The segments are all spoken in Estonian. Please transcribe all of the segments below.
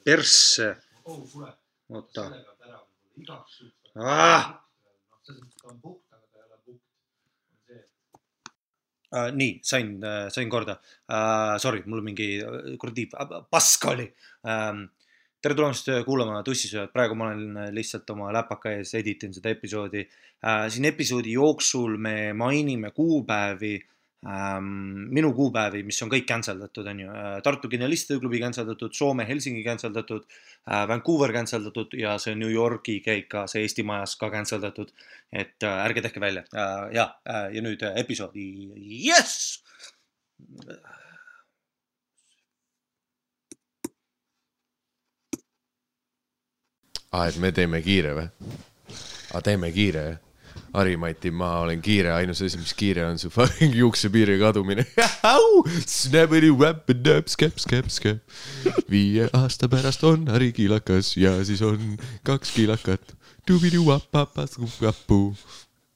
Persse. Oota. Nii, sain korda. Sorry, mul mingi kuradi pask oli. Tere tulemast kuulama Tussisööjad. Praegu ma olen lihtsalt oma läpaka ees, editin seda episoodi. Siin episoodi jooksul me mainime kuupäevi, minu kuupäevi, mis on kõik canceldatud, on ju. Tartu Genialistide klubi canceldatud, Soome Helsingi canceldatud, Vancouver canceldatud ja see New Yorki käik ka, see Eesti majas ka canceldatud. Et ärge tehke välja. Ja nüüd episoodi. Yes! Et me teeme kiire või? Teeme kiire. Harimati, ma olen kiire. Ainus asi, mis kiire on su fucking juuksepiiri kadumine. Snabidi wapidab, skep. 5 aasta pärast on Hari kiilakas ja siis on 2 kiilakat. Dubidu wapapas kukapu.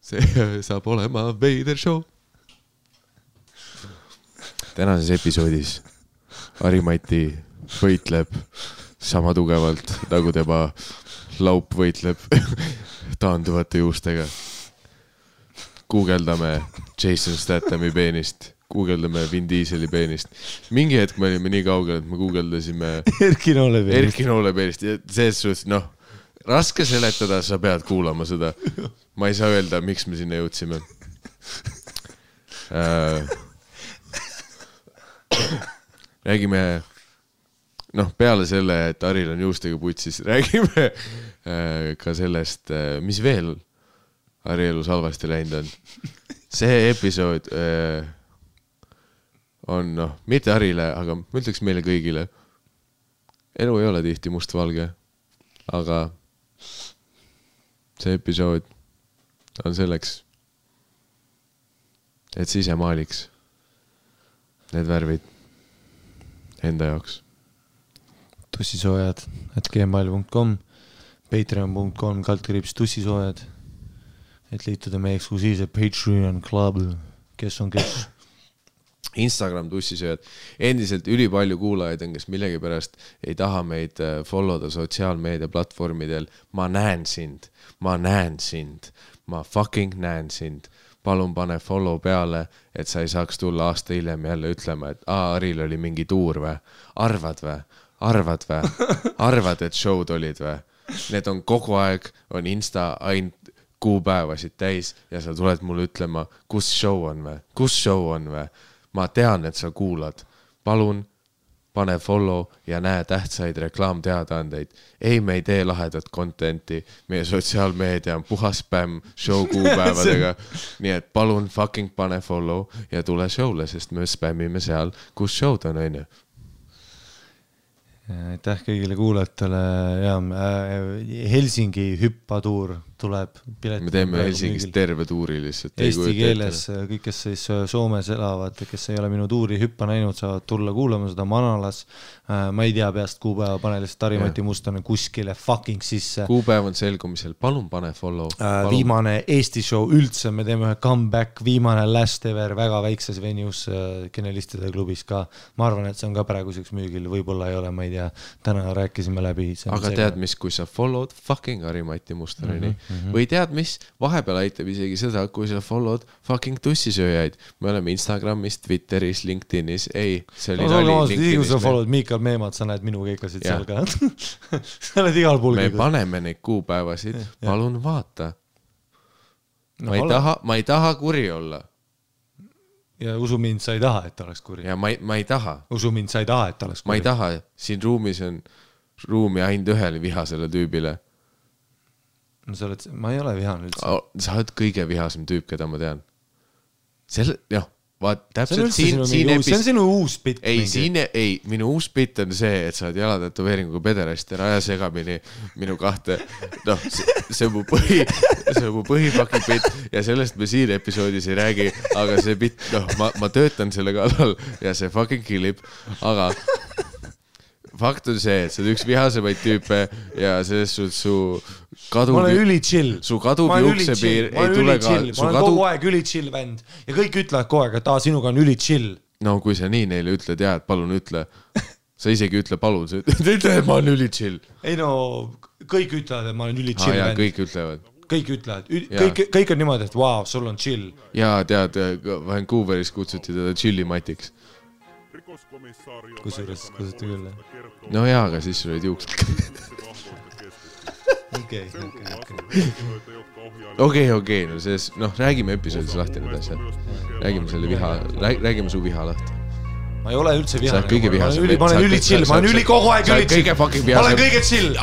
See saab olema veider show. Tänases episoodis Harimati võitleb sama tugevalt, nagu tema laup võitleb taanduvate juustega. Guugeldame Jason Stathami peenist, guugeldame Vin Dieseli peenist. Mingi hetk me olime nii kaugel, et me guugeldasime Erki Noole peenist. Selles suhtes, raske seletada, sa pead kuulama seda. Ma ei saa öelda, miks me sinna jõudsime. Räägime peale selle, et Haril on juustega putsis, räägime ka sellest, mis veel Hari elus halvasti läinud on. See episood on, mitte Harile, aga ma ütleks meile kõigile. Elu ei ole tihti mustvalge, aga see episood on selleks, et ise maaliks need värvid enda jaoks. Tussisoojad @gmail.com, patreon.com/tussisoojad, et liituda meie eksklusiivse Patreon Club, kes on kes. Instagram Tussisööjad. Endiselt ülipalju kuulajaid on, kes millegipärast ei taha meid followda sotsiaalmeedia platvormidel. Ma näen sind, ma fucking näen sind. Palun pane follow peale, et sa ei saaks tulla aasta hiljem jälle ütlema, et Haril oli mingi tuur või? Arvad, et show'd olid või? Need on kogu aeg, on Insta ainult kuupäevasid täis ja sa tuled mulle ütlema, kus show on või? Ma tean, et sa kuulad. Palun, pane follow ja näe tähtsaid reklaamteadaandeid. Ei, me ei tee lahedat contenti. Meie sotsiaalmeedia on puhas spämm show kuupäevadega. Nii et palun fucking pane follow ja tule showle, sest me spämmime seal, kus show'd on, on ju. Aitäh kõigile kuulajatele. Helsingi hüppatuur tuleb. Me teeme Helsingis terve tuuri lihtsalt. Eesti keeles kõik, kes siis Soomes elavad, kes ei ole minu tuuri hüppa näinud, saavad tulla kuulama seda Manalas. Ma ei tea peast kuupäeva, pane lihtsalt Harimati Mustane kuskile fucking sisse. Kuupäev on selgumisel, palun pane follow. Viimane Eesti show üldse, me teeme ühe comeback, viimane last ever, väga väikses venues Genialistide klubis ka. Ma arvan, et see on ka praeguseks müügil, võib-olla ei ole, ma ei tea, täna rääkisime läbi. Aga tead mis, kui sa followed fucking Harimati Mustaneni, või tead mis, vahepeal aitab isegi seda, kui sa followed fucking Tussisööjaid. Me oleme Instagramis, Twitteris, LinkedInis. Ei, see oli nali LinkedInis. Kui sa followed Miikal Meemad, sa näed minu keikasid seal ka. Sa oled igal pool keikasid. Me paneme neid kuupäevasid, palun vaata. Ma ei taha kuri olla. Ja usu mind, sa ei taha, et oleks kuri. Ja ma ei taha. Usu mind, sa ei taha, et oleks kuri. Ma ei taha. Siin ruumis on ruumi ainult ühele vihasele tüübile. No, ma ei ole vihane üldse. Sa oled kõige vihasem tüüp, keda ma tean. Täpselt see on sinu uus bitt. Ei, minu uus bitt on see, et sa oled jalatatuveeringuga pederast ja raja segamini minu kahte. See on mu põhipaki bitt ja sellest me siin episoodis ei räägi, aga see bitt, ma töötan selle kallal ja see fucking killib, aga fakt on see, et sa oled üks vihasemaid tüüpe ja selles su ma olen üli chill. Su kaduv juuksepiir ei tule ka. Ma olen kogu aeg üli chill vend ja kõik ütlevad kogu aeg, et sinuga on üli chill. No kui sa nii neile ütled, et palun ütle. sa isegi ütle palun, sa ütle, et ma olen üli chill. Ei no, kõik ütlevad, et ma olen üli chill. Kõik ütlevad. Kõik ütlevad. Kõik on niimoodi, et wow, sul on chill. Jaa, tead, Vancouveris kutsuti teda chillimatiks. Kusjuures kutsuti küll. No jaa, aga siis sul olid juuksed. Okei, no selles, räägime episoodis lahti need asjad. Räägime su viha lahti. Ma ei ole üldse vihane. Sa oled kõige vihasem. Ma olen üli chill, ma olen üli kogu aeg üli chill. Ma olen kõige chill.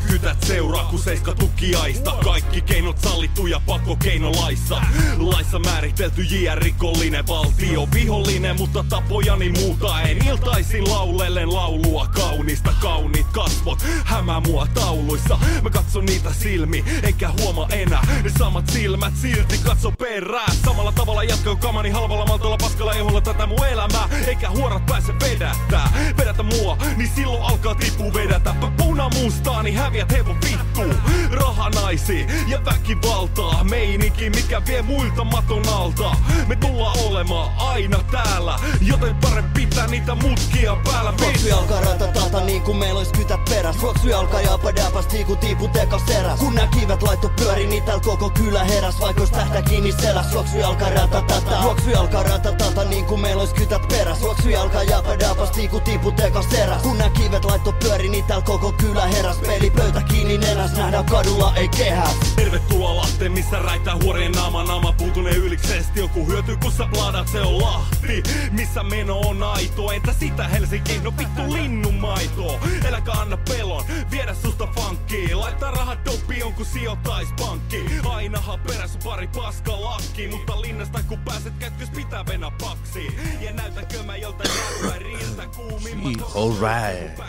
Kytät seuraa, kun seiska tukiaista. Kaikki keinot sallittu ja pakkokeinolaissa. Laissa määritelty JR-rikollinen valtio. Vihollinen, mutta tapojani muuta en. Iltaisin laulellen laulua kaunista. Kauniit kasvot hämää mua tauluissa. Mä katson niitä silmi, enkä huoma enää. Ne samat silmät silti katso perää. Samalla tavalla jatkaa kamani halvalla maltolla paskalla eholla tätä mun elämää. Eikä huorat pääse vedättää. Vedätä mua, niin silloin alkaa tippuu vedätä. Punamustaani häviät hevon vittuu. Rahanaisi ja väkivaltaa. Meininki mikä vie muilta maton alta. Me tullaan olemaan aina täällä. Joten parempi pitää niitä mutkia päällä. Juoksui alkaa ratatata niin kuin meillä ois kytät peräs. Juoksui alkaa japadäpäs tiiku tiipu tekas teräs. Kun nää kivet laitto pyöri, niin täällä koko kylä heräs. Vaikka ois tähtä kiinni seläs. Juoksui alkaa ratatata. Juoksui alkaa ratatata niin kuin meillä ois kytät peräs. Juoksui alkaa japadäpäs tiiku tiipu tekas teräs. Kun nää kivet laitto pyöri, niin täällä koko kylä heräs. Pelipöytä kiinni nenäs, nähdään kadulla ei kehäs. Tervetuloa Lahteen, missä räittää huorien naama puutunee yliksesti. Joku hyötyy kun sä pladat, se on Lahti. Missä meno on aito, entä sitä Helsinki? No vittu linnumaito. Eläkä anna pelon, viedä susta funkkiin. Laittaa rahat doppiin, kun sijoittais pankki. Ainahan perässä pari paska lakki. Mutta linnasta kun pääset kätkys pitää venä paksiin. Ja näytäkö mä joltain räppäriltä kuumimmat. All right.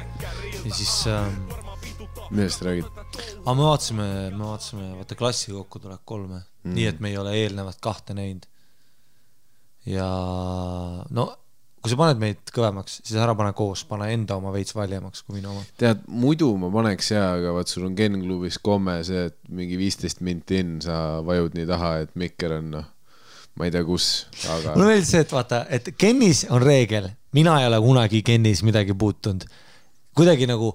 Ja siis millest räägid? Aga me vaatasime, vaata klassi kokku tuleb 3. Nii, et me ei ole eelnevat 2 näinud. Ja no, kui sa paned meid kõvemaks, siis ära pane koos, pane enda oma veits valjemaks kui minu oma. Tead, muidu ma paneks aga vaat sul on Ken klubis komme see, et mingi 15 minti in sa vajud nii taha, et mikker on, ma ei tea kus, aga... Mul on veel see, et vaata, et Kenis on reegel, mina ei ole kunagi Kenis midagi puutunud. Kuidagi nagu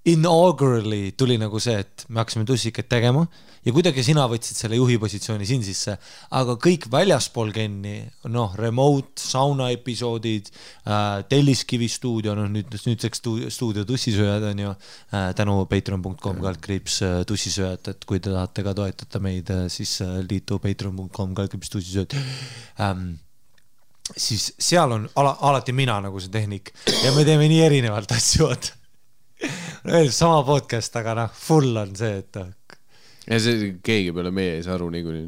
inaugurally tuli nagu see, et me hakkasime tussikat tegema ja kuidagi sina võtsid selle juhi positsiooni siin sisse, aga kõik väljaspool Kenni, remote, sauna episoodid, Telliskivi stuudio, nüüdseks stuudio tussisööjad on ju, tänu patreon.com/ tussisööjad, et kui te tahate ka toetada meid, siis liitu patreon.com/ tussisööjad. Siis seal on alati mina nagu see tehnik ja me teeme nii erinevalt asju. Sama podcast, aga full on see, et... Ja see keegi peale meie ei saa aru niikuinii.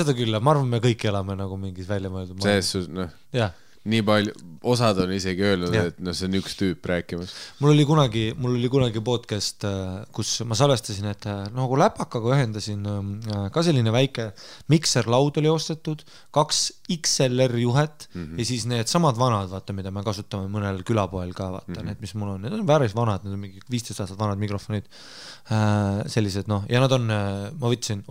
Seda küll, ma arvan, me kõik elame nagu mingis välja mõeldud. See nii palju, osad on isegi öelnud, et see on üks tüüp rääkimas. Mul oli kunagi podcast, kus ma salvestasin, et nagu läpakaga ühendasin ka selline väike mikserlaud oli ostetud, 2 XLR juhet ja siis need samad vanad, vaata, mida me kasutame mõnel külapoel ka, vaata, need, mis mul on. Need on päris vanad, need on mingi 15 aastat vanad mikrofonid. Sellised, ja nad on, ma võtsin,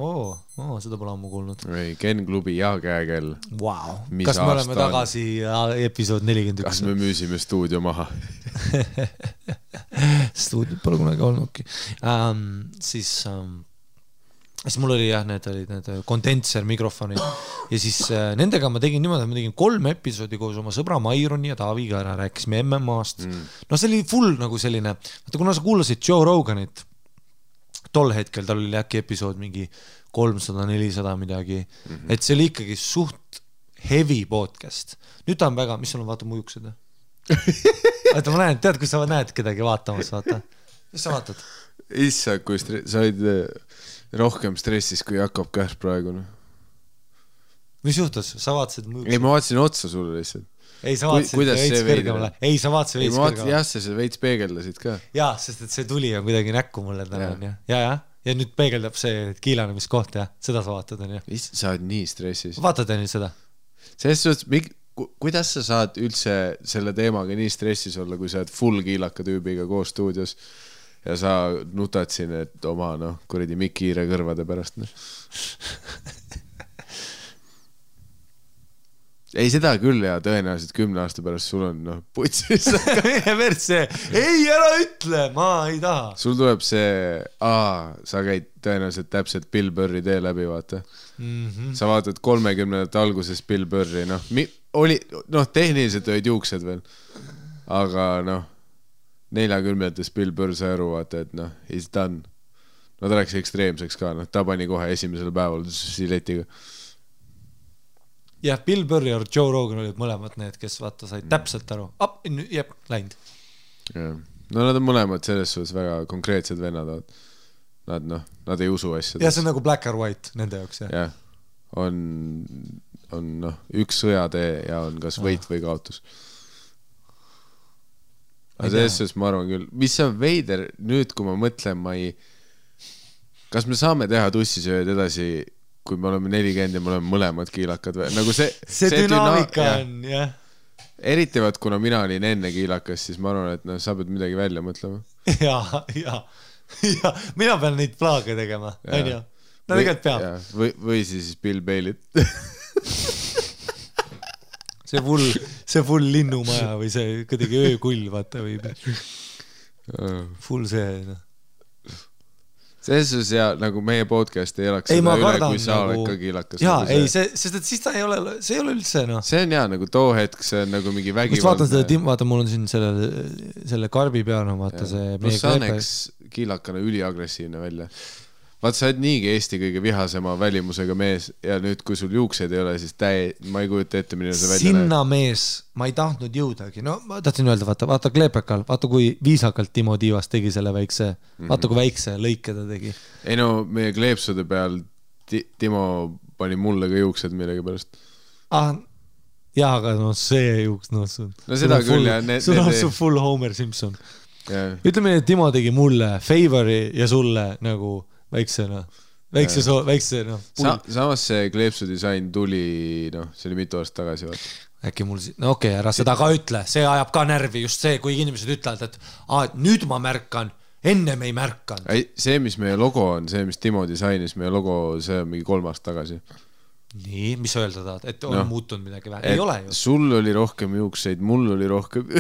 seda pole ammu kuulnud. Ken klubi ja käekell. Wow. Kas me oleme tagasi episood 41? Kas me müüsime stuudio maha? Stuudiot pole kunagi olnudki. Siis mul oli need kondenser mikrofonid ja siis nendega ma tegin niimoodi, ma tegin 3 episoodi koos oma sõbra Maironi ja Taaviga ära, rääkisime MMA-st. See oli full nagu selline, kuna sa kuulasid Joe Roganit, tol hetkel tal oli äkki episood mingi 300-400 midagi, et see oli ikkagi suht heavy podcast. Nüüd ta on väga, mis sul on, vaata mu juuksed? Vaata, ma näen, tead, kui sa näed kedagi vaatamas, vaata. Mis sa vaatad? Issa, kui sa olid rohkem stressis, kui Jakob Kärs praegu. Mis juhtus? Sa vaatasid mu juuksed? Ei, ma vaatasin otsa sulle lihtsalt. Ei, sa vaatasid veits kõrgemale. Ei, sa vaatasid veits kõrgemale. Jah, sa veits peegeldasid ka. Jaa, sest et see tuli on kuidagi näkku mulle täna. Ja nüüd peegeldab see kiilanemiskoht, seda sa vaatad. Sa oled nii stressis. Vaatad nüüd seda? Selles suhtes, kuidas sa saad üldse selle teemaga nii stressis olla, kui sa oled full kiilaka tüübiga koos stuudios ja sa nutad siin, et oma kuradi mikiire kõrvade pärast. ei seda küll ja tõenäoliselt 10 aasta pärast sul on putsis. ei, ära ütle, ma ei taha. Sul tuleb see, sa käid tõenäoliselt täpselt Bill Burri tee läbi, vaata. Sa vaatad 30. alguses Bill Burri, tehniliselt olid juuksed veel, aga 40. Bill Burr sai aru, vaata, et he's done. Ta läks ekstreemseks ka, ta pani kohe esimesel päeval siletiga. Jah, Bill Burr ja Joe Rogan olid mõlemad need, kes vaata said täpselt aru. Jep, läinud. Nad on mõlemad selles suhtes väga konkreetsed vennad. Nad ei usu asjad. Ja see on nagu black or white nende jaoks, jah? Jah, on üks sõjatee ja on kas võit või kaotus. Aga selles suhtes ma arvan küll. Mis on veider nüüd, kui ma mõtlen, kas me saame teha tussisööd edasi, kui me oleme 40 ja me oleme mõlemad kiilakad või? Nagu see dünaamika on, jah. Eriti vaat, kuna mina olin enne kiilakas, siis ma arvan, et sa pead midagi välja mõtlema. Ja, mina pean neid plaage tegema, on ju? Tegelikult peab. Või siis Bill Bailit. see full linnumaja või see kuidagi öökull, vaata või full see, selles ja nagu meie podcast ei elaks seda üle, kui sa oled ka kiilakas. Jaa, ei, sest siis ta ei ole üldse, See on nagu too hetk, see on nagu mingi vägivald. Vaata, mul on siin selle karbi peal, vaata see... Plus sa näeks kiilakana üliagressiivne välja. Vaat sa oled niigi Eesti kõige vihasema välimusega mees ja nüüd, kui sul juuksed ei ole, siis ma ei kujuta ette, milline see välja sinna mees, ma ei tahtnud jõudagi. Ma tahtsin öelda, vaata Kleepekal, vaata kui viisakalt Timo Tiivas tegi selle väikse, vaata kui väikse lõike ta tegi. Ei meie kleepsude peal Timo pani mulle ka juuksed millegi pärast. Jaa, aga see juuks, seda küll ja sul on su full Homer Simpson. Ütleme, et Timo tegi mulle favori ja sulle nagu väikse samas see kleepsudisain tuli see oli mitu aastat tagasi äkki mul okei, ära seda ka ütle, see ajab ka närvi just see, kui inimesed ütlevad, et nüüd ma märkan, ennem ei märkan. See, mis meie logo on, see, mis Timo disainis, meie logo, see on mingi 3 aastat tagasi. Nii, mis öelda tahad, et on muutunud midagi vähe? Ei ole ju. Sul oli rohkem juukseid, mul oli rohkem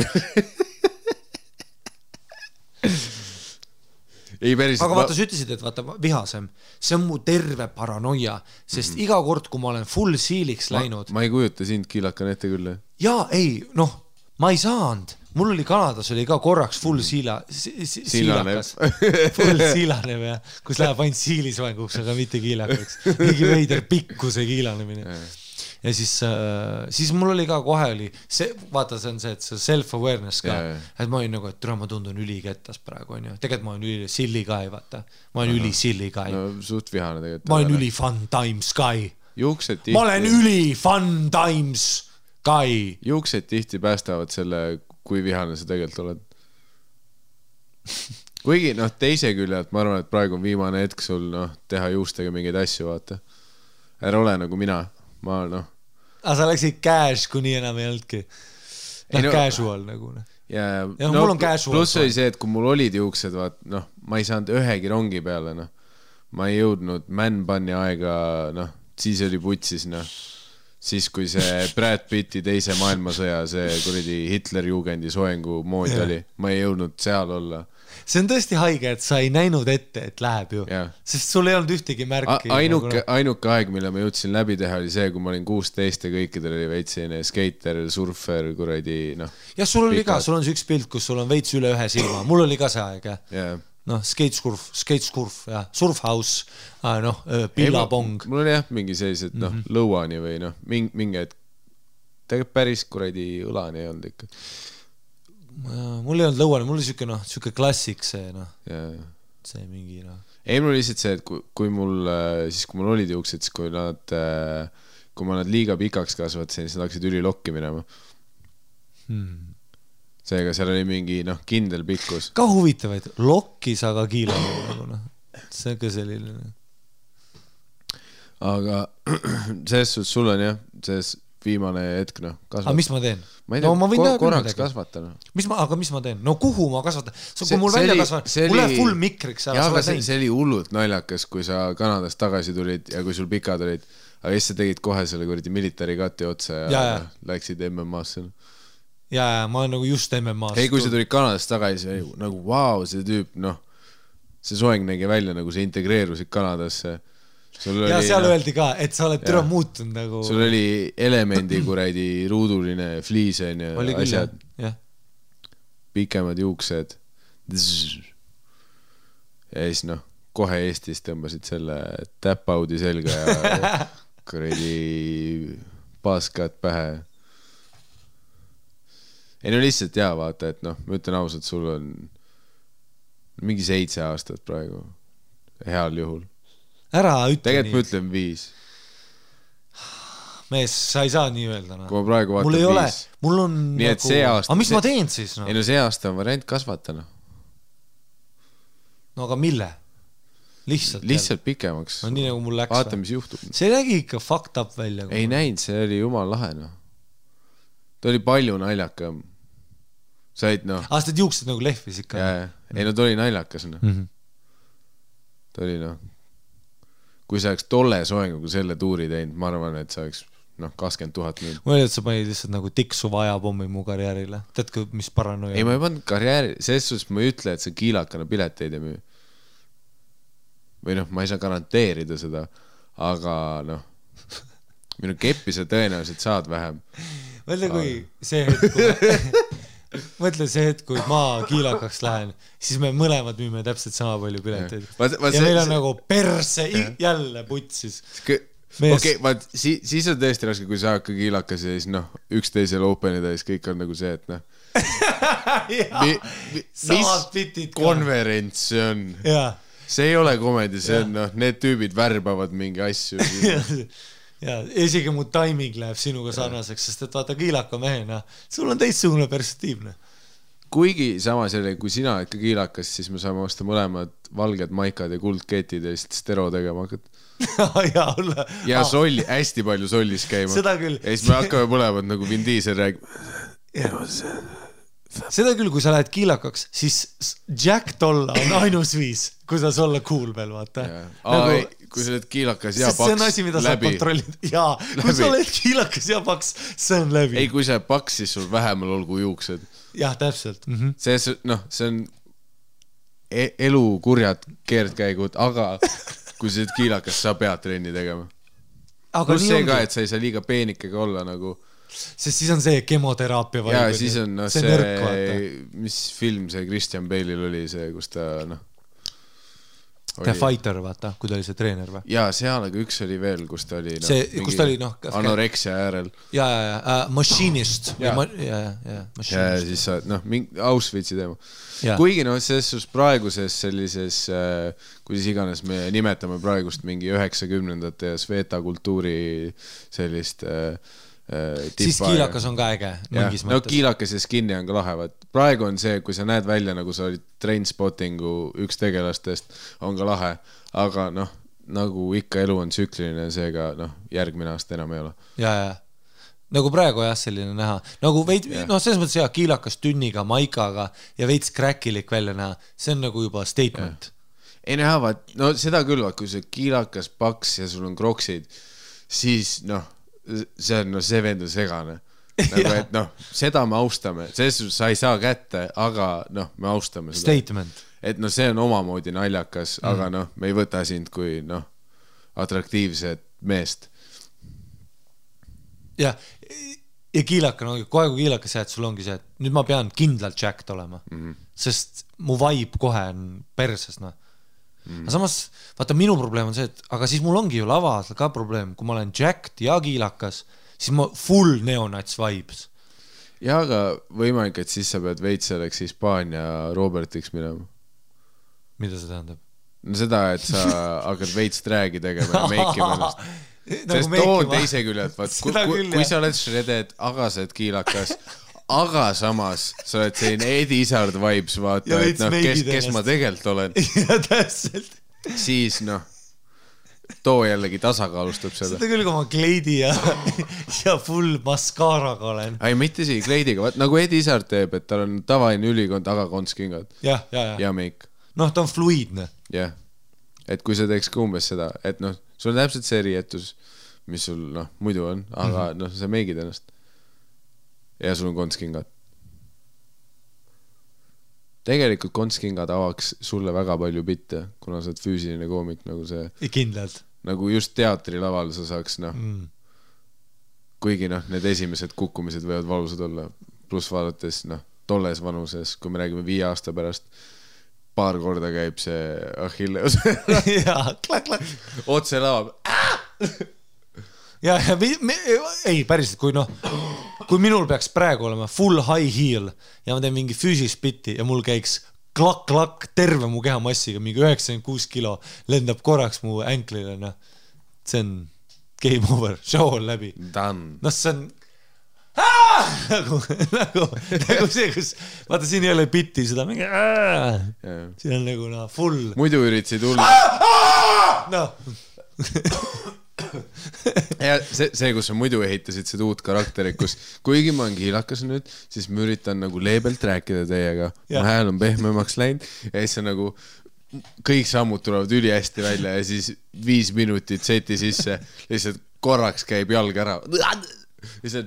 aga vaata, sa ütlesid, et vaata vihasem, see on mu terve paranoia, sest iga kord, kui ma olen full siiliks läinud... Ma ei kujuta sind kiilakan ette küll. Jaa, ei, ma ei saanud. Mul oli Kanadas oli ka korraks full siilakas. Full siilanev, kus läheb ainult siilisvanguks, aga mitte kiilakaks. Mingi veider pikkuse kiilanemine. Ja siis mul oli ka kohe oli, vaata see on see, et see self-awareness ka, et ma olin nagu, et ma tundun ülikettas praegu, on ju. Tegelikult ma olen üli silly guy, vaata. Ma olen üli silly guy. Suht vihane tegelikult. Ma olen üli fun times guy. Juuksed ma olen üli fun times guy. Juuksed tihti päästavad selle, kui vihane sa tegelikult oled. Kuigi, teise küljelt, ma arvan, et praegu on viimane hetk sul, teha juustega mingeid asju, vaata. Ära ole nagu mina. Sa läksid cash, kui nii enam ei olnudki. Casual nagu. Ja mul on casual. Plus oli see, et kui mul olid juuksed, ma ei saanud ühegi rongi peale. Ma ei jõudnud man-bunni aega, siis oli putsis. Siis, kui see Brad Pitti teise maailmasõja, see kuradi Hitler-jugendi soengu mood oli, ma ei jõudnud seal olla. See on tõesti haige, et sa ei näinud ette, et läheb ju. Sest sul ei olnud ühtegi märki. Ainuke aeg, mille ma jõudsin läbi teha, oli see, kui ma olin 16 ja kõikidel oli veitsine skater, surfer, kuradi, Ja sul oli ka, sul on see üks pilt, kus sul on veits üle ühe silma. Mul oli ka see aeg, skateskurf, surfhouse, pillapong. Mul oli mingi sellised, lõuani või mingi, et tegelikult päris kuradi õlani ei olnud ikka. Mul ei olnud lõuani, mul oli siuke klassik see, see mingi, Ei, mul oli lihtsalt see, et kui mul olid juuksed, siis kui ma nad liiga pikaks kasvatasin, siis nad hakkasid ülilokki minema. Seega seal oli mingi, kindel pikkus. Ka huvitavaid, lokkis aga kiilamine, see on ka selline. Aga selles suhtes sul on selles viimane hetk, kasvatada. Aga mis ma teen? Ma ei tea, korraks kasvatada. Aga mis ma teen? Kuhu ma kasvatan? Kui mul välja kasvan, mul läheb full mikriks. See oli hullult naljakas, kui sa Kanadast tagasi tulid ja kui sul pikad olid. aga siis sa tegid kohe selle kuradi military cut'i otsa ja läksid MMA-sse. Ja ma olen nagu just MMA-sse. Ei, kui sa tulid Kanadast tagasi, nagu vau, see tüüp, noh, see soeng nägi välja, nagu sa integreerusid Kanadasse. Ja seal öeldi ka, et sa oled türa muutunud nagu... Sul oli elemendi kuradi ruuduline fliisen ja asjad. Pikemad juuksed. Ja siis noh, kohe Eestis tõmbasid selle tap-out'i selga ja kuradi paaskad pähe. Ei no lihtsalt jaa, vaata, et noh, ma ütlen ausalt, sul on mingi 7 aastat praegu. Heal juhul. Ära ütle tegelikult nii. Tegelikult ma ütlen 5. Mees, sa ei saa nii öelda. Kui ma praegu vaatan 5. Mul on nii, et see aasta... Aga mis ma teen siis? No? Ei no see aasta on variant kasvata. No aga mille? Lihtsalt pikemaks. No nii nagu mul läks. Vaata, mis juhtub. See nägi ikka fucked up välja. Ei näinud, see oli jumal lahe. No. Ta oli palju naljakam. Said noh. Aastad juuksed nagu lehvis ikka. Ei no ta oli naljakas. No. Ta oli noh. Kui sa oleks tolle soenguga selle tuuri teinud, ma arvan, et sa oleks 20 000 mil. Ma olin, et sa panid lihtsalt nagu tiksu vajapommi mu karjäärile. Teadki, mis paranoia? Ei, ma ei pannud karjääri. Selles suhtes ma ei ütle, et sa kiilakana pileteid ei müü. Või noh, ma ei saa garanteerida seda, aga noh, minu keppi sa tõenäoliselt saad vähem. Mõtle, kui see hetk, mõtle see hetk, kui ma kiilakaks lähen, siis me mõlemad müüme täpselt sama palju pileteid. Ja meil on nagu perse jälle putsis. Okei, siis on tõesti raske, kui sa hakkad kiilakas ja siis noh, üksteisel openida ja siis kõik on nagu see, et noh. Mis konverents see on? See ei ole komedi, see on noh, need tüübid värbavad mingi asju. Ja isegi mu timing läheb sinuga sarnaseks, sest et vaata kiilaka mehena, sul on teistsugune perspektiivne. Kuigi samas jälle, kui sina ikka kiilakas, siis me saame osta mõlemad valged maikad ja kuldketid ja siis stero tegema hakkad. Ja solli, hästi palju sollis käima. Seda küll. Ja siis me hakkame mõlemad nagu Vin Diesel räägima. Seda küll, kui sa lähed kiilakaks, siis Jack tolla on ainus viis, kui sa olla cool veel, vaata. Kui sa oled kiilakas ja paks, see on asi, mida sa kontrollid. Jaa, kui sa oled kiilakas ja paks, see on läbi. Ei, kui sa oled paks, siis sul vähemal olgu juuksed. Jah, täpselt. See on elu kurjad keerdkäigud, aga kui sa oled kiilakas, sa pead trenni tegema. Plus see ka, et sa ei saa liiga peenikega olla nagu... Sest siis on see kemoteraapia ja siis on no, see mis film see Christian Bale'il oli see, kus ta noh The Fighter, vaata, kui ta oli see treener või? Jaa, seal aga üks oli veel, kus ta oli see, kus ta oli noh anoreksia äärel. Machinist. Ja siis sa, noh, Auschwitzi teema. Kuigi noh, selles praeguses sellises, kuidas iganes me nimetame praegust mingi 90-ndate ja Sveta kultuuri sellist siis kiilakas on ka äge mingis mõttes. No kiilakas ja skinny on ka lahe. Praegu on see, kui sa näed välja, nagu sa olid Trainspottingu üks tegelastest, on ka lahe. Aga noh, nagu ikka elu on tsükliline, seega noh, järgmine aasta enam ei ole. Ja. Nagu praegu jah, selline näha. Nagu veid, noh, selles mõttes jah, kiilakas tünniga, maikaga ja veits kräkilik välja näha. See on nagu juba statement. Ei näha, vaat, no seda küll, kui see kiilakas paks ja sul on kroksid, siis noh, see on, no see vend on segane. Nagu, et noh, seda me austame. Selles sa ei saa kätte, aga noh, me austame seda. Statement. Et noh, see on omamoodi naljakas, aga noh, me ei võta sind kui noh, atraktiivset meest. Ja kiilaka, no kohe kui kiilakas jääd, sul ongi see, et nüüd ma pean kindlalt Jacked olema. Sest mu vibe kohe on perses, noh. Aga samas, vaata, minu probleem on see, et aga siis mul ongi ju lavas ka probleem, kui ma olen jacked ja kiilakas, siis ma full neonats vibes. Ja, aga võimalik, et siis sa pead veits selleks Hispaania Robertiks minema. Mida see tähendab? No seda, et sa hakkad veits dragi tegema ja meikima ennast. Sest toon teise küljelt, kui sa oled shredded, aga sa oled kiilakas, aga samas sa oled selline Eddie Izzard vibes, vaata, et noh, kes ma tegelikult olen. Ja täpselt. Siis noh, too jällegi tasakaalustab seda. Seda küll, kui ma kleidi ja full maskaaraga olen. Ei, mitte isegi kleidiga, nagu Eddie Izzard teeb, et tal on tavaline ülikond, aga kontskingad. Ja meik. Noh, ta on fluidne. Jah, et kui sa teeks ka umbes seda, et noh, sul on täpselt see riietus, mis sul noh, muidu on, aga noh, sa meigid ennast. Ja sul on kontskingad. Tegelikult kontskingad avaks sulle väga palju bitte, kuna sa oled füüsiline koomik, nagu see... Kindlalt. Nagu just teatrilaval sa saaks, noh... Kuigi noh, need esimesed kukkumised võivad valusad olla. Plus vaadates, noh, tolles vanuses, kui me räägime 5 aasta pärast, paar korda käib see Achilleus. Jaa, klak. Otse laab. Ja ei, päriselt, kui minul peaks praegu olema full high heel ja ma teen mingi füüsilist bitti ja mul käiks klak-klak terve mu kehamassiga, mingi 96 kilo lendab korraks mu änklile, noh. See on game over, show on läbi. Done. No see on nagu see, kus vaata, siin ei ole bitti, seda mingi siin on nagu full. Muidu üritasid hull. Ja see, kus sa muidu ehitasid seda uut karakterit, kus kuigi ma olen kiilakas nüüd, siis ma üritan nagu leebelt rääkida teiega. Mu hääl on pehmemaks läinud ja siis on nagu kõik sammud tulevad üli hästi välja ja siis 5 minutit seti sisse lihtsalt korraks käib jalg ära. Lihtsalt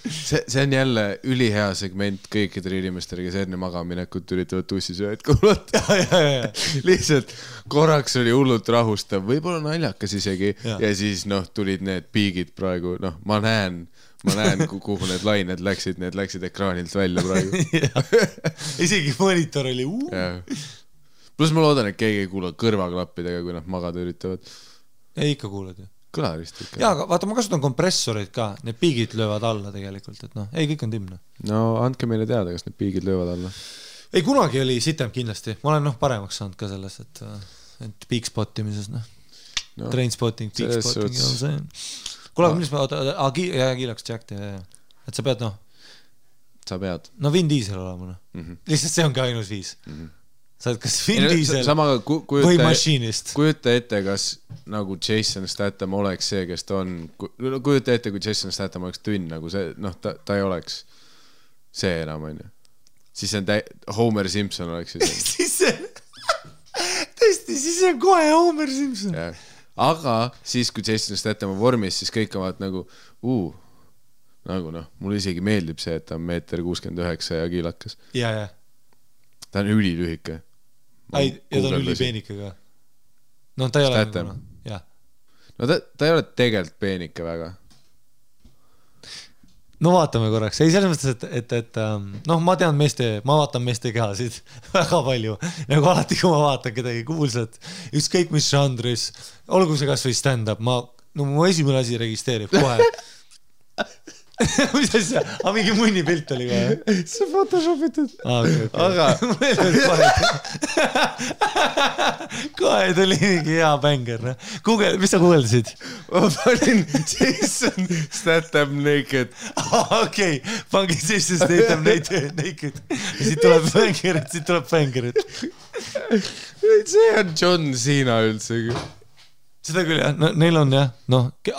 see on jälle ülihea segment kõikidele inimestele, kes enne magaminekut üritavad tussisööd kuulata. Lihtsalt korraks oli hullult rahustav, võib-olla naljakas isegi ja siis tulid need piigid praegu, ma näen, kuhu need lained läksid, need läksid ekraanilt välja praegu. Isegi monitor oli Plus ma loodan, et keegi ei kuula kõrvaklappidega, kui nad magada üritavad. Ei, ikka kuulad ju. Kõlarist ikka. Jaa, aga vaata, ma kasutan kompressorid ka, need piigid löövad alla tegelikult, et ei, kõik on timne. No andke meile teada, kas need piigid löövad alla. Ei, kunagi oli sitem kindlasti. Ma olen paremaks saanud ka selles, et peak-spottimises, train-spotting, peak-spotting. Kuule, mis ma kiilaks Jack, et sa pead, Sa pead. No Vin Diesel olema, Lihtsalt see on ka ainus viis. Sa oled kas Vin Diesel või mašiinist. Kujuta ette, kas nagu Jason Statham oleks see, kes ta on. Kujuta ette, kui Jason Statham oleks tünn, nagu see, ta ei oleks see enam, on ju. Siis on Homer Simpson oleks see. Tõesti, siis on kohe Homer Simpson. Aga siis, kui Jason Statham on vormis, siis kõik on nagu, mulle isegi meeldib see, et ta on 1,69 ja kiilakas. Ja. Ta on ülilühike. Ja ta on ülipeenike ka. Ta ei ole nagu, No ta ei ole tegelikult peenike väga. No vaatame korraks. Ei, selles mõttes, et ma tean ma vaatan meeste kehasid väga palju. Nagu alati, kui ma vaatan kedagi kuulsat, ükskõik mis žanris, olgu see kas või stand-up, mu esimene asi registreerib kohe. Mis asja? Mingi munnipilt oli kohe. See photoshopitud. Aga kohe tuli mingi hea bänger. Mis sa kuuldasid? Ma panin Jason Statham naked. Okei, pangi Jason Statham naked. Ja siit tuleb bängerit. See on John Cena üldsegi. Seda küll jah, neil on jah,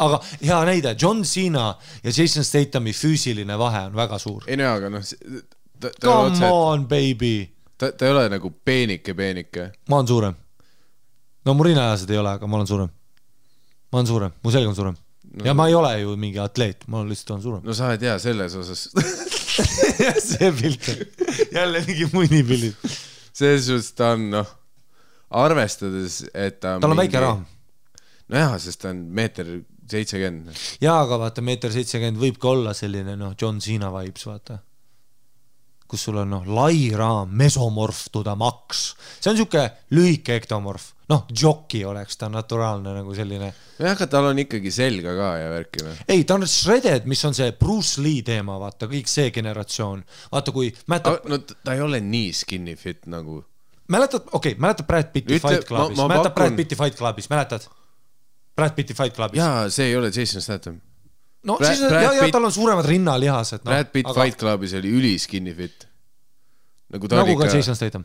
aga hea näide, John Cena ja Jason Stathami füüsiline vahe on väga suur. Ei aga come on, baby. Ta ei ole nagu peenike. Ma olen suurem. No mu rinnaajased ei ole, aga ma olen suurem. Ma olen suurem, mu selg on suurem. Ja ma ei ole ju mingi atleet, ma lihtsalt olen suurem. No sa ei tea selles osas. See pilt on jälle mingi munnipildid. Selles suhtes ta on, arvestades, et ta on väike raam. No jah, sest ta on 1,70 m. Jaa, aga vaata, 1,70 m võib ka olla selline, John Cena vibes, vaata. Kus sul on, lai raam, mesomorf to the max. See on siuke lühike ektomorf. Jockey oleks ta naturaalne nagu selline. Jah, aga tal on ikkagi selga ka ja värkina. Ei, ta on shredded, mis on see Bruce Lee teema, vaata, kõik see generatsioon. Vaata, kui No ta ei ole nii skinny fit nagu. Mäletad Brad Pitti Fight Clubis. Mäletad Brad Pitti Fight Clubis, mäletad? Brad Pitti Fight Clubis. Jaa, see ei ole Jason Statham. No, siis tal on suuremad rinnalihased. Brad Pitt Fight Clubis oli üli skinny fit. Nagu ka Jason Statham.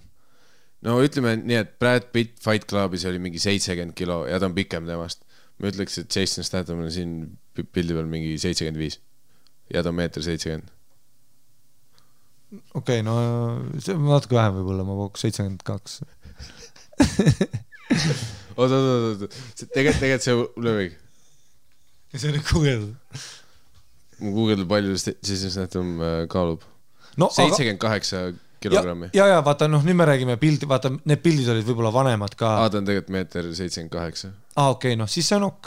No ütleme nii, et Brad Pitt Fight Clubis oli mingi 70 kilo ja ta on pikem temast. Ma ütleks, et Jason Statham on siin pildi peal mingi 75 ja ta on 1,70 m. Okei, no see on natuke vähem võib-olla, ma pooks 72. oot. Tegelikult see lööbig. Ja see on nüüd guugeldud. Mu guugeldub palju Jason Statham kaalub. No, 78 kilogrammi. Ja, vaata, nüüd me räägime pildi, vaata, need pildid olid võib-olla vanemad ka. Ta on tegelikult 1,78 m. Okei, siis see on ok.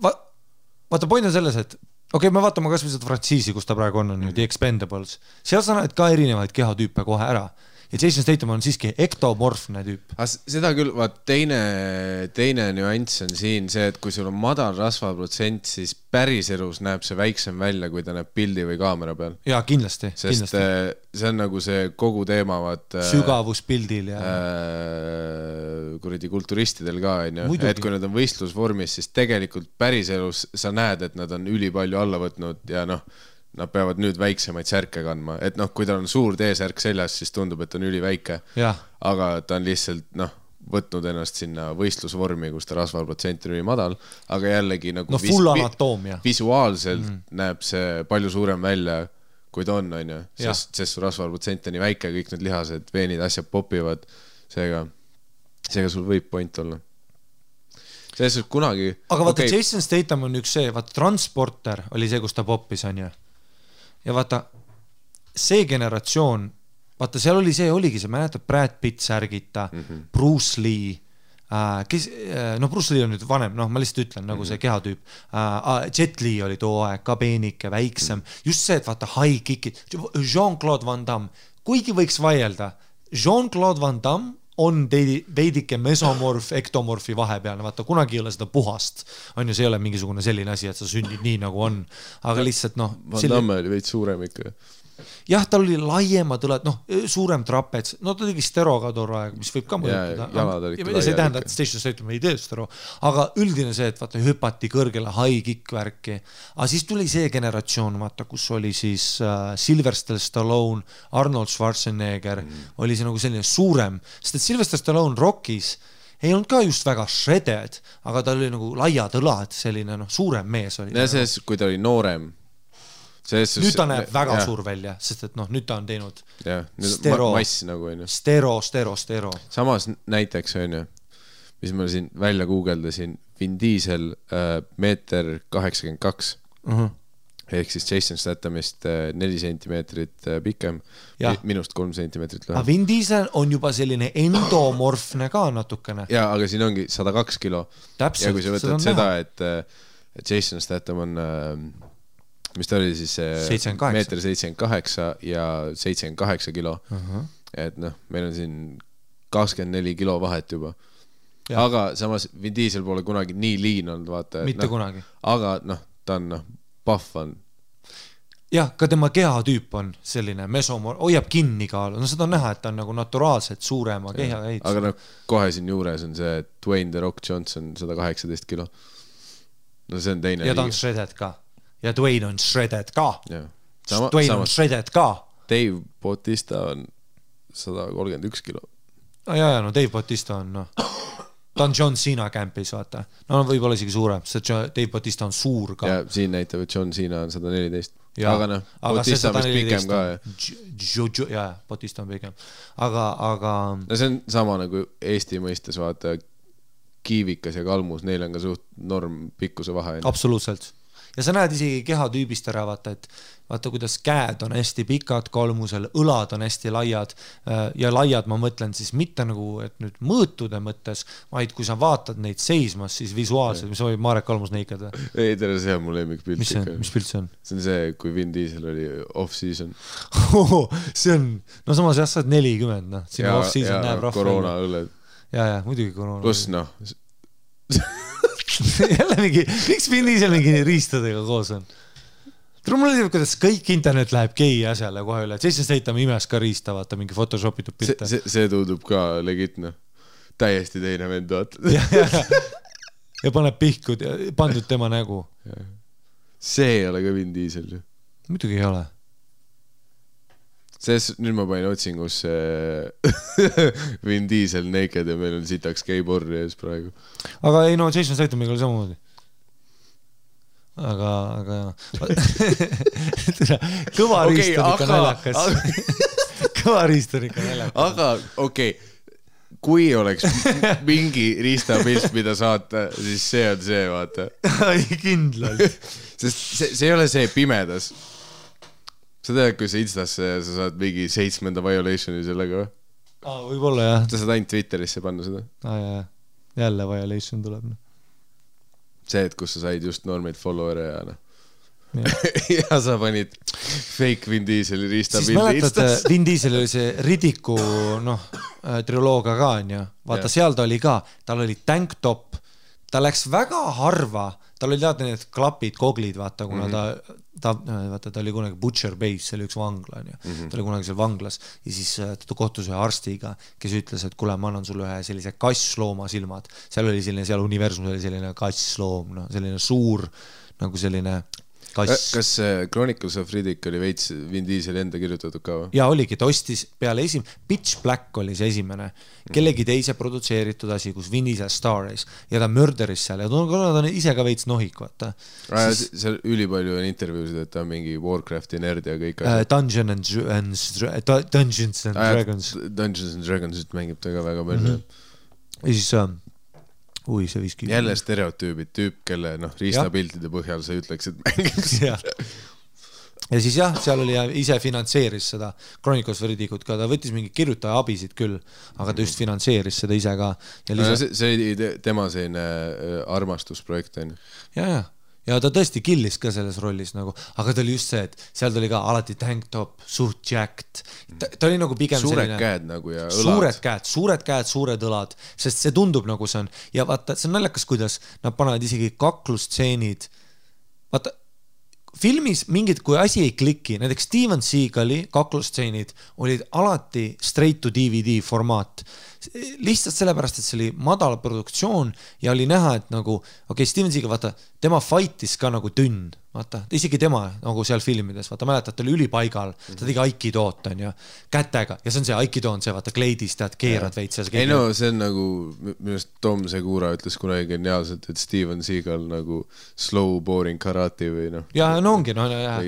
Vaata, point on selles, et me vaatame kas või seda frantsiisi, kus ta praegu on The Expendables. Seal sa näed ka erinevaid kehatüüpe kohe ära. Ja Jason Statham on siiski ektomorfne tüüp. Seda küll, vaat teine nüanss on siin see, et kui sul on madal rasvaprotsent, siis päris elus näeb see väiksem välja, kui ta näeb pildi või kaamera peal. Jaa, kindlasti. Sest see on nagu see kogu teema, sügavuspildil ja kuradi kulturistidel ka, et kui nad on võistlusvormis, siis tegelikult päris elus sa näed, et nad on ülipalju alla võtnud ja nad peavad nüüd väiksemaid särke kandma, et kui tal on suur T-särk seljas, siis tundub, et on üliväike, aga ta on lihtsalt võtnud ennast sinna võistlusvormi, kus ta rasvaprotsent on ülimadal, aga jällegi nagu full anatoomia. Visuaalselt näeb see palju suurem välja, kui ta on, sest su rasvaprotsent on nii väike, kõik need lihased, veenid, asjad popivad, seega sul võib point olla. Selles kunagi... Aga vaata, Jason Statham on üks see, vaata, Transporter oli see, kus ta poppis, on ju. Ja vaata, see generatsioon, vaata, seal oli see, oligi see, mäletad, Brad Pitt särgita, Bruce Lee, Bruce Lee on nüüd vanem, ma lihtsalt ütlen, nagu see kehatüüp, Jet Li oli too aeg, ka peenike, väiksem, just see, et vaata, high kickid, Jean-Claude Van Damme, kuigi võiks vaielda, Jean-Claude Van Damme on veidike mesomorf, ektomorfi vahepealne, vaata, kunagi ei ole seda puhast, on ju, see ei ole mingisugune selline asi, et sa sünnid nii nagu on, aga lihtsalt Van Damme oli veid suurem ikka. Jah, tal oli laiemad õlad, suurem trapets, ta tegi stero ka too aeg, mis võib ka mõjutada. See ei tähenda, et Station Statham ei tee stero, aga üldine see, et vaata, hüpati kõrgele high kick värki, aga siis tuli see generatsioon, vaata, kus oli siis Sylvester Stallone, Arnold Schwarzenegger, oli see nagu selline suurem, sest et Sylvester Stallone Rockis ei olnud ka just väga shredded, aga ta oli nagu laiad õlad, selline suurem mees oli. Ja see, kui ta oli noorem, nüüd ta näeb väga suur välja, sest et nüüd ta on teinud mass nagu on ju. Stero. Samas näiteks on ju, mis ma siin välja guugeldasin, Vin Diesel 1,82 m, ehk siis Jason Stathamist 4 sentimeetrit pikem, minust 3 sentimeetrit lühem. Aga Vin Diesel on juba selline endomorfne ka natukene. Jaa, aga siin ongi 102 kilo. Täpselt, ja kui sa võtad seda, et Jason Statham on... mis ta oli siis 1,78 ja 78 kilo. Et meil on siin 24 kilo vahet juba. Ja. Aga samas Vin Diesel pole kunagi nii liin olnud, vaata. Mitte kunagi. Aga ta on puff on. Jah, ka tema kehatüüp on selline mesomor, hoiab kinni kaalu. Seda on näha, et ta on nagu naturaalselt suurema keha ehitus. Aga kohe siin juures on see Dwayne The Rock Johnson 118 kilo. See on teine ja ta on shredded ka. Ja Dwayne on shredded ka. Dwayne on shredded ka. Dave Bautista on 131 kilo. Dave Bautista on, ta on John Cena campis, vaata. Võib-olla isegi suurem, sest Dave Bautista on suur ka. Ja siin näitab, et John Cena on 114. Aga Bautista on pikem ka. Bautista on pikem. Aga... see on sama nagu Eesti mõistes, vaata, kiivikas ja kalmus, neil on ka suht norm pikkuse vahe. Absoluutselt. Ja sa näed isegi kehatüübist ära, vaata kuidas käed on hästi pikad kalmusel, õlad on hästi laiad ja laiad ma mõtlen siis mitte nagu, et nüüd mõõtude mõttes, vaid kui sa vaatad neid seismas, siis visuaalselt, mis võib Marek Kalmus neikad? Ei, tere, see on mu lemmikpilt. Mis pilt see on? See on see, kui Vin Diesel oli off-season. See on, samas jah, sa oled 40, sinna off-season näeb rahva. Koroona õlled. Ja, muidugi koroona. Plus jälle mingi, miks Vin Diesel mingi riistadega koos on? Mulle teeb, kuidas kõik internet läheb gei asjale kohe üle. Jason Statham imes ka riista, vaata mingi photoshopitud pilte. See tundub ka legitne. Täiesti teine vend, vaata. Ja paneb pihkud ja pandud tema nägu. See ei ole ka Vin Diesel ju. Muidugi ei ole. Nüüd ma panin otsingus Vin Diesel naked ja meil on sitaks geiborri ees praegu. Aga ei, Jason Stathamiga oli samamoodi. Aga kõva riist on ikka naljakas. Kõva riist on ikka naljakas. Aga okei, kui oleks mingi riistapilt, mida saata, siis see on see, vaata. Kindlalt. Sest see ei ole see pimedas. Sa tead, kui sa Instasse sa saad mingi 7. violationi sellega või? Võib-olla jah. Sa saad ainult Twitterisse panna seda. Jälle violation tuleb. See, et kus sa said just normeid follower'e ja ja sa panid fake Vin Dieseli riistapildi. Siis mäletad, Vin Diesel oli see Ridiku triloogia ka, on ju. Vaata, seal ta oli ka, tal oli tank top, ta läks väga harva, tal oli teada need klapid, koglid, vaata, kuna ta oli kunagi Butcher Base, see oli üks vangla, on ju. Ta oli kunagi seal vanglas ja siis ta kohtus ühe arstiga, kes ütles, et kuule, ma annan sulle ühe sellise kasslooma silmad. Seal oli selline, seal universum oli selline kassloom, selline suur, nagu selline kass. Kas Chronicles of Riddick oli veits Vin Diesel enda kirjutatud ka või? Ja oligi, ta ostis peale Pitch Black oli see esimene, kellegi teise produtseeritud asi, kus Vin Diesel staris ja ta mörderis seal ja ta on ise ka veits nohik, vaata. Seal ülipalju on intervjuusid, et ta on mingi Warcrafti nerd ja kõik Dungeons and Dragons. Dungeons and Dragons mängib ta ka väga palju. Ja siis see viski. Jälle stereotüübid, tüüp, kelle riistapiltide põhjal sa ütleks, et mängiks. Ja siis jah, seal oli ise finantseeris seda Chronicles of Riddickut ka, ta võttis mingi kirjutaja abisid küll, aga ta just finantseeris seda ise ka. See oli tema selline armastusprojekt, on ju? Ja ta tõesti killis ka selles rollis nagu, aga ta oli just see, et seal ta oli ka alati tank top, suht jacked. Ta oli nagu pigem suured käed nagu ja õlad. Suured käed, suured õlad, sest see tundub nagu see on. Ja vaata, see on naljakas, kuidas nad panevad isegi kaklustseenid. Vaata, filmis mingid, kui asi ei kliki, näiteks Steven Seagali kaklustseenid olid alati straight to DVD formaat. Lihtsalt sellepärast, et see oli madal produktsioon ja oli näha, et nagu, Steven Seagal, vaata, tema fightis ka nagu tünn, vaata, isegi tema nagu seal filmides, vaata, mäletad, ta oli ülipaigal, ta tegi aikidoot, on ju, kätega, ja see on see aikido on see, vaata, kleidis, tead, keerad veits. Ei no, see on nagu, minust Tom Segura ütles kunagi geniaalselt, et Steven Seagal nagu slow boring karate või noh. Ja no ongi,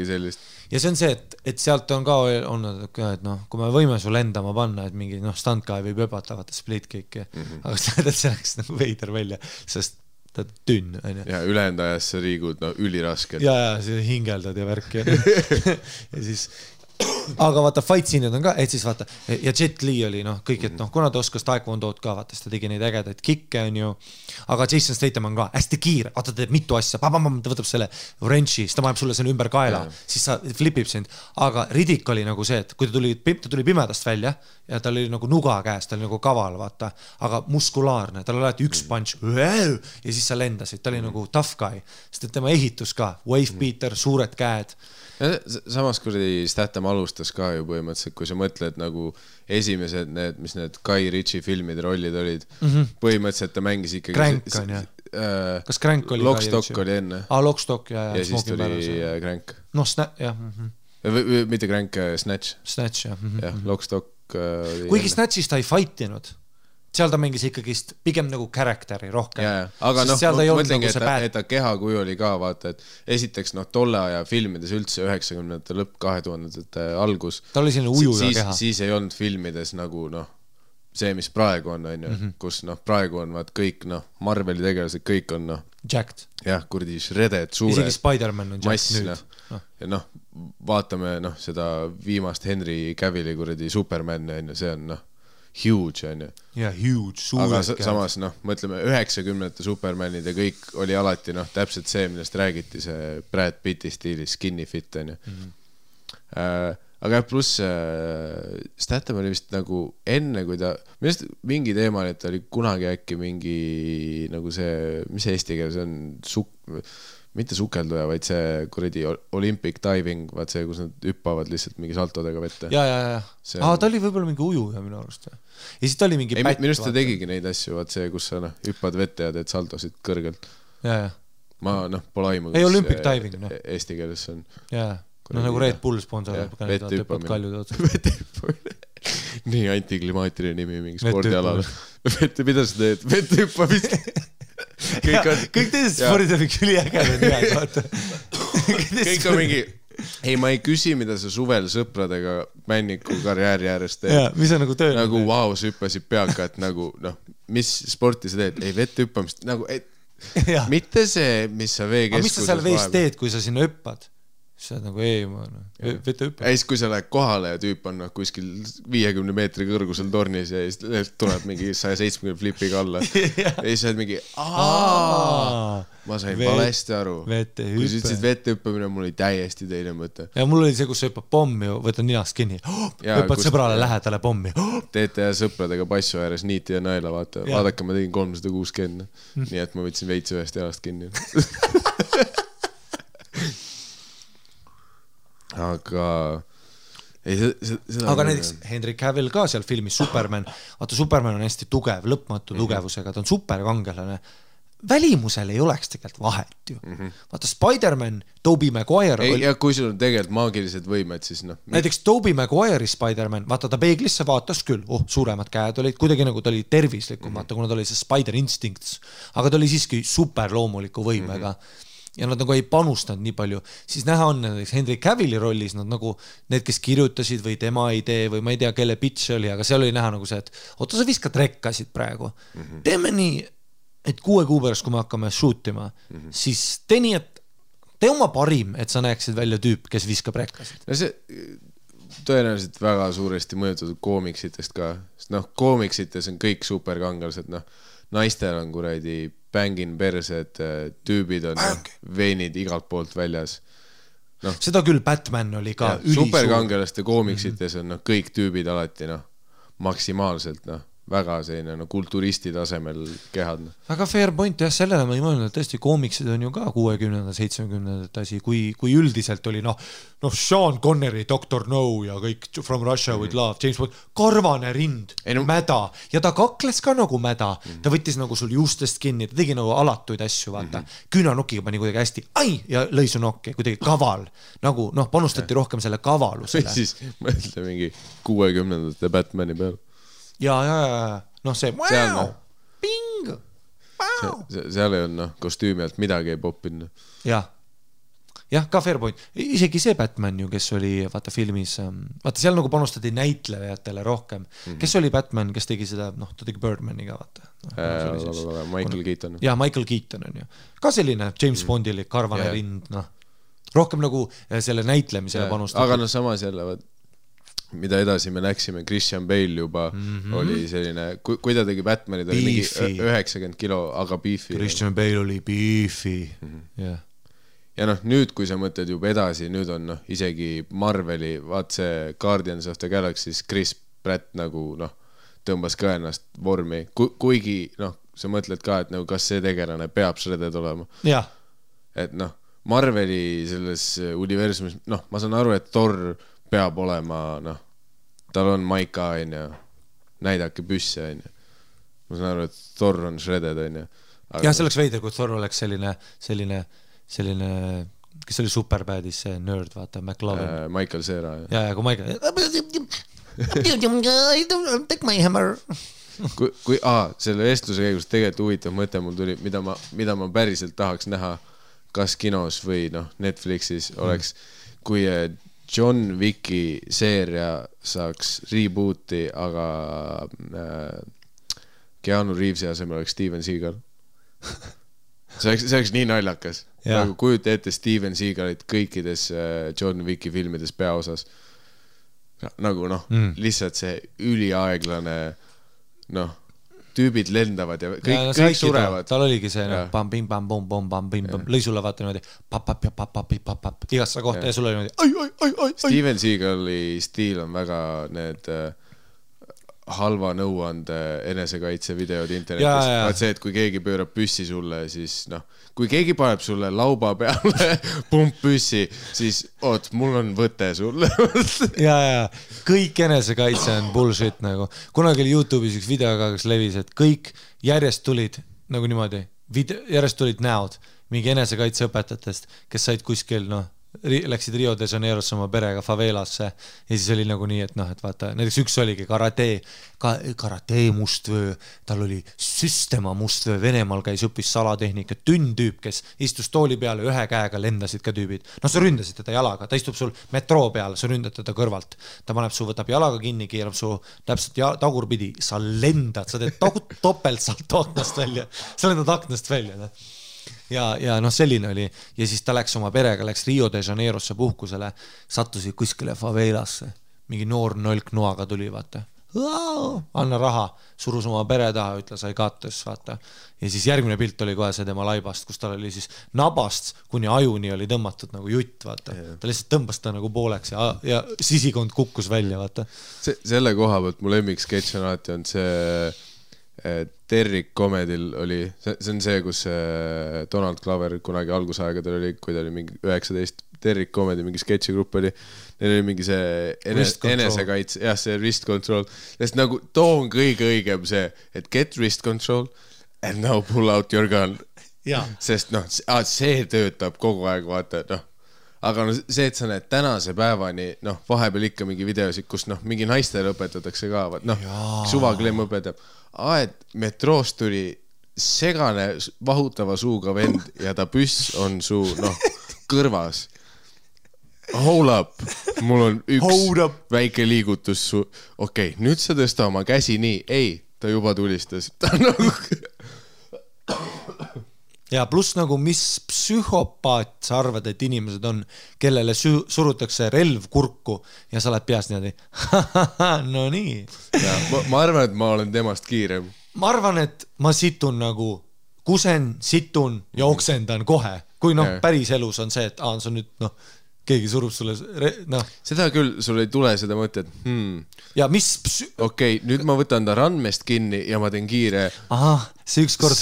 sellist. Ja see on see, et sealt on ka olnud, et kui me võime sul endama panna, et mingi standkai võib öbata, vaata split kick, aga see läks nagu veider välja, sest ta tünn, on ju. Ja ülejäänud ajas sa liigud ülirasked. Ja see hingeldad ja värk ja siis aga vaata, fight scene'id on ka, et siis vaata, ja Jet Li oli kõik, et kuna ta oskas taekwondood ka, vaata, siis ta tegi neid ägedaid kikke, on ju, aga Jason Statham on ka hästi kiire, vaata, ta teeb mitu asja, ta võtab selle wrenchi, siis ta paneb sulle selle ümber kaela, siis sa flipib sind, aga Riddick oli nagu see, et kui ta tuli pimedast välja ja tal oli nagu nuga käes, ta oli nagu kaval, vaata, aga muskulaarne, tal oli alati üks punch ja siis sa lendasid, ta oli nagu tough guy, sest et tema ehitus ka, wave beater, suured käed. Samas kuradi Statham alustas ka ju põhimõtteliselt, kui sa mõtled nagu esimesed need, mis need Guy Ritchie filmide rollid olid, põhimõtteliselt ta mängis ikkagi Crank on, jah? Kas Crank oli Lockstock oli enne. Lockstock ja siis tuli Crank. jah. Mitte Crank, Snatch. Snatch, jah. Jah, Lockstock kuigi Snatchis ta ei fightinud. Seal ta mängis ikkagi pigem nagu karakteri rohkem. Aga mõtlengi, et ta kehakuju oli ka, vaata, et esiteks tolle aja filmides üldse 90-ndate lõpp 2000-ndate algus. Ta oli selline ujuja keha. Siis ei olnud filmides nagu see, mis praegu on, kus praegu on kõik Marveli tegelased, kõik on jacked. Jah, kurdi shredded, suured. Isegi Spider-Man on jacked nüüd. Ja vaatame seda viimast Henry Cavilli kuradi Superman, see on huge, on ju. Ja, huge, suured. Aga samas, mõtleme, 90-ndate Supermanid ja kõik oli alati, täpselt see, millest räägiti, see Brad Pitti stiilis, skinny fit, on ju. Aga pluss Statham oli vist nagu enne, kui ta, millest mingi teema, et ta oli kunagi äkki mingi nagu see, mis eesti keel, see on mitte sukelduja, vaid see kuradi Olympic diving, vaat see, kus nad hüppavad lihtsalt mingi saltodega vette. Ja. Ta oli võib-olla mingi ujuja minu arust. Ja siis ta oli mingi pätt. Minu arust ta tegigi neid asju, vaat see, kus sa hüppad vette ja teed saltosid kõrgelt. Ja. Ma pole aimu. Ei, Olympic diving. Eesti keeles on. Ja, nagu Red Bull sponsor. Vette hüppamine. Nii antiklimaatiline nimi mingi spordialal. Mida sa teed? Vette hüppamist. Kõik teised spordid on mingi üliägedad nimed, vaata. Kõik on mingi ei, ma ei küsi, mida sa suvel sõpradega männiku karjääri äärest teed. Ja, mis on nagu töö? Nagu vau, sa hüppasid peaka, et nagu, noh, mis sporti sa teed? Ei, vette hüppamist, nagu, mitte see, mis sa veekeskuses mis sa seal vees teed, kui sa sinna hüppad? Sa oled nagu vete hüppad. Ja siis, kui sa lähed kohale ja tüüp on kuskil 50 meetri kõrgusel tornis ja siis tuleb mingi 170 flipiga alla. Ja siis sa oled mingi, ma sain valesti aru. Kui sa ütlesid vette hüppamine, mul oli täiesti teine mõte. Ja mul oli see, kus sa hüppad pommi, võtad ninast kinni, hüppad sõbrale lähedale pommi. Teete ja sõpradega passu ääres niiti ja naela, vaadake, ma tegin 360. Nii et ma võtsin veits ühest jalast kinni. Aga aga näiteks Henry Cavill ka seal filmis Superman, vaata Superman on hästi tugev, lõpmatu tugevusega, ta on superkangelane, välimusel ei oleks tegelikult vahet ju. Vaata Spider-Man, Tobey Maguire ja kui sul on tegelikult maagilised võimed, siis noh. Näiteks Tobey Maguire'i Spider-Man, vaata ta peeglisse vaatas küll, suuremad käed olid, kuidagi nagu ta oli tervislikum, vaata kuna ta oli see Spider Instincts, aga ta oli siiski superloomuliku võimega ja nad nagu ei panustanud nii palju, siis näha on näiteks Henry Cavilli rollis, nad nagu need, kes kirjutasid või tema idee või ma ei tea, kelle pitch oli, aga seal oli näha nagu see, et oota, sa viskad rekkasid praegu. Teeme nii, et 6 kuu pärast, kui me hakkame shootima, siis tee nii, et tee oma parim, et sa näeksid välja tüüp, kes viskab rekkasid. No see tõenäoliselt väga suuresti mõjutatud koomiksitest ka, sest noh, koomiksites on kõik superkangelased, noh, naistel on kuradi bängin persed, tüübid on veinid igalt poolt väljas. No, seda küll Batman oli ka ülisuur. Superkangelaste koomiksites on kõik tüübid alati maksimaalselt väga selline kulturisti tasemel kehad. Väga fair point, jah, sellele ma ei mõelnud, et tõesti koomiksid on ju ka 60. 70. asi, kui üldiselt oli Sean Connery, Dr. No ja kõik From Russia with Love, James Bond, karvane rind, mäda ja ta kakles ka nagu mäda, ta võttis nagu sul juustest kinni, ta tegi nagu alatuid asju, vaata, küünanukkiga pani kuidagi hästi, ja lõi su nokki, kuidagi kaval, nagu panustati rohkem selle kavalusele. Või siis mõtle mingi 60. Batmani peal. Ja, see ping, seal ei on kostüümi alt midagi ei poppinud. Jah, ka fair point. Isegi see Batman ju, kes oli vaata filmis, vaata seal nagu panustati näitlejatele rohkem. Kes oli Batman, kes tegi seda, ta tegi Birdmaniga, vaata. Michael Keaton. Ja, Michael Keaton on ju. Ka selline James Bondili karvane rind, rohkem nagu selle näitlemisele panustati. Aga samas jälle, mida edasi me läksime, Christian Bale juba oli selline, kui ta tegi Batmanid, oli mingi 90 kilo, aga beefy. Christian Bale oli beefy, jah. Ja nüüd, kui sa mõtled juba edasi, nüüd on isegi Marveli, vaat see Guardians of the Galaxy, Chris Pratt nagu tõmbas ka ennast vormi, kuigi sa mõtled ka, et kas see tegelane peab shredded olema. Jah. Et Marveli selles universumis, ma saan aru, et Thor peab olema, tal on maika, näidake püsse, ma saan aru, et Thor on shredded, jah, see oleks veider, kui Thor oleks selline, kes oli Superbadis, see nerd, vaata, McLovin. Michael Cera. Ja, kui Michael take my hammer. Selle vestluse käigus tegelikult huvitav mõte mul tuli, mida ma päriselt tahaks näha, kas kinos või Netflixis oleks, kui John Wicki seeria saaks rebooti, aga Keanu Reevesi asemel oleks Steven Seagal. See oleks nii naljakas. Nagu kujuta ette Steven Seagalit kõikides John Wicki filmides peaosas. Nagu lihtsalt see üliaeglane tüübid lendavad ja kõik surevad. Tal oligi see lõi sulle vaata niimoodi papp igasse kohta ja sulle oli niimoodi Steven Seagali stiil on väga need halva nõuande enesekaitse videod internetis. Vaat see, et kui keegi pöörab püssi sulle, siis kui keegi paneb sulle lauba peale pump püssi, siis mul on võte sulle. ja, kõik enesekaitse on bullshit nagu. Kunagi oli YouTube'is üks video, kes levis, et kõik järjest tulid nagu niimoodi, järjest tulid näod mingi enesekaitse õpetajatest, kes said kuskil läksid Rio de Janeirosse oma perega favelasse ja siis oli nagu nii, et noh, et vaata, näiteks üks oligi karate mustvöö, tal oli süstema mustvöö, Venemaal käis õppis salatehnika, tüüp, kes istus tooli peale, ühe käega lendasid ka tüübid. No sa ründasid teda jalaga, ta istub sul metroo peal, sa ründad teda kõrvalt. Ta paneb su, võtab jalaga kinni, keerab su täpselt tagurpidi, sa lendad, sa teed topelt salt aknast välja, sa lendad aknast välja. Ne? Ja noh, selline oli. Ja siis ta läks oma perega, läks Rio de Janeirosse puhkusele, sattusid kuskile favelasse. Mingi noor nolk noaga tuli, vaata. Anna raha, surus oma pere taha, ütles I got this, vaata. Ja siis järgmine pilt oli kohe see tema laibast, kus tal oli siis nabast kuni ajuni oli tõmmatud nagu jutt, vaata. Ta lihtsalt tõmbas ta nagu pooleks ja sisikond kukkus välja, vaata. Selle koha pealt mu lemmik sketš on alati on see Derrick Comedil oli, see on see, kus Donald Glover kunagi algusaegadel oli, kui ta oli mingi 19, Derrick Comedi mingi sketšigrupp oli, neil oli mingi see enesekaits, jah, see wrist control, sest nagu too on kõige õigem see, et get wrist control and now pull out your gun. Sest noh, see töötab kogu aeg, vaata, noh. Aga no see, et sa näed tänase päevani, noh, vahepeal ikka mingi videosid, kus noh, mingi naistele õpetatakse ka, noh, suvaklemm õpetab. Et metroost tuli segane vahutava suuga vend ja ta püss on su, noh, kõrvas. Hold up, mul on üks väike liigutus su. Okei, nüüd sa tõsta oma käsi nii. Ei, ta juba tulistas. Ta nagu... Ja pluss nagu, mis psühhopaat sa arvad, et inimesed on, kellele surutakse relv kurku ja sa oled peast niimoodi. No nii. Ja, ma arvan, et ma olen temast kiirem. Ma arvan, et ma situn nagu, kusen, situn ja oksendan kohe. Kui noh, päris elus on see, et see on nüüd, noh, keegi surub sulle, noh. Seda küll, sul ei tule seda mõtet, Ja mis... Okei, nüüd ma võtan ta randmest kinni ja ma teen kiire... see ükskord...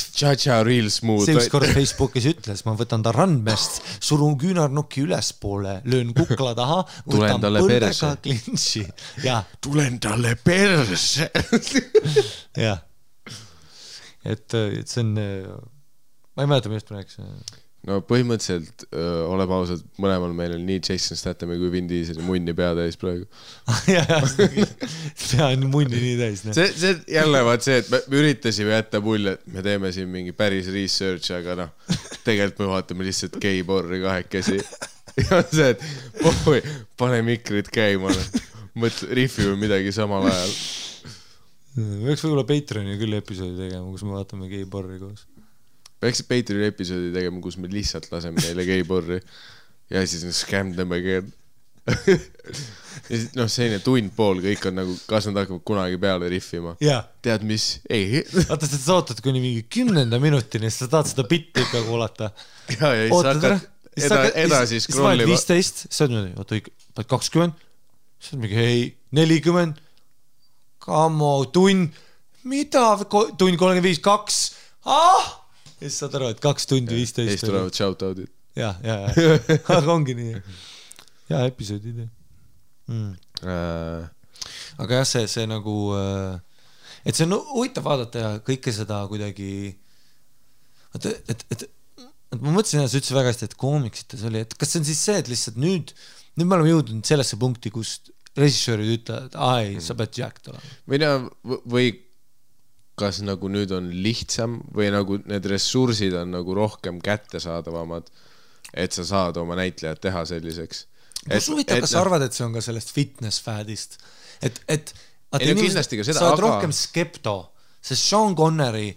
real smooth. See ükskord Facebookis ütles, ma võtan ta randmest, surun küünarnukki ülespoole, löön kukla taha, võtan põldega klintsi. Tulen talle perse. Jah. Et see on... Ma ei mäleta, millest ma rääksin. No põhimõtteliselt oleb ausalt, mõlemal meil on nii Jason Stathami kui Vin Diesel munni pea täis praegu. Pea on munni nii täis. See jälle vaat see, et me üritasime jätta mulje, et me teeme siin mingi päris research, aga noh, tegelikult me vaatame lihtsalt gay-porri kahekesi. Ja see, et pane mikrid käima, rifime midagi samal ajal. Võiks võib-olla Patreoni küll episoodi tegema, kus me vaatame gay-porri koos. Peaksid Patreoni episoodi tegema, kus me lihtsalt laseme neile gay-porri ja siis scam them again. Noh, selline tund pool, kõik on nagu, kas nad hakkavad kunagi peale riffima. Tead mis? Ei. Vaata, sa ootad kuni mingi 10. minutini, siis sa tahad seda bitti ikka kuulata. Ja siis hakkad edasi scrollima. 15, sa oled niimoodi, 20, sa oled mingi, ei, 40, kamo, tund, mida, tund 35, 2, ja siis saad aru, et 2 tundi 15. Ja siis tulevad shoutoutid. Ja. Aga ongi nii. Ja, episoodid. Aga jah, see nagu... Et see on huvitav vaadata ja kõike seda kuidagi... Et ma mõtlesin, et sa ütlesid väga hästi, et koomiksites oli, et kas see on siis see, et lihtsalt nüüd me oleme jõudnud sellesse punkti, kus režissöörid ütlevad, et sa pead jacked olema. Või kas nagu nüüd on lihtsam või nagu need ressursid on nagu rohkem kättesaadavamad, et sa saad oma näitlejad teha selliseks. Kus huvitav, kas sa arvad, et see on ka sellest fitness-fädist? Et kindlasti ka seda, sa oled rohkem skepto, sest Sean Connery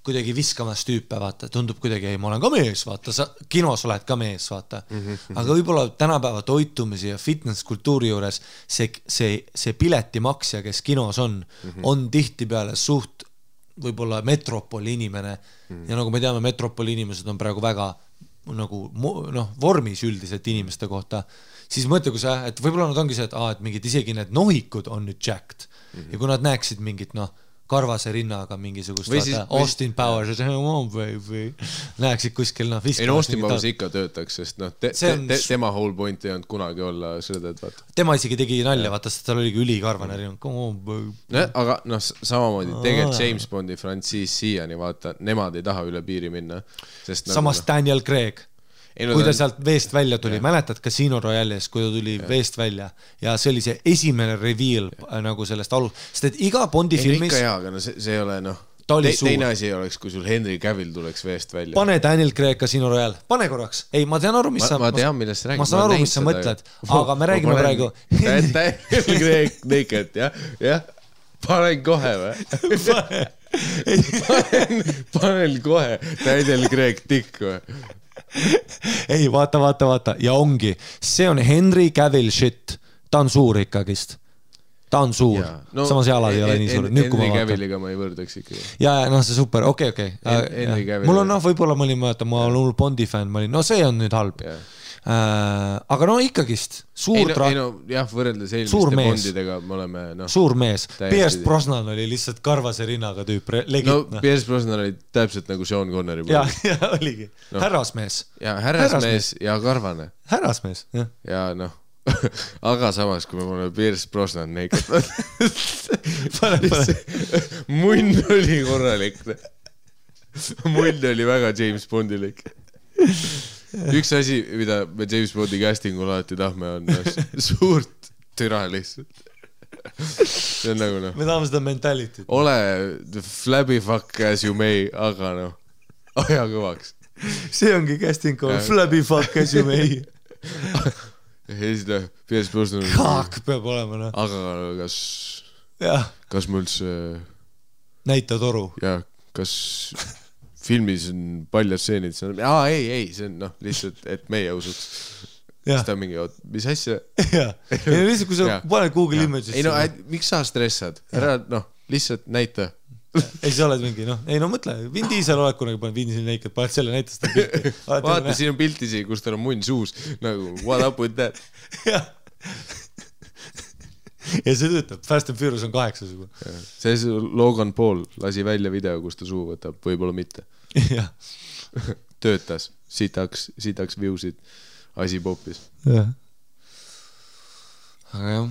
kuidagi viskamas tüüpe, vaata, tundub kuidagi, ei, ma olen ka mees, vaata, sa kinos oled ka mees, vaata. Aga võib-olla tänapäeva toitumisi ja fitness-kultuuri juures see piletimaksja, kes kinos on tihti peale suht võib-olla metropoli inimene ja nagu me teame, metropoli inimesed on praegu väga nagu vormis üldiselt inimeste kohta, siis mõtle, et võib-olla nad ongi see, et mingid isegi need nohikud on nüüd jacked ja kui nad näeksid mingit karvase rinnaga mingisugust Austin Powers näeksid kuskil Austin Powers ikka töötaks, sest tema whole point ei olnud kunagi olla sõdad, vaata. Tema isegi tegi nalja, vaata, sest tal oligi ülikarvane rinna. Aga samamoodi tegelikult James Bondi frantsiis siiani, vaata, nemad ei taha üle piiri minna. Samas Daniel Craig. kui ta sealt veest välja tuli, mäletad Casino Royale'is, kui ta tuli veest välja ja see oli see esimene reveal nagu sellest sest et iga Bondi filmis ikka aga no see ei ole teine asi oleks, kui sul Henry Cavill tuleks veest välja. Pane Daniel Craig Casino Royale, pane korraks. Ei, ma tean aru, mis ma tean, millest räägid. Ma saan aru, mis sa mõtled, aga me räägime praegu. Daniel Craig naked, jah. Panen kohe või? Panen kohe Daniel Craig tikk või? Ei, vaata. Ja ongi, see on Henry Cavill shit. Ta on suur ikkagist. Ta on suur, samas jalad ei ole nii suur. Henry Cavilliga ma ei võrdaks ikkagi. Ja, see super, okei. Mul on, võib-olla ma olin mõelda, ma olen Bondi fänn, see on nüüd halb. Aga ikkagist, suur võrreldes eelmiste Bondidega me oleme suur mees. Pierce Brosnan oli lihtsalt karvase rinnaga tüüp. Pierce Brosnan oli täpselt nagu Sean Connery. Ja oligi. Härrasmees. Ja härrasmees ja karvane. Härrasmees, jah. Ja aga samas, kui me oleme Pierce Brosnan naked munn oli korralik. Munn oli väga James Bondilik. Üks asi, mida me James Bondi castingul alati tahme on suurt türa lihtsalt. See on nagu me tahame seda mentalityt. Ole flabby fuck as you may, aga aja kõvaks. See ongi casting call, flabby fuck as you may. Pierce Brosnan Kaak peab olema, Aga kas ma üldse näita toru? Ja, kas filmis on paljad seenid? Ei, see on lihtsalt, et meie usuks. Siis ta mingi, mis asja? Lihtsalt, kui sa paned Google Images. Miks sa stressad? Ära, lihtsalt näita. Ei, sa oled mingi, mõtle, Vin Diesel oled kunagi paned Vin Diesel naked, paned selle näitas ta pilti. Vaata, siin on pilt isi, kus tal on munn suus, nagu what up with that? Ja see töötab, Fast and Furious on 8 sugu. See Logan Paul lasi välja video, kus ta suu võtab, võib-olla mitte. Töötas, sitaks viewsid, asi popis. Aga jah,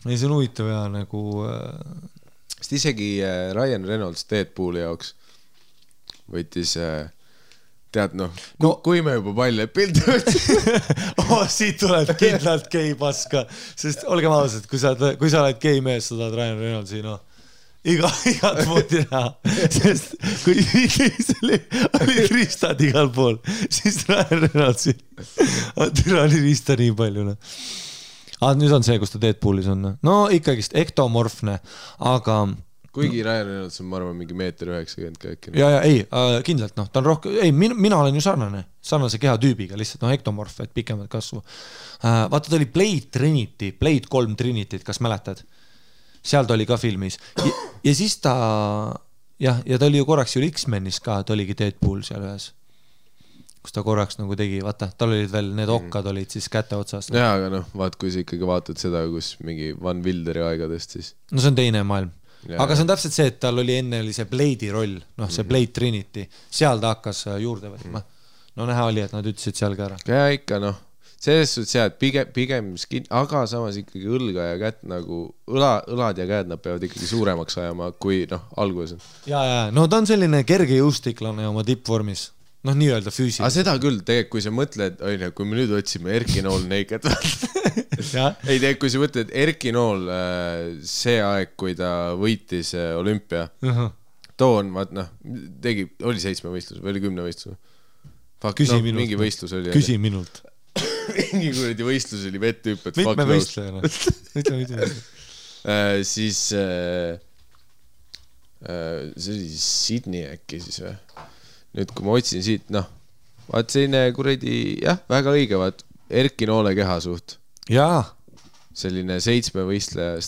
ei see on huvitav ja nagu... Sest isegi Ryan Reynolds Deadpooli jaoks võttis, tead kui me juba paljad pildi võtsime. Siit tuleb kindlalt gei paska, sest olgem ausad, kui sa oled gei mees, sa tahad Ryan Reynoldsi, igat moodi näha, sest kui oli riistad igal pool, siis Ryan Reynoldsi oli riista nii palju, nüüd on see, kus ta Deadpoolis on. Ikkagist ektomorfne, aga... Kuigi Ryan Reynolds on, ma arvan, mingi 1.90 äkki. Ei, kindlalt, ta on rohkem... Ei, mina olen ju sarnase keha tüübiga, lihtsalt ektomorf, et pikemad kasvu. Vaata, ta oli Blade 3 Trinity, kas mäletad? Seal ta oli ka filmis. Ja siis ta... Ja ta oli ju korraks ju X-Menis ka, ta oligi Deadpool seal ühes. Kus ta korraks nagu tegi, vaata, tal olid veel need okkad olid siis käte otsast. Jaa, aga vaat, kui sa ikkagi vaatad seda, kus mingi Van Wilderi aegadest siis. See on teine maailm. Aga see on täpselt see, et tal oli enne see Blade'i roll, see Blade Trinity, seal ta hakkas juurde võtma. Näha oli, et nad ütlesid seal ka ära. Ja ikka, selles suhtes jah, et pigem skin, aga samas ikkagi õlga ja kätt nagu, õlad ja käed nad peavad ikkagi suuremaks ajama, kui alguses on. Ja, ta on selline kerge jõustiklane oma tippvormis. Nii-öelda füüsiliselt. Aga seda küll, tegelikult, kui sa mõtled, kui me nüüd otsime Erki Nool naked. Ei, kui sa mõtled Erki Nool see aeg, kui ta võitis olümpia, toon, tegi, oli 7 võistlus või oli 10 võistlus? Küsi minult. Mingi võistlus oli. Küsi minult. Mingi kuradi võistlus oli vettüüp, et mitme võistlejana. Siis see oli Sydney äkki siis või? Nüüd, kui ma otsin siit, vaat selline kuradi, väga õige, vaat Erki Noole keha suht. Jaa. Selline 7 võistleja.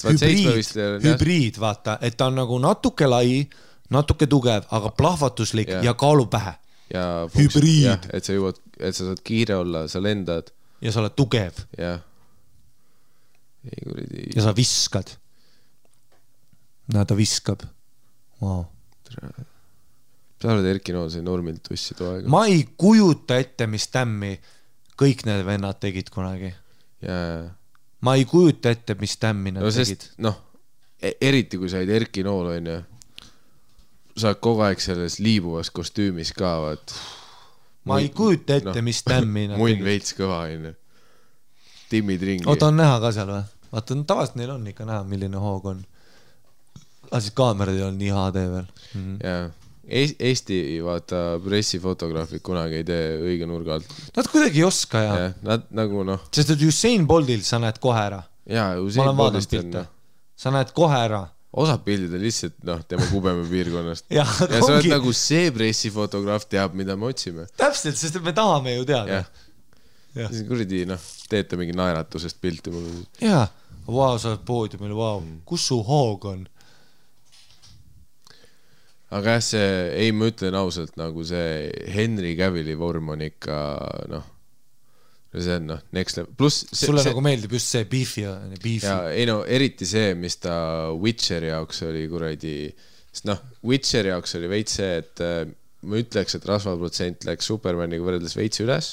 Hübriid, vaata, et ta on nagu natuke lai, natuke tugev, aga plahvatuslik ja kaalu pähe. Hübriid. Et sa saad kiire olla, sa lendad. Ja sa oled tugev. Ja sa viskad. Ta viskab. Wow. Sa oled Erki Nool, see normilt tussi too aega. Ma ei kujuta ette, mis tämmi kõik need vennad tegid kunagi. Ma ei kujuta ette, mis tämmi nad tegid. Eriti kui said Erki Nool, sa oled kogu aeg selles liibuvas kostüümis ka, vaat. ma ei kujuta ette, mis tämmi nad muin veits kõva, on ju. Timmid ringi. Oota, on näha ka seal või? Vaata, tavaliselt neil on ikka näha, milline hoog on. Siis kaamerad ei ole nii HD veel. Jaa. Eesti, vaata, pressifotograafid kunagi ei tee õige nurga alt. Nad kuidagi ei oska ja. Nad nagu Sest et Usain Boltil sa näed kohe ära. Jaa, Usain Boltist on. Sa näed kohe ära. Osad pildid on lihtsalt, tema kubeme piirkonnast. ja sa oled nagu see pressifotograaf teab, mida me otsime. Täpselt, sest me tahame ju teada. Siis kuradi, teete mingi naeratusest pilti mulle. Jaa, sa oled poodiumil, kus su hoog on? Aga see, ei, ma ütlen ausalt, nagu see Henry Cavilli vorm on ikka, see on, next level. Plus sulle nagu meeldib just see beefi. Ja, ei eriti see, mis ta Witcheri jaoks oli kuradi, sest Witcheri jaoks oli veits see, et ma ütleks, et rasvaprotsent läks Supermaniga võrreldes veits üles.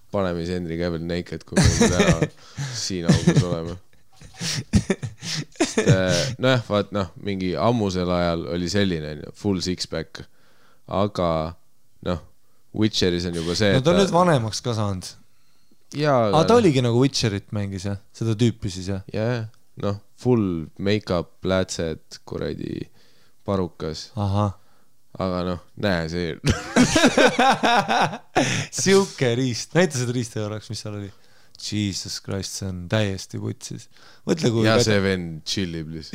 Paneme siis Henry Cavill naked, kui me täna siin augus oleme. Vaat mingi ammusel ajal oli selline full six-pack, aga Witcheris on juba see, ta on nüüd vanemaks ka saanud. Ta oligi nagu Witcherit mängis, seda tüüpi siis, jah? Jah, full make-up, plätsed, kuradi parukas. Aga näe see. Siuke riist. Näita seda riista korraks, mis seal oli. Jesus Christ, see on täiesti putsis. Ja see vend chillib lihtsalt.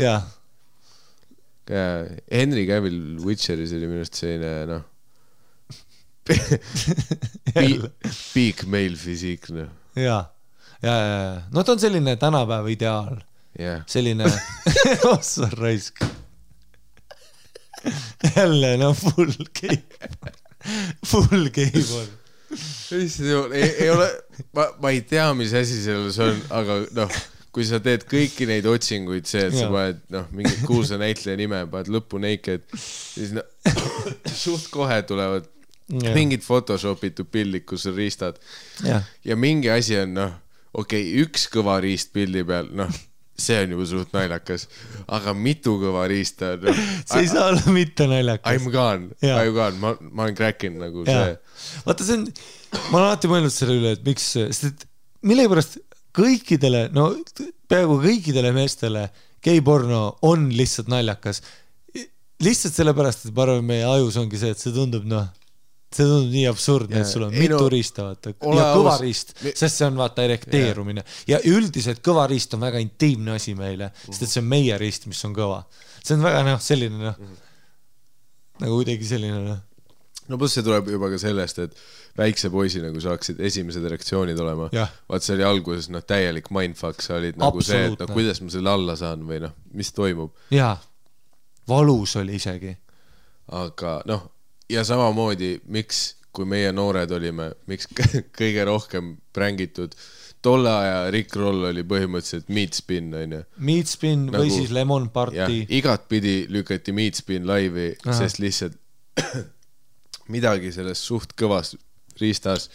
Jah. Henry Cavill Witcheris oli minust selline, peak male fysiik, Jaa. Ta on selline tänapäeva ideaal. Selline ossa raisk. Jälle, full game on. Ei ole, ma ei tea, mis asi selles on, aga kui sa teed kõiki neid otsinguid, see, et sa paned mingid kuulsa näitleja nime, paned lõppu naked, siis suht kohe tulevad mingid photoshopitud pildid, kus on riistad. Ja mingi asi on, üks kõva riist pildi peal, see on juba suht naljakas, aga mitu kõva riista on. See ei saa olla mitte naljakas. I'm gone, ma olen crackin nagu see. Vaata, see on, ma olen alati mõelnud selle üle, et miks, sest mille pärast kõikidele, peaaegu kõikidele meestele geiporno on lihtsalt naljakas. Lihtsalt sellepärast, et ma arvan, meie ajus ongi see, et see tundub nii absurdne, et sul on mitu riista, vaata, ja kõva riist, sest see on vaata erekteerumine. Ja üldiselt kõva riist on väga intiimne asi meile, sest et see on meie riist, mis on kõva. See on väga selline, nagu kuidagi selline. Plus see tuleb juba ka sellest, et väikse poisi nagu saaksid esimesed reaktsioonid olema. Vaat see oli alguses täielik mindfuck, sa olid nagu see, et kuidas ma selle alla saan või mis toimub. Jaa, valus oli isegi. Aga ja samamoodi, miks, kui meie noored olime, miks kõige rohkem prängitud, tolle aja Rick Roll oli põhimõtteliselt Meat Spin, on ju. Meat Spin või siis Lemon Party. Igat pidi lükati Meat Spin laivi, sest lihtsalt midagi selles suht kõvas riistas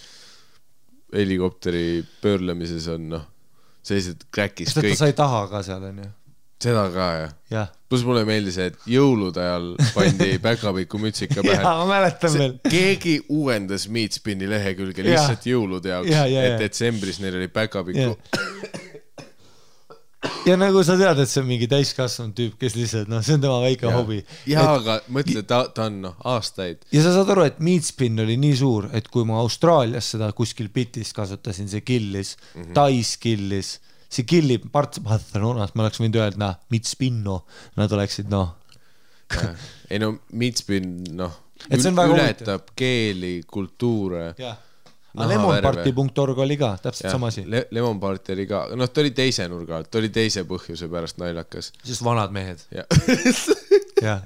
helikopteri pöörlemises on, sellised kräkis kõik. Sest ta sai taha ka seal, on ju. Seda ka, jah. Plus mulle meeldis, et jõulude ajal pandi päkapiku mütsika pähe. Jaa, ma mäletan veel. Keegi uuendas Meat Spinni lehekülge lihtsalt jõulude jaoks, et detsembris neil oli päkapiku. Ja nagu sa tead, et see on mingi täiskasvanud tüüp, kes lihtsalt, see on tema väike hobi. Jaa, aga mõtle, ta on aastaid. Ja sa saad aru, et Meat Spin oli nii suur, et kui ma Austraalias seda kuskil bitist kasutasin, see killis, Tais killis, see killib Barcelonas, ma oleks võinud öelda, Meat Spinno, nad oleksid, Ei Meat Spin, ületab keeli, kultuure. Lemonparty.org oli ka, täpselt sama asi. Lemonparty oli ka, ta oli teise nurga alt, ta oli teise põhjuse pärast naljakas. Sest vanad mehed. Jah.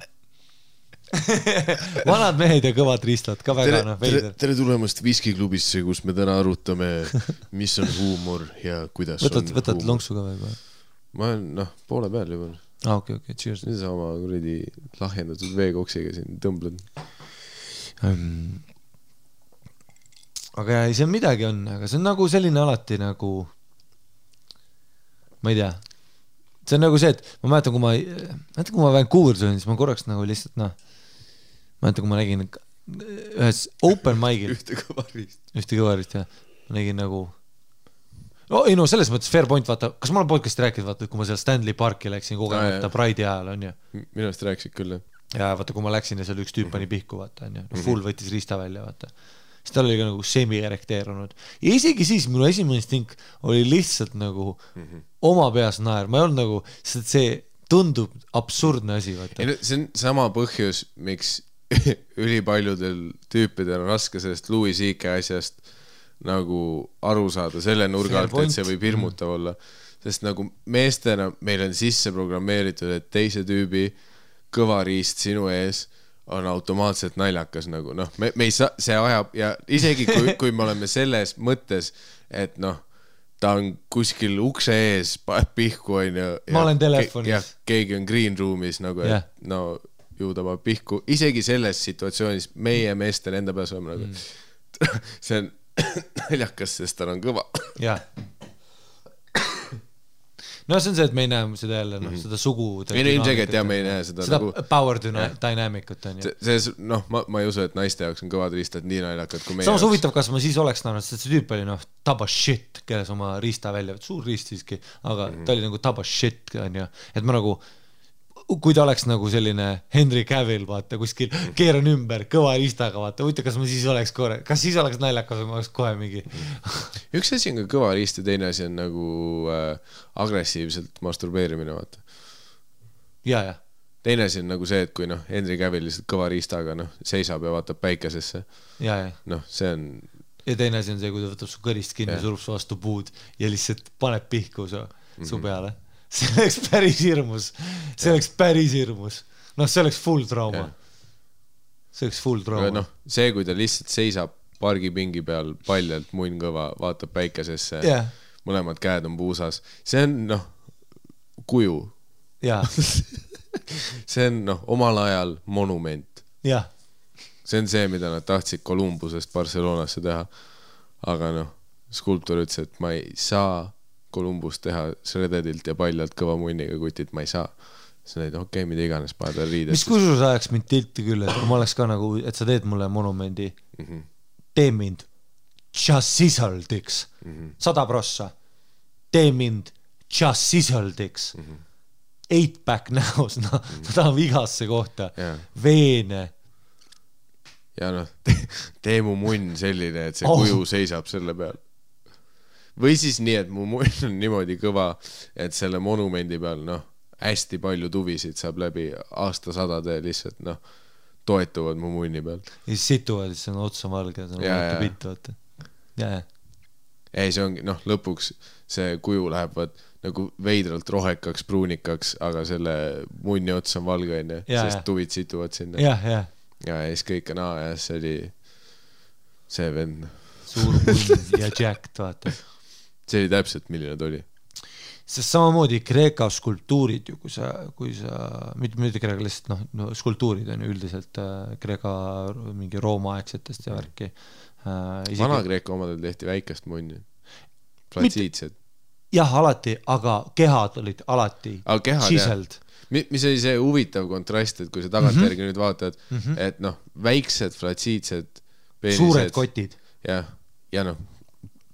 Vanad mehed ja kõvad riistad, ka väga veider. Tere tulemast Viskiklubisse, kus me täna arutame, mis on huumor ja kuidas on huumor. Võtad lonksu ka või? Ma olen poole peal juba. Okei, cheers. Nüüd sa oma kuradi lahjendatud veekoksiga siin tõmblen. Aga see on midagi on, aga see on nagu selline alati nagu, ma ei tea, see on nagu see, et ma mäletan, kui ma Vancouveris olin, siis ma korraks nagu lihtsalt, ma mäletan, kui ma nägin ühes open mic'il ühte kõvarist. Ühte kõvarist, jah. Ma nägin nagu ei no selles mõttes fair point, vaata, kas ma olen podcasti rääkinud, vaata, kui ma seal Stanley Parki läksin kogemata Pride'i ajal, on ju. Minu eest rääkisid küll, jah. Ja vaata, kui ma läksin ja seal üks tüüp pani pihku, vaata, on ju. Full võttis riista välja, vaata. Siis tal oli ka nagu semi-erekteerunud. Ja isegi siis minu esimene stink oli lihtsalt nagu oma peas naer. Ma ei olnud nagu, sest see tundub absurdne asi, vaata. See on sama põhjus, miks ülipaljudel tüüpidel on raske sellest Louis C.K. asjast nagu aru saada selle nurga alt, et see võib hirmutav olla. Sest nagu meestena meil on sisse programmeeritud, et teise tüübi kõvariist sinu ees on automaatselt naljakas nagu, noh, me ei saa, see ajab ja isegi kui me oleme selles mõttes, et noh, ta on kuskil ukse ees, paneb pihku, on ju. Ma olen telefonis. Ja keegi on green room'is nagu, et no ju ta paneb pihku. Isegi selles situatsioonis meie meestel enda peas oleme nagu, see on naljakas, sest tal on kõva. Jah. No see on see, et me ei näe seda jälle, noh, seda sugu. Meil on ilmselgelt ja me ei näe seda nagu power dynamic'ut on ju. Noh, ma ei usu, et naiste jaoks on kõvad riistad nii naljakad kui meie. Samas huvitav, kas ma siis oleks näinud, sest see tüüp oli noh, taba shit, keles oma riista välja, suur riist siiski, aga ta oli nagu taba shit, on ju. Et ma nagu, kui ta oleks nagu selline Henry Cavill, vaata, kuskil keeran ümber kõva riistaga, vaata, võita, kas ma siis oleks kas siis oleks naljakas või ma oleks kohe mingi. Üks asi on ka kõva riist ja teine asi on nagu agressiivselt masturbeerimine, vaata. Ja. Teine asi on nagu see, et kui noh, Henry Cavill lihtsalt kõva riistaga noh, seisab ja vaatab päikesesse. Ja. Noh, see on... Ja teine asi on see, kui ta võtab su kõrist kinni, surub su vastu puud ja lihtsalt paneb pihku su peale. See oleks päris hirmus. See oleks päris hirmus. Noh, see oleks full trauma. See oleks full trauma. Noh, see, kui ta lihtsalt seisab pargipingi peal paljalt munn kõva, vaatab päikesesse, mõlemad käed on puusas. See on, noh, kuju. See on, noh, omal ajal monument. See on see, mida nad tahtsid Columbusest Barcelonasse teha. Aga, noh, skulptor ütles, et ma ei saa Columbus teha Shreddedilt ja paljalt kõva munniga kutit, ma ei saa. See on, et okei, mida iganes paned veel riidest. Mis kusjuures ajaks mind tilti küll, et kui ma oleks ka nagu, et sa teed mulle monumendi, tee mind just sisaldiks 100%. Tee mind just sisaldiks 8-pack näos, no, ma tahan vigasse kohta, veene. Ja noh, tee mu munn selline, et see kuju seisab selle peal. Või siis nii, et mu munn on niimoodi kõva, et selle monumendi peal, noh, hästi palju tuvisid saab läbi aastasadade lihtsalt, noh, toetuvad mu munni peal. Ja siis situvad, siis on otsa valge, see on vaata pitt, vaata. Ei, see ongi, noh, lõpuks see kuju läheb nagu veidralt rohekaks, pruunikaks, aga selle munni ots on valge, sest tuvid situvad sinna. Ja siis kõik on ja see oli see vend. Suur munn ja jacked, vaata. See oli täpselt, milline ta oli. Sest samamoodi Kreeka skulptuurid ju, kui sa mitte Kreeka lihtsalt, no skulptuurid on ju üldiselt Kreeka mingi Rooma-aegsetest ja värki. Vana Kreeka omadel tehti väikest munni. Platsiidsed. Jah, alati, aga kehad olid alati siseld. Mis oli see huvitav kontrast, et kui sa tagantjärgi nüüd vaatad, et noh, väiksed flatsiidsed peenised. Suured kotid. Ja noh,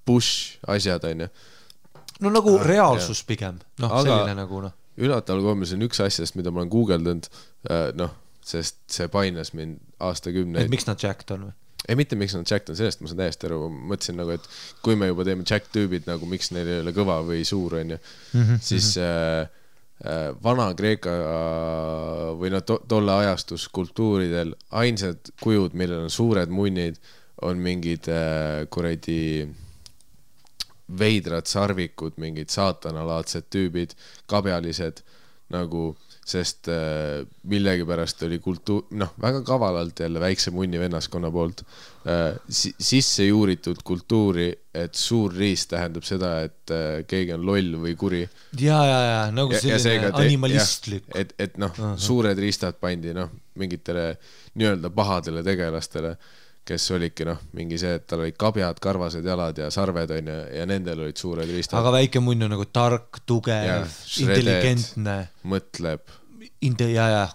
push asjad on ju. No nagu reaalsus pigem. Noh, selline nagu noh. Üllataval kombel see on üks asjast, mida ma olen googeldanud, noh, sest see painas mind aastakümneid. Et miks nad jacked on või? Ei, mitte miks nad jacked on, sellest ma saan täiesti aru. Mõtlesin nagu, et kui me juba teeme jack tüübid, nagu miks neil ei ole kõva või suur on ju, siis vana Kreeka või no tolle ajastus kultuuridel ainsad kujud, millel on suured munnid, on mingid kuradi veidrad sarvikud, mingid saatanalaadsed tüübid, kabjalised nagu, sest millegipärast oli noh, väga kavalalt jälle väikse munni vennaskonna poolt sisse juuritud kultuuri, et suur riist tähendab seda, et keegi on loll või kuri. Ja, nagu selline animalistlik. Et noh, suured riistad pandi noh, mingitele nii-öelda pahadele tegelastele, kes olidki noh, mingi see, et tal olid kabjad, karvased jalad ja sarved on ja nendel olid suured riistad. Aga väike munn on nagu tark, tugev, intelligentne. Mõtleb.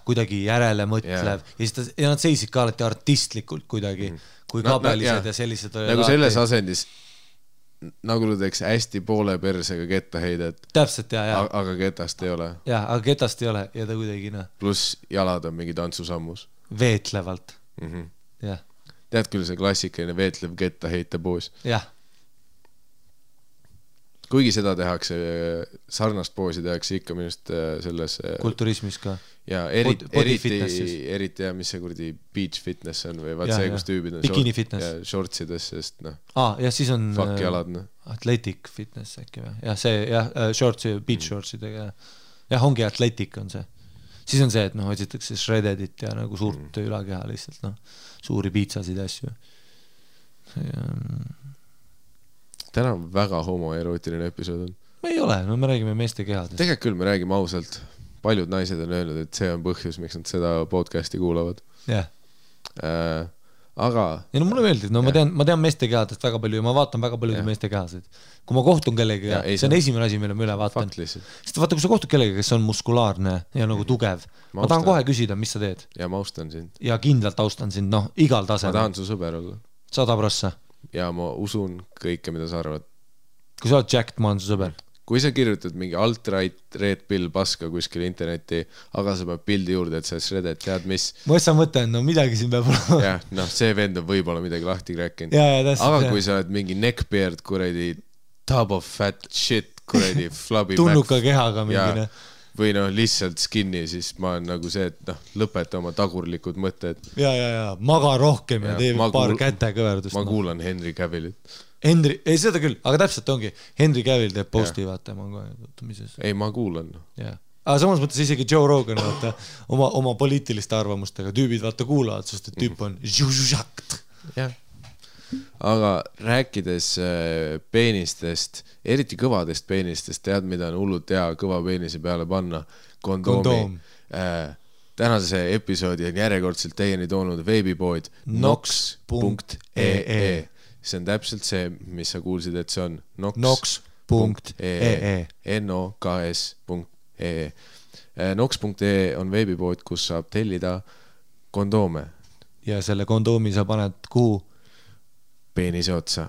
kuidagi järele mõtlev ja nad seisid ka alati artistlikult kuidagi, kui kabelised ja sellised olid. Nagu selles asendis, nagu ta teeks hästi poole persega kettaheidet. Täpselt, aga ketast ei ole. Aga ketast ei ole ja ta kuidagi, Plus jalad on mingi tantsusammus. Veetlevalt. Jah. Tead küll see klassikaline veetlev kettaheite poos. Jah. Kuigi seda tehakse, sarnast poosi tehakse ikka minust selles kulturismis ka. Ja eriti mis see kurdi beach fitness on või vaat see, kus tüübid on shortsides, sest ja siis on fuck jalad. Athletic fitness äkki või? Jah, see shortsi, beach shortsidega. Jah, ongi athletic on see. Siis on see, et otsitakse shreddedit ja nagu suurt ülakeha lihtsalt, suuri piitsasid ja asju. Täna on väga homoerootiline episood on. Ei ole, me räägime meeste kehadest. Tegelikult küll me räägime ausalt. Paljud naised on öelnud, et see on põhjus, miks nad seda podcasti kuulavad. Jah. Aga... Ja mulle meeldib, ma tean meeste kehadest väga palju ja ma vaatan väga palju meeste kehasid. Kui ma kohtun kellega, see on esimene asi, mille ma üle vaatan. Sest vaata, kui sa kohtud kellega, kes on muskulaarne ja nagu tugev, ma tahan kohe küsida, mis sa teed. Ja ma austan sind. Ja kindlalt austan sind, igal tasemel. Ma tahan su sõber olla. 100%. Ja ma usun kõike, mida sa arvad. Kui sa oled Jack, ma olen su sõber. Kui sa kirjutad mingi alt-right red pill paska kuskil interneti, aga sa pead pildi juurde, et sa shredded, tead mis? Ma just mõtlen, midagi siin peab olema. Jah, see vend on võib-olla midagi lahti rääkinud. Aga kui sa oled mingi neckbeard, kuredi tub of fat shit, kuredi flubby tunnuka kehaga mingine. Või lihtsalt skinny, siis ma olen nagu see, et lõpeta oma tagurlikud mõtted. Ja, maga rohkem ja tee paar kätekõverdust. Ma kuulan Henry Cavillit. Ei, seda küll, aga täpselt ongi. Henry Cavill teeb posti, vaata, ma kohe tutumises. Ei, ma kuulan. Aga samas mõttes isegi Joe Rogan, vaata, oma poliitiliste arvamustega tüübid, vaata, kuulavad, sest et tüüp on žužakt. Jah. Aga rääkides peenistest, eriti kõvadest peenistest, tead, mida on hullult hea kõva peenise peale panna? Kondoom. Tänase episoodi on järjekordselt teieni toonud veebipood nox.ee. See on täpselt see, mis sa kuulsid, et see on nox.ee. noks.ee. Nox.ee on veebipood, kus saab tellida kondoome. Ja selle kondoomi sa paned kuhu? Peenise otsa.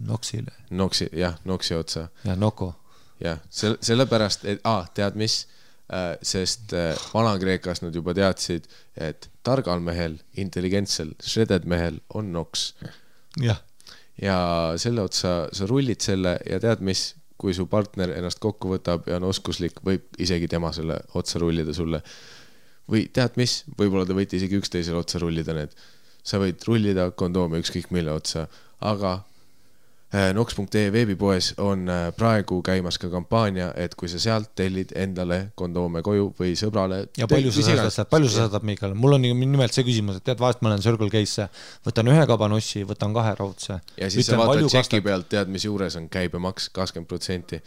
Noksile. Noksi otsa. Ja noko. Jah, sellepärast, et tead mis? Sest Vana-Kreekas nad juba teadsid, et targal mehel, intelligentsel, shredded mehel on noks. Jah. Ja selle otsa sa rullid selle ja tead mis, kui su partner ennast kokku võtab ja on oskuslik, võib isegi tema selle otsa rullida sulle. Või tead mis, võib-olla te võite isegi üksteisele otsa rullida need. Sa võid rullida kondoomi ükskõik mille otsa, aga nox.ee veebipoes on praegu käimas ka kampaania, et kui sa sealt tellid endale kondoome koju või sõbrale. Ja palju sa saadad, Miikal? Mul on nimelt see küsimus, et tead, vahest ma olen Circle K-sse, võtan 1 kabanossi, võtan 2 raudse. Ja siis sa vaatad tšeki pealt, tead, mis juures on käibemaks 20%.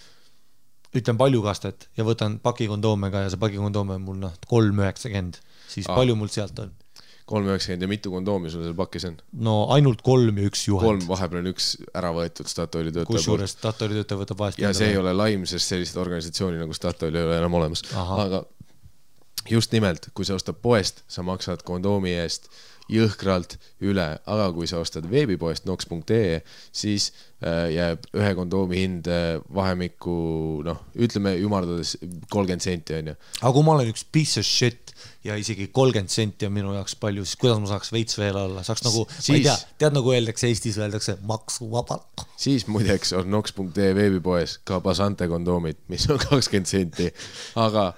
Ütlen palju kastet ja võtan pakikondoomega ja see pakikondoome on mul 3,90. Siis palju mul sealt on? 3,90 ja mitu kondoomi sul seal pakis on? No ainult 3 ja 1 juhend. 3, vahepeal on 1 ära võetud Statoili töötaja. Kusjuures Statoili töötaja võtab vahest. Ja see ei ole laim, sest sellist organisatsiooni nagu Statoil ei ole enam olemas. Aga just nimelt, kui sa ostad poest, sa maksad kondoomi eest jõhkralt üle, aga kui sa ostad veebipoest nox.ee, siis jääb 1 kondoomi hind vahemikku, ütleme ümardades 30 senti on ju. Aga kui ma olen üks piece of shit ja isegi 30 senti on minu jaoks palju, siis kuidas ma saaks veits veel alla? Saaks nagu, ma ei tea, tead nagu öeldakse Eestis, öeldakse maksuvabalt. Siis muideks on nox.ee veebipoes ka Basante kondoomid, mis on 20 senti, aga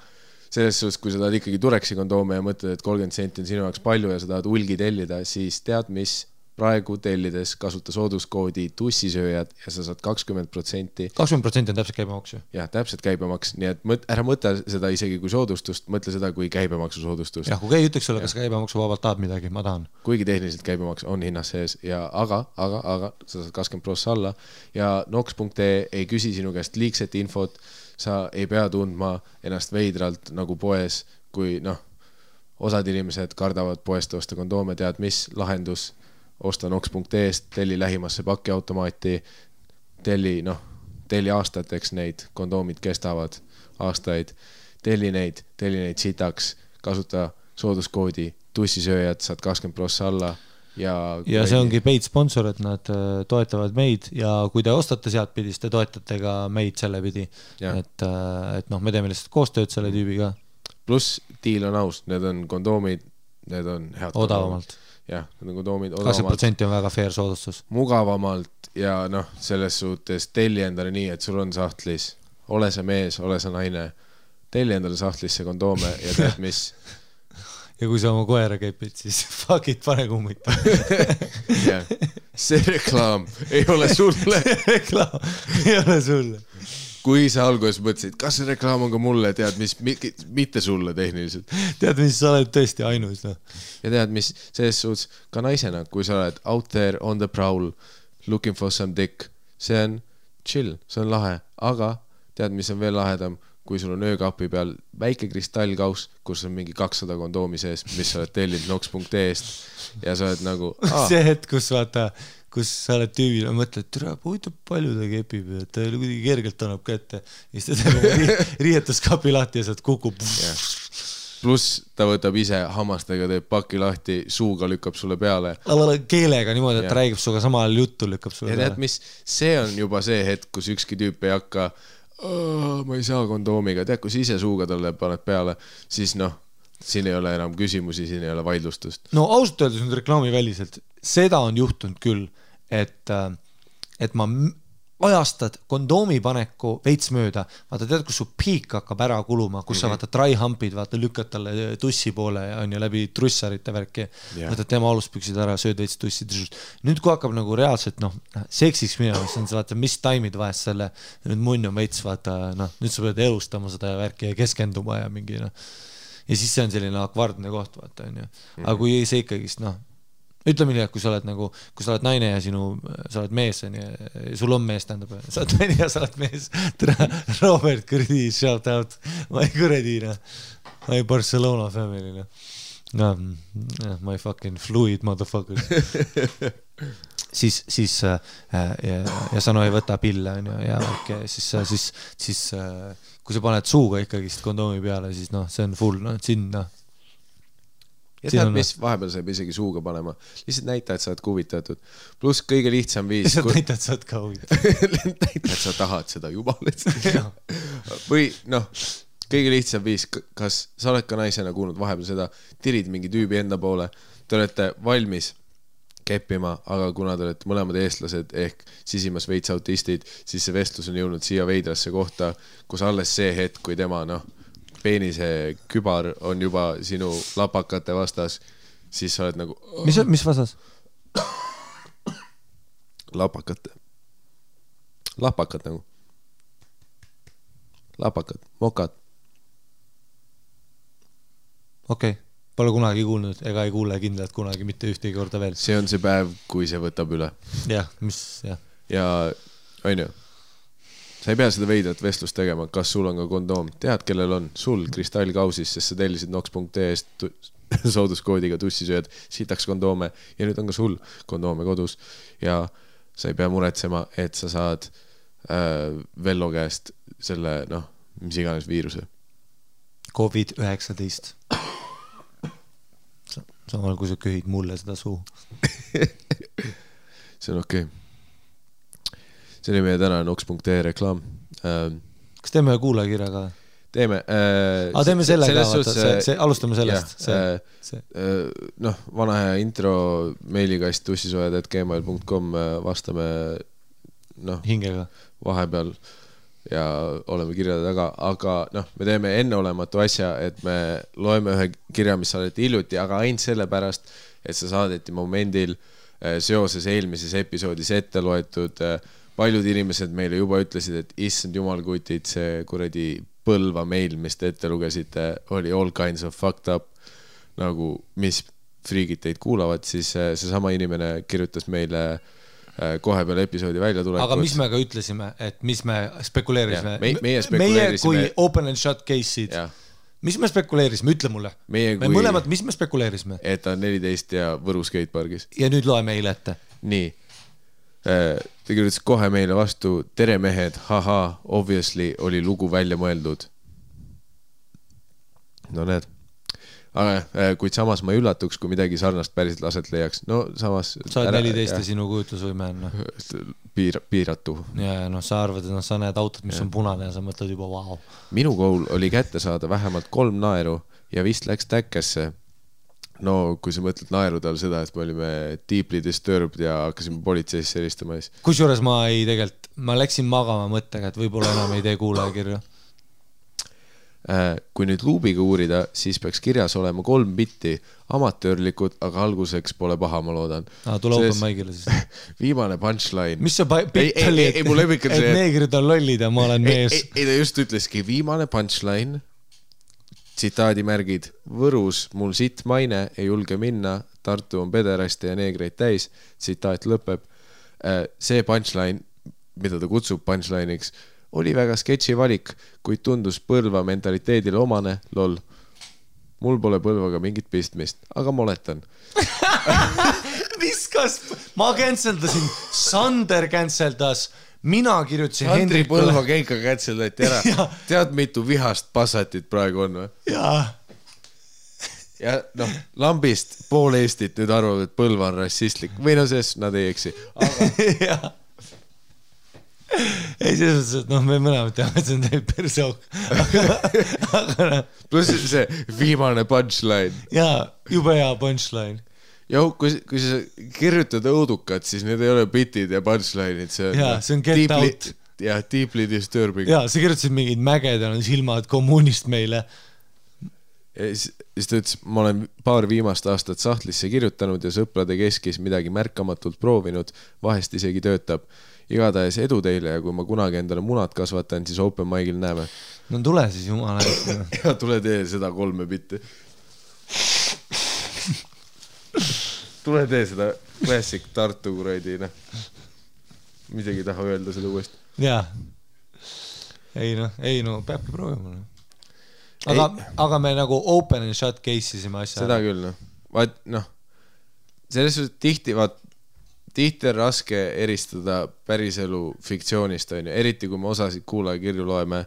selles suhtes, kui sa tahad ikkagi Tureksi kondoome ja mõtled, et 30 senti on sinu jaoks palju ja sa tahad hulgi tellida, siis tead mis, praegu tellides kasuta sooduskoodi tussisööjad ja sa saad 20%. 20% on täpselt käibemaks ju? Jah, täpselt käibemaks, nii et ära mõtle seda isegi kui soodustust, mõtle seda kui käibemaksu soodustust. Jah, kui keegi ütleks sulle, kas käibemaksu vabalt tahab midagi, ma tahan. Kuigi tehniliselt käibemaks on hinnas sees, aga sa saad 20% alla ja nox.ee ei küsi sinu käest liigset infot, sa ei pea tundma ennast veidralt nagu poes, kui osad inimesed kardavad poest osta kondoome, tead mis lahendus, osta nox.ee-st, telli lähimasse pakiautomaati, telli aastateks neid kondoomid kestavad aastaid, telli neid sitaks, kasuta sooduskoodi tussisööjad, saad 20% alla ja see ongi paid sponsor, et nad toetavad meid ja kui te ostate sealt pidi, siis te toetate ka meid selle pidi, et noh, me teeme lihtsalt koostööd selle tüübiga. Pluss diil on aus, need on kondoomid, need on head odavamalt. Jah, need on kondoomid odavamalt. 20% on väga fair soodustus. Mugavamalt ja noh, selles suhtes telli endale nii, et sul on sahtlis, ole sa mees, ole sa naine, telli endale sahtlisse kondoome ja tead mis ja kui sa oma koera käipid, siis fuck it, pane kummit. See reklaam ei ole sulle. Reklaam ei ole sulle. Kui sa alguses mõtlesid, kas see reklaam on ka mulle, tead mis, mitte sulle tehniliselt. Tead mis, sa oled tõesti ainus. No. Ja tead mis, selles suhtes ka naisena, kui sa oled out there on the prowl, looking for some dick, see on chill, see on lahe, aga tead mis on veel lahedam, kui sul on öökapi peal väike kristallkaus, kus on mingi 200 kondoomi sees, mis sa oled tellinud nox.ee-st ja sa oled nagu see hetk, kus vaata, kus sa oled tüübil ja mõtled, tere, huvitav palju ta kepib ja ta kuidagi kergelt annab kätte ja siis ta teeb riietuskapi lahti ja sealt kukub pluss ta võtab ise hammastega, teeb paki lahti, suuga lükkab sulle peale keelega niimoodi, et räägib suga samal juttu lükkab sulle ja tead mis, see on juba see hetk, kus ükski tüüp ei hakka ma ei saa kondoomiga, tead, kui sa ise suuga talle paned peale, siis noh, siin ei ole enam küsimusi, siin ei ole vaidlustust. No ausalt öeldes nüüd reklaamiväliselt, seda on juhtunud küll, et ma ajastad kondoomi paneku veits mööda, vaata tead, kus su piik hakkab ära kuluma, kus sa vaata dry humpid, vaata lükkad talle tussi poole ja on ju läbi trussarite värki, võtad tema aluspüksid ära, sööd veits tussi. Nüüd kui hakkab nagu reaalselt seksiks minema, siis on see vaata, mis taimid vahest selle, nüüd munn on veits vaata, nüüd sa pead elustama seda värki ja keskenduma ja mingi ja siis see on selline akvardne koht vaata on ju, aga kui see ikkagist ütleme nii, et kui sa oled naine ja sa oled mees, sul on mees, tähendab, sa oled naine ja sa oled mees, Robert Kurdi, shout out, my Kuredina, my Barcelona family, my fucking fluid motherfucker. siis ja sa ei võta pille ja siis kui sa paned suuga ikkagist kondoomi peale, siis see on full, sinna ja tead, mis vahepeal saab isegi suuga panema. Lihtsalt näita, et sa oled huvitatud. Pluss kõige lihtsam viis... Lihtsalt näita, et sa oled ka huvitatud. Näita, et sa tahad seda juba. Või kõige lihtsam viis, kas sa oled ka naisena kuulnud vahepeal seda, tirid mingi tüübi enda poole, te olete valmis keppima, aga kuna te olete mõlemad eestlased ehk sisimas veits autistid, siis see vestlus on jõudnud siia veidrasse kohta, kus alles see hetk, kui tema peenise kübar on juba sinu lapakate vastas, siis sa oled nagu... Mis vastas? Lapakad nagu. Lapakad, mokad. Okei, pole kunagi kuulnud, ega ei kuule kindlalt kunagi mitte ühtegi korda veel. See on see päev, kui see võtab üle. Jah. Ja, on ju. Sa ei pea seda veidrat vestlust tegema, kas sul on ka kondoom. Tead, kellel on sul kristallkausis, sest sa tellisid nox.ee-st sooduskoodiga tussisööd, sitaks kondoome ja nüüd on ka sul kondoome kodus ja sa ei pea muretsema, et sa saad Vello käest selle, mis iganes viiruse. COVID-19. Samal kui sa köhid mulle seda suu. See on okei. See oli meie täna nox.ee reklaam. Kas teeme kuulajakirja ka? Teeme. Teeme selle ka, vaata, alustame sellest. Vana hea intro meilikast tussisojad@gmail.com vastame hingega vahepeal ja oleme kirjade taga, aga me teeme enneolematu asja, et me loeme ühe kirja, mis saadeti hiljuti, aga ainult sellepärast, et see saadeti momendil seoses eelmises episoodis ette loetud paljud inimesed meile juba ütlesid, et issand jumal kutid, see kuradi Põlva meil, mis te ette lugesite, oli all kinds of fucked up, nagu mis friigid teid kuulavad, siis see sama inimene kirjutas meile kohe peale episoodi välja tulekut. Aga mis me ka ütlesime, et mis me spekuleerisime? Meie kui open and shut case'id. Mis me spekuleerisime? Ütle mulle. Me mõlemad, mis me spekuleerisime? Et ta on 14 ja Võru skatepargis. Ja nüüd loe meile ette. Nii. Ta kirjutas kohe meile vastu, tere mehed, haha, obviously oli lugu välja mõeldud. no need. Aga kuid samas ma ei üllatuks, kui midagi sarnast päriselt aset leiaks. No samas... Sa oled 14 ja sinu kujutlusvõime on. Piiratu. Ja sa arvad, et sa näed autot, mis on punane ja sa mõtled juba vau. Minu goal oli kätte saada vähemalt 3 naeru ja vist läks täkkesse. No kui sa mõtled naeru tal seda, et me olime deeply disturbed ja hakkasime politseisse helistama. Kusjuures ma läksin magama mõttega, et võib-olla enam ei tee kuulajakirju. Kui nüüd luubiga uurida, siis peaks kirjas olema 3 bitti, amatöörlikud, aga alguseks pole paha, ma loodan. Tule open mic'ile siis. Viimane punchline. Mis see bitt oli, et neegrid on lollid ja ma olen mees? Ei, ta just ütleski, viimane punchline, tsitaadimärgid, Võrus mul sitt maine, ei julge minna, Tartu on pederaste ja neegreid täis, tsitaat lõpeb. See punchline, mida ta kutsub punchline'iks, oli väga sketši valik, kuid tundus Põlva mentaliteedile omane, lol. Mul pole Põlvaga mingit pistmist, aga ma oletan. Viskas, ma canceldasin, Sander canceldas, mina kirjutasin Hendrik Põlva keika canceldati ära. Tead, mitu vihast passatit praegu on või? Jaa. Ja noh, lambist pool Eestit nüüd arvab, et Põlva on rassistlik. Või no ses, nad ei eksi. Aga... Jaa. Ei, selles mõttes, et me mõlemad teame, et see on teil persook. Pluss see viimane punchline. Jaa, jube hea punchline. Jau, kui sa kirjutad õudukat, siis need ei ole bitid ja punchline'id. See on get out. Ja deeply disturbing. Jaa, sa kirjutasid mingid mäged ja silmad kommunist meile. Siis ta ütles, ma olen paar viimast aastat sahtlisse kirjutanud ja sõprade keskis midagi märkamatult proovinud, vahest isegi töötab. Igatahes edu teile ja kui ma kunagi endale munad kasvatan, siis open mic'il näeme. No tule siis jumala. Ja tule tee seda 3 bitti. Tule tee seda classic Tartu kuradi, noh. Midagi taha öelda seda uuesti. Jaa. Ei no, peabki proovima. Aga me nagu open and shut case isime asja. Seda küll, noh. Vaat, noh, selles suhtes tihti on raske eristada päriselu fiktsioonist, on ju. Eriti kui me osasid kuulajakirju loeme,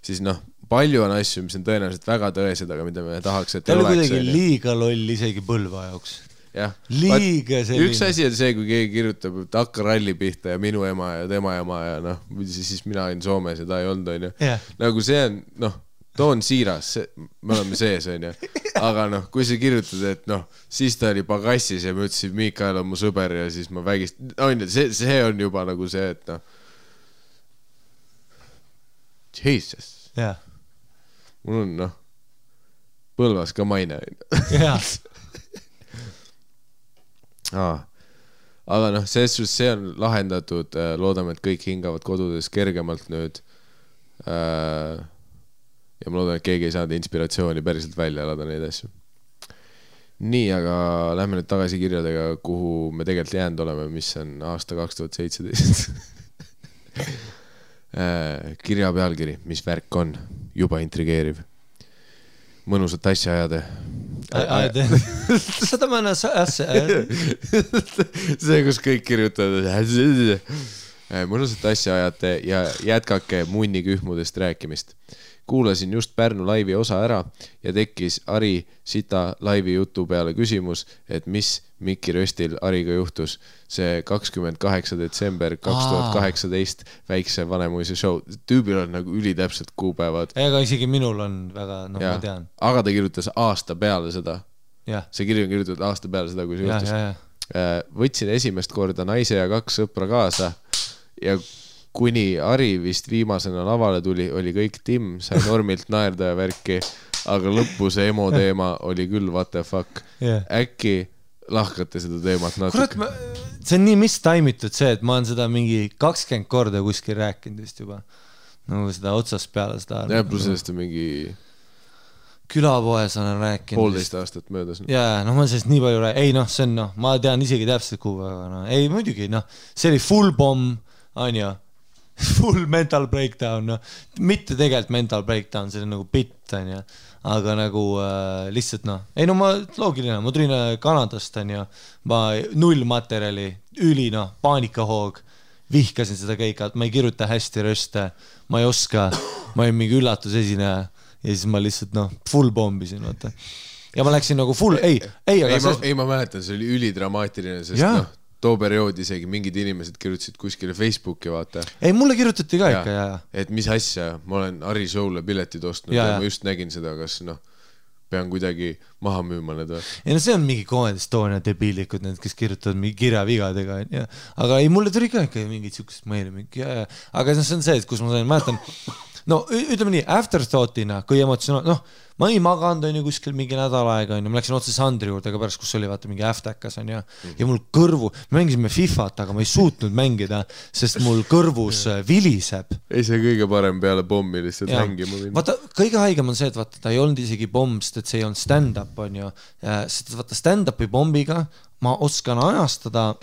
siis noh, palju on asju, mis on tõenäoliselt väga tõesed, aga mida me tahaks, et ta oli kuidagi liiga loll isegi Põlva jaoks. Jah. Liiga selline. Üks asi on see, kui keegi kirjutab, et hakka ralli pihta ja minu ema ja tema ema ja noh, siis mina olin Soomes ja ta ei olnud, on ju. Nagu see on, noh, too on siiras, me oleme sees, on ju. Aga noh, kui sa kirjutad, et noh, siis ta oli pagassis ja ma ütlesin, Mikael on mu sõber ja siis ma vägist... On ju, see on juba nagu see, et noh... Jesus. Jah. Mul on, noh, Põlvas ka maine. Jah. Aga noh, see on lahendatud, loodame, et kõik hingavad kodudes kergemalt nüüd. Ja ma loodan, et keegi ei saanud inspiratsiooni päriselt välja elada neid asju. Nii, aga lähme nüüd tagasi kirjadega, kuhu me tegelikult jäänud oleme, mis on aasta 2017. Kirja pealkiri, mis värk on, juba intrigeeriv. Mõnusat asja ajade. Seda ma enne asja. See, kus kõik kirjutavad. Mõnusat asja ajate ja jätkake munnikühmudest rääkimist. Kuulasin just Pärnu laivi osa ära ja tekkis Ari Sita laivi jutu peale küsimus, et mis Mikki Röstil Ariga juhtus. See 28. detsember 2018 väikse Vanemuise show. Tüübil on nagu ülitäpselt kuupäevad. Ega isegi minul on väga, noh, ma tean. Aga ta kirjutas aasta peale seda. See kiri on kirjutatud aasta peale seda, kui see juhtus. Võtsin esimest korda naise ja 2 sõpra kaasa ja kuni Ari vist viimasena lavale tuli, oli kõik Tim, sai normilt naerda ja värki, aga lõppu see emo teema oli küll what the fuck. Äkki lahkate seda teemat natuke? Kurat, see on nii mistaimitud see, et ma olen seda mingi 20 korda kuskil rääkinud vist juba. Nagu seda otsast peale seda. Ja pluss sellest on mingi... Külapoes olen rääkinud. 1,5 aastat möödas. Jaa, noh, ma sellest nii palju rääkinud. Ei, noh, see on, noh, ma tean isegi täpselt kuupäeva. No. Ei, muidugi, noh, see oli full bomb, on ju. Full mental breakdown, no. Mitte tegelikult mental breakdown, see on nagu bitt, on ju. Aga nagu lihtsalt, noh. Ei, no ma loogiline, ma tulin Kanadast, on ju. Ma 0 materjali, üli, noh, paanikahoog. Vihkasin seda keika, et ma ei kirjuta hästi röste. Ma ei oska, ma olin mingi üllatusesineja. ja siis ma lihtsalt full pombisin, vaata. Ja ma läksin nagu full, ma mäletan, see oli ülidramaatiline, sest too periood isegi mingid inimesed kirjutasid kuskile Facebooki, vaata. Ei, mulle kirjutati ka ikka, et mis asja, ma olen Harri show'le piletid ostnud ja ma just nägin seda, kas pean kuidagi maha müüma need või. Ei see on mingi Comedy Estonia debiilikud, need, kes kirjutavad mingi kirjavigadega, aga ei, mulle tuli ka ikka mingid siukest meile mingi, aga see on see, et kus ma sain, mäletan, ütleme nii, afterthoughtina, kui emotsionaal, ma ei maganud, on ju, kuskil mingi nädal aega, on ju, ma läksin otse Sandri juurde ka pärast, kus oli, vaata, mingi äftäkas, on ju, ja mul kõrvu, me mängisime FIFAt, aga ma ei suutnud mängida, sest mul kõrvus viliseb. Ei see kõige parem peale pommi lihtsalt mängima minna. Vaata, kõige haigem on see, et vaata, ta ei olnud isegi pomm, sest et see ei olnud stand-up, on ju, sest vaata, stand-upi pommiga ma oskan ajastada,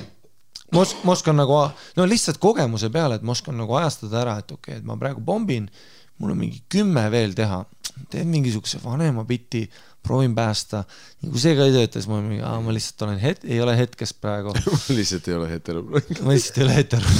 ma oskan nagu, lihtsalt kogemuse peale, et ma oskan nagu ajastada ära, et okei, et ma praegu pombin, mul on mingi 10 veel teha, teen mingisuguse vanema biti, proovin päästa, nii kui see ka ei töötas, ma lihtsalt olen ei ole hetkest praegu. Ma lihtsalt ei ole hetero. Ma lihtsalt ei ole hetero.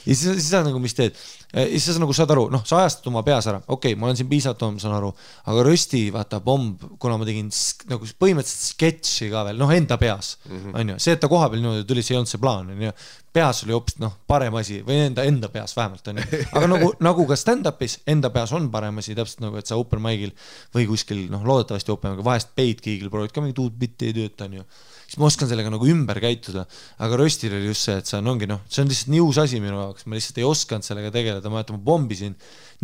Ja siis sa nagu, mis teed? Ja siis sa nagu saad aru, sa ajastad oma peas ära, okei, ma olen siin piisavalt, ma saan aru, aga rösti, vaata, bomb, kuna ma tegin nagu põhimõtteliselt sketši ka veel, enda peas, on ju, see, et ta koha peal niimoodi tuli, see ei olnud see plaan, on ju, peas oli hoopis, parem asi, või enda peas vähemalt, on ju, aga nagu ka stand-upis, enda peas on parem asi, täpselt nagu, et sa open mic'il või kuskil, loodetavasti open mic'il, vahest peid kiigil, proovid ka mingi tuud bitti ei tööta, on ju, siis ma oskan sellega nagu ümber käituda, aga röstil oli just see, et see ongi, see on lihtsalt nii uus asi minu jaoks, ma lihtsalt ei osanud sellega tegeleda, ma pombisin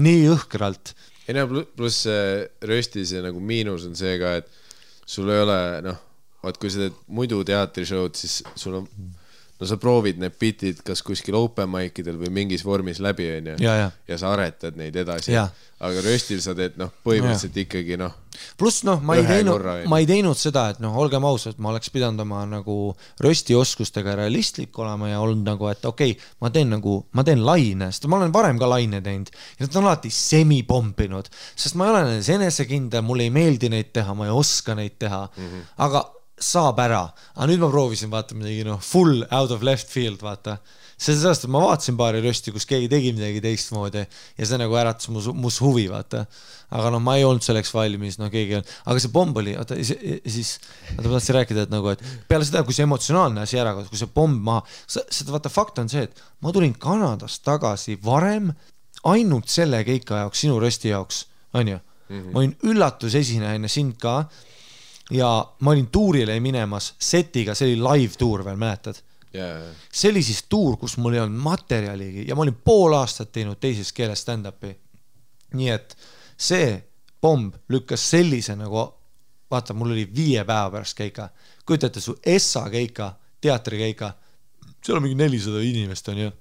nii õhkralt. Ei pluss röstis ja nagu miinus on see ka, et sul ei ole, kui sa teed muidu teatrishowd, siis sul on, sa proovid need bitid kas kuskil open mic'idel või mingis vormis läbi, on ju, ja sa aretad neid edasi, aga röstil sa teed, põhimõtteliselt ikkagi, pluss, ma ei teinud seda, et olgem ausad, ma oleks pidanud oma nagu rösti oskustega realistlik olema ja olnud nagu, et okei, ma teen laine, sest ma olen varem ka laine teinud ja nad on alati semi-pompinud, sest ma ei ole nendes enesekindel, mulle ei meeldi neid teha, ma ei oska neid teha, aga saab ära, aga nüüd ma proovisin vaata midagi full out of left field, vaata sellest, et ma vaatasin paari rösti, kus keegi tegi midagi teistmoodi ja see nagu äratas mus huvi, vaata, aga ma ei olnud selleks valmis, keegi on, aga see pomb oli, siis ma tahtsin rääkida, et nagu, et peale seda, kui see emotsionaalne asi ära, kui see pomb maha, seda vaata fakt on see, et ma tulin Kanadast tagasi varem ainult selle keika jaoks, sinu rösti jaoks, on ju, ma olin üllatusesineja enne sind ka ja ma olin tuurile minemas setiga, see oli live tuur veel, mäletad? See oli siis tuur, kus mul ei olnud materjaligi ja ma olin pool aastat teinud teises keeles stand-upi. Nii et see pomb lükkas sellise nagu, vaata, mul oli 5 päeva pärast keika. Kujutate su Essa keika, teatri keika, seal on mingi 400 inimest on ju.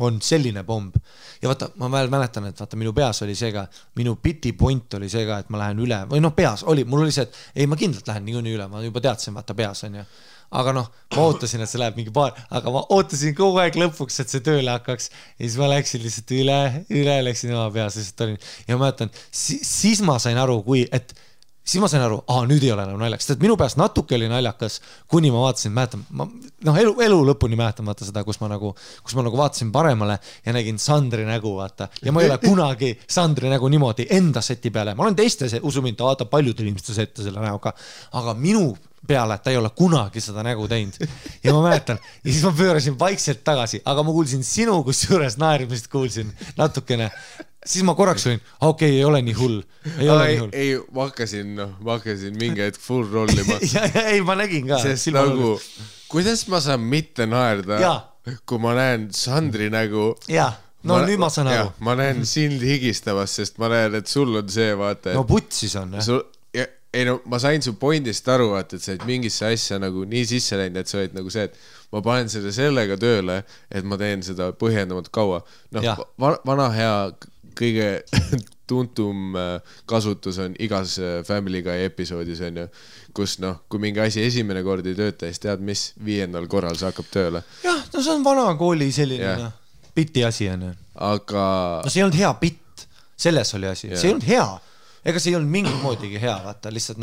On selline pomb. Ja vaata, ma veel mäletan, et vaata, minu peas oli see ka, minu biti point oli see ka, et ma lähen üle, või peas oli, mul oli see, et ei, ma kindlalt lähen niikuinii üle, ma juba teadsin, vaata, peas on ju. Aga ma ootasin, et see läheb mingi aga ma ootasin kogu aeg lõpuks, et see tööle hakkaks ja siis ma läksin lihtsalt üle läksin oma peas, lihtsalt olin ja ma mäletan, siis ma sain aru, siis ma sain aru, nüüd ei ole enam naljakas, sest minu peas natuke oli naljakas, kuni ma vaatasin, mäletan, elu lõpuni mäletan vaata seda, kus ma nagu vaatasin paremale ja nägin Sandri nägu, vaata, ja ma ei ole kunagi Sandri nägu niimoodi enda seti peale, ma olen teiste, usu mind, ta vaatab paljudel inimestel sette selle näoga, aga minu peale, et ta ei ole kunagi seda nägu teinud ja ma mäletan, ja siis ma pöörasin vaikselt tagasi, aga ma kuulsin sinu, kus juures naerimist kuulsin natukene. Siis ma korraks olin, okei, ei ole nii hull. Ei, ma hakkasin mingi hetk full rollima. Ei, ma nägin ka. Sest nagu, kuidas ma saan mitte naerda, kui ma näen Sandri nägu. Nüüd ma saan aru. Ma näen sind higistavas, sest ma näen, et sul on see, vaata. Putsis on. Ma sain su pointist aru, vaata, et sa oled mingisse asja nagu nii sisse läinud, et sa oled nagu see, et ma panen sellega tööle, et ma teen seda põhjendamat kaua. Vana hea kõige tuntum kasutus on igas Family Guy episoodis on ju, kus kui mingi asi esimene kord ei tööta, siis tead mis, 5. korral see hakkab tööle. See on vana kooli selline bitti asi on. Aga... see ei olnud hea bitt, selles oli asi, see ei olnud hea. Ega see ei olnud mingit moodigi hea, vaata, lihtsalt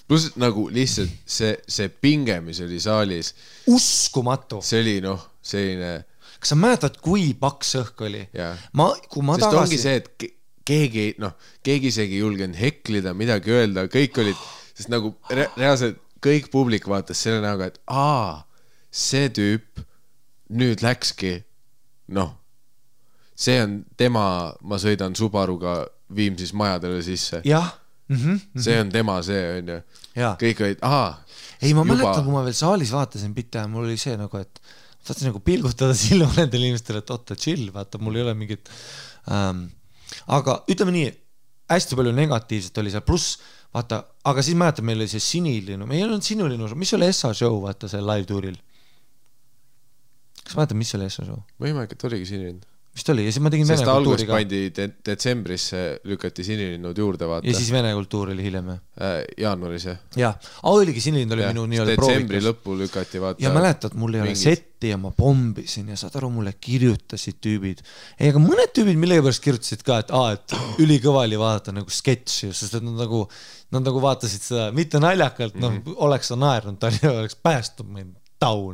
Plus nagu lihtsalt see pinge, mis oli saalis. Uskumatu. See oli selline... Kas sa mäletad, kui paks õhk oli? Sest ongi see, et keegi isegi ei julgenud heklida, midagi öelda, kõik olid, sest nagu reaalselt kõik publik vaatas selle näoga, et see tüüp nüüd läkski, see on tema, ma sõidan Subaruga Viimsis majadele sisse. Jah. See on tema, see on ju. Kõik olid, ei, ma mäletan, kui ma veel saalis vaatasin pitta ja mul oli see nagu, et tahtsin nagu pilgutada silma nendele inimestele, et oota, chill, vaata, mul ei ole mingit aga ütleme nii, hästi palju negatiivset oli seal, pluss vaata, aga siis mäletan, meil oli see Sinilinu, meil ei olnud Sinilinu, mis oli Essa show, vaata, see live tuuril? Kas mäletan, mis oli Essa show? Võimalik, et oligi Sinilinu. Vist oli, ja siis ma tegin Vene kultuuri ka. Sest algus pandi detsembrisse, lükati Sinilinnud juurde, vaata. Ja siis Vene kultuur oli hiljem. Jaanuaris, jah. Jaa, oligi Sinilind oli minu nii-öelda proovikas. Detsembri lõppu lükati, vaata. Ja mäletad, mul ei ole setti ja ma pombisin ja saad aru, mulle kirjutasid tüübid. Ei, aga mõned tüübid mille pärast kirjutasid ka, et ülikõva oli vaadata nagu sketši, sest et nad nagu vaatasid seda, mitte naljakalt, oleks sa naernud, ta oleks päästnud meid taun,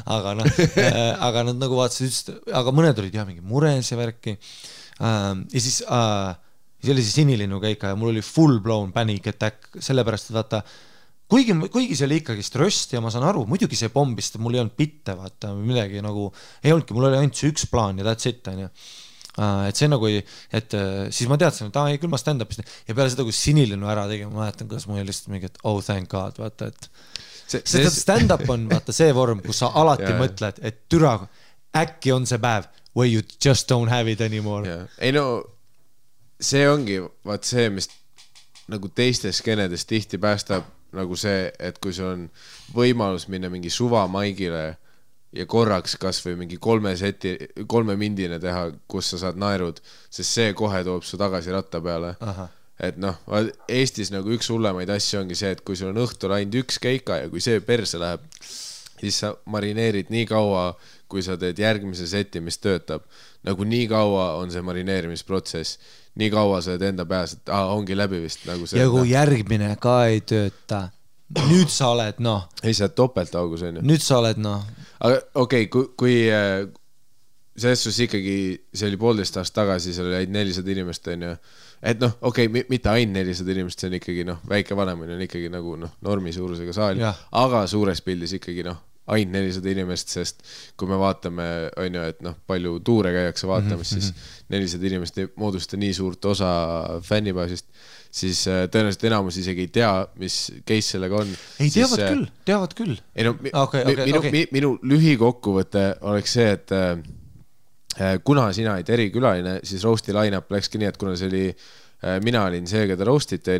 aga nad nagu vaatasid, aga mõned olid jah mingi mures ja värki ja siis oli see Sinilinnu käika ja mul oli full blown panic attack, sellepärast, et vaata kuigi see oli ikkagi ströst ja ma saan aru, muidugi see pombist, mul ei olnud bitte, vaata, midagi nagu ei olnudki, mul oli ainult see üks plaan ja that's it, on ju. Et see nagu, et siis ma teadsin, et küll ma stand-upist ja peale seda, kui Sinilinnu ära tegin, ma mäletan, kuidas mul oli lihtsalt mingi, et thank God, vaata, et stand-up on vaata see vorm, kus sa alati mõtled, et türa, äkki on see päev where you just don't have it anymore. Ei no, see ongi vaat see, mis nagu teistes skenedes tihti päästab nagu see, et kui sul on võimalus minna mingi suvamaigile ja korraks kas või mingi 3 mindine teha, kus sa saad naerud, sest see kohe toob su tagasi ratta peale. Et Eestis nagu üks hullemaid asju ongi see, et kui sul on õhtul ainult üks keika ja kui see perse läheb, siis sa marineerid nii kaua, kui sa teed järgmise seti, mis töötab. Nagu nii kaua on see marineerimisprotsess, nii kaua sa enda peas, et ongi läbi vist. Nagu see, ja kui järgmine ka ei tööta, nüüd sa oled, Ei, sa oled topeltaugus, on ju. Nüüd sa oled, Aga okei, kui selles suhtes ikkagi, see oli 1,5 aastat tagasi, seal oli 400 inimest, on ju. Et okei, mitte ainult 400 inimest, see on ikkagi väike vanemine on ikkagi nagu normi suurusega saal, aga suures pildis ikkagi ainult 400 inimest, sest kui me vaatame, on ju, et palju tuure käiakse vaatamas, siis 400 inimest ei moodusta nii suurt osa fännibaasist, siis tõenäoliselt enamus isegi ei tea, mis case sellega on. Ei, teavad küll. Minu lühikokkuvõte oleks see, et kuna sina olid erikülaline, siis roasti line-up läkski nii, et kuna see oli, mina olin see, keda roastite,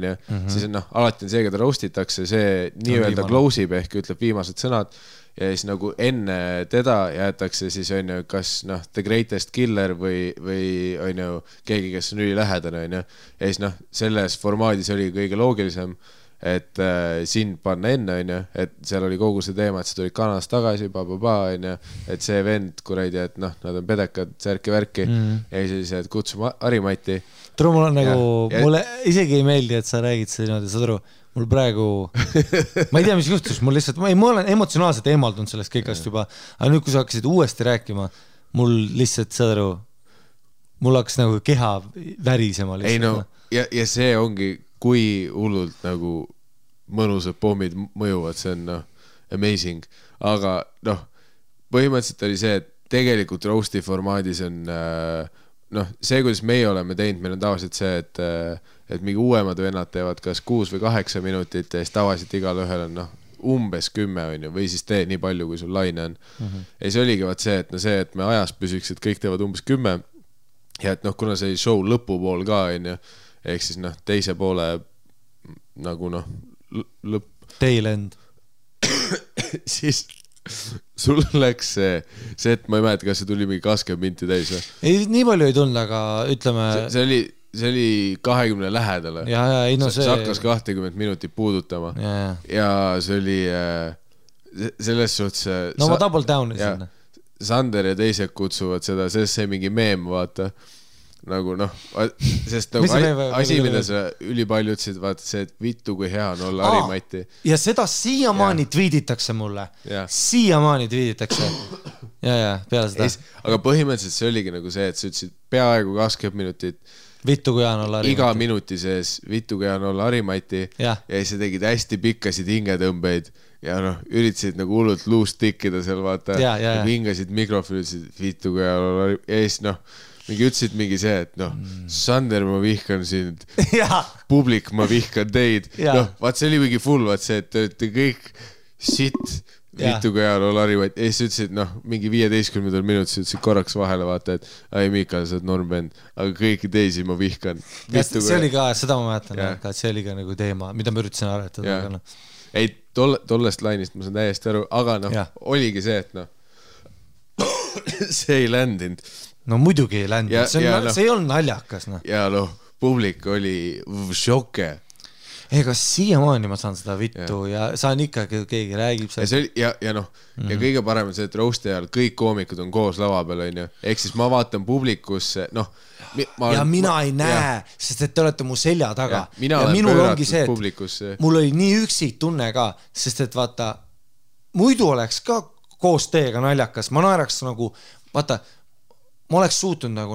siis alati on see, keda roastitakse, see nii-öelda close ib ehk ütleb viimased sõnad ja siis nagu enne teda jäetakse siis on ju, kas The Greatest Killer või on ju keegi, kes on ülilähedane, on ju. Ja siis selles formaadis oli kõige loogilisem, et sind panna enne, on ju, et seal oli kogu see teema, et sa tulid Kanadast tagasi, on ju, et see vend, kuradi, et nad on pedekad, särki-värki, ja siis, et kutsume Harimati. Turu, mul on nagu, mulle isegi ei meeldi, et sa räägid seda niimoodi, sa turu, mul praegu, ma ei tea, mis juhtus, mul lihtsalt, ma olen emotsionaalselt eemaldunud sellest kõigast juba, aga nüüd, kui sa hakkasid uuesti rääkima, mul lihtsalt, sa turu, mul hakkas nagu keha värisema lihtsalt. Ei no, ja see ongi kui hullult nagu mõnusad pommid mõjuvad, see on amazing, aga põhimõtteliselt oli see, et tegelikult roasti formaadis on see, kuidas meie oleme teinud, meil on tavaliselt see, et mingi uuemad vennad teevad kas 6 või 8 minutit ja siis tavaliselt igal ühel on umbes 10 on ju, või siis tee nii palju, kui sul laine on. Ja see oligi vaat see, et me ajas püsiks, et kõik teevad umbes 10 ja et kuna see show lõpupool ka on ju, ehk siis teise poole nagu lõpp. Tail end. Siis sul läks see, et ma ei mäleta, kas see tuli mingi 20 minti täis või? Ei, nii palju ei tulnud, aga ütleme... See oli 20 lähedale. See hakkas 20 minutit puudutama. Ja see oli selles suhtes... No ma double down sinna. Sander ja teised kutsuvad seda, sest see mingi meem, vaata... nagu sest nagu asi, mida sa ülipalju ütlesid, vaata see, et vittu kui hea on olla Harimati. Ja seda siiamaani tweeditakse mulle. Siiamaani tweeditakse. Ja, peale seda. Aga põhimõtteliselt see oligi nagu see, et sa ütlesid peaaegu 20 minutit Vittu kui Jaan olla Harimati. Iga minuti sees Vittu kui Jaan olla Harimati ja siis tegid hästi pikkasid hingetõmbeid ja üritasid nagu hullult luust tikkida seal vaata ja hingasid mikrofoni, ütlesid Vittu kui Jaan olla Harimati ja siis mingi ütlesid mingi see, et Sander, ma vihkan sind publik, ma vihkan teid vaat see oli mingi full, vaat see, et te olete kõik sitt Vittu kui Jaan olla Harimati ja siis ütlesid mingi 15 minutis ütlesid korraks vahele vaata, et ai Miikal, sa oled normbänd, aga kõiki teisi ma vihkan. See oli ka, seda ma mäletan, et see oli ka nagu teema, mida ma üritasin aretada. Ei, tollest lainist ma saan täiesti aru, aga oligi see, et see ei ländinud. No muidugi ei ländinud, see ei olnud naljakas. Ja publik oli šoke. Ega siiamaani ma saan seda vittu ja saan ikka, keegi räägib seda. Ja kõige parem on see, et roasti ajal kõik koomikud on koos lava peal, on ju. Ehk siis ma vaatan publikusse, ja mina ei näe, sest et te olete mu selja taga. Ja minul ongi see, et mul oli nii üksik tunne ka, sest et vaata, muidu oleks ka koos teiega naljakas. Ma naeraks nagu, vaata, ma oleks suutnud nagu,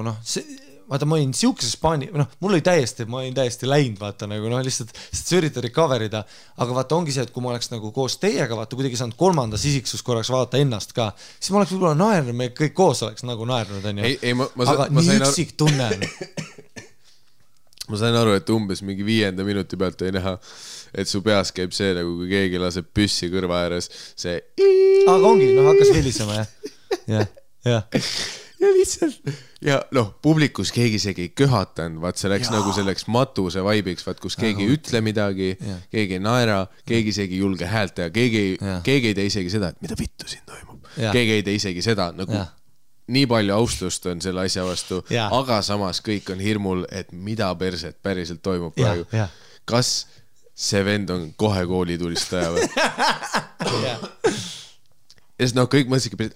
vaata, ma olin siukeses paani, mul oli ma olin täiesti läinud, vaata, nagu lihtsalt sa üritad recoverida, aga vaata, ongi see, et kui ma oleks nagu koos teiega, vaata, kuidagi saanud kolmandas isiksus korraks vaata ennast ka, siis ma oleks võib-olla naernud, me kõik koos oleks nagu naernud, on ju. Aga nii üksik tunne. Ma sain aru, et umbes mingi 5. minuti pealt ei näha, et su peas käib see, nagu kui keegi laseb püssi kõrva ääres, see aga ongi, hakkas helisema, ja lihtsalt ja publikus keegi isegi ei köhatanud, vaat see läks nagu selleks matuse vaibiks, vaat kus keegi ei ütle midagi, keegi ei naera, keegi isegi ei julge häält teha, keegi ei tee isegi seda, et mida vittu siin toimub, keegi ei tee isegi seda, nagu nii palju austust on selle asja vastu, aga samas kõik on hirmul, et mida perset päriselt toimub praegu. Kas see vend on kohe koolitulistaja või? Ja siis kõik mõtlesidki,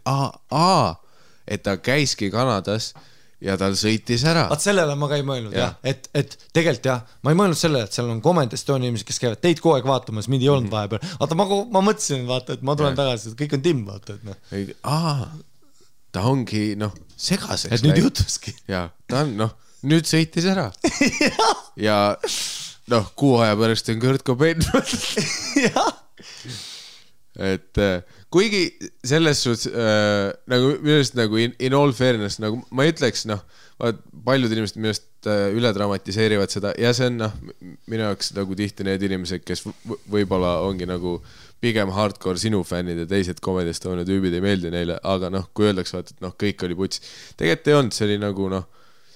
et ta käiski Kanadas ja tal sõitis ära. Vaat sellele ma ka ei mõelnud, et tegelikult ma ei mõelnud sellele, et seal on Comment Estonia inimesed, kes käivad teid kogu aeg vaatamas, mind ei olnud vahepeal. Vaata, ma mõtlesin, vaata, et ma tulen tagasi, et kõik on timm, vaata, et ta ongi, segaseks. Et nüüd jutuski. Ja, ta on, nüüd sõitis ära. Ja, kuu aja pärast on Kurt Cobain. Et kuigi selles suhtes nagu minust nagu in all fairness nagu ma ütleks paljud inimesed minust üle dramatiseerivad seda ja see on minu jaoks nagu tihti need inimesed, kes võib-olla ongi nagu pigem hardcore sinu fännid ja teised Comedy Estonia tüübid ei meeldi neile, aga kui öeldaks vaat, et kõik oli puts. Tegelikult ei olnud, see oli nagu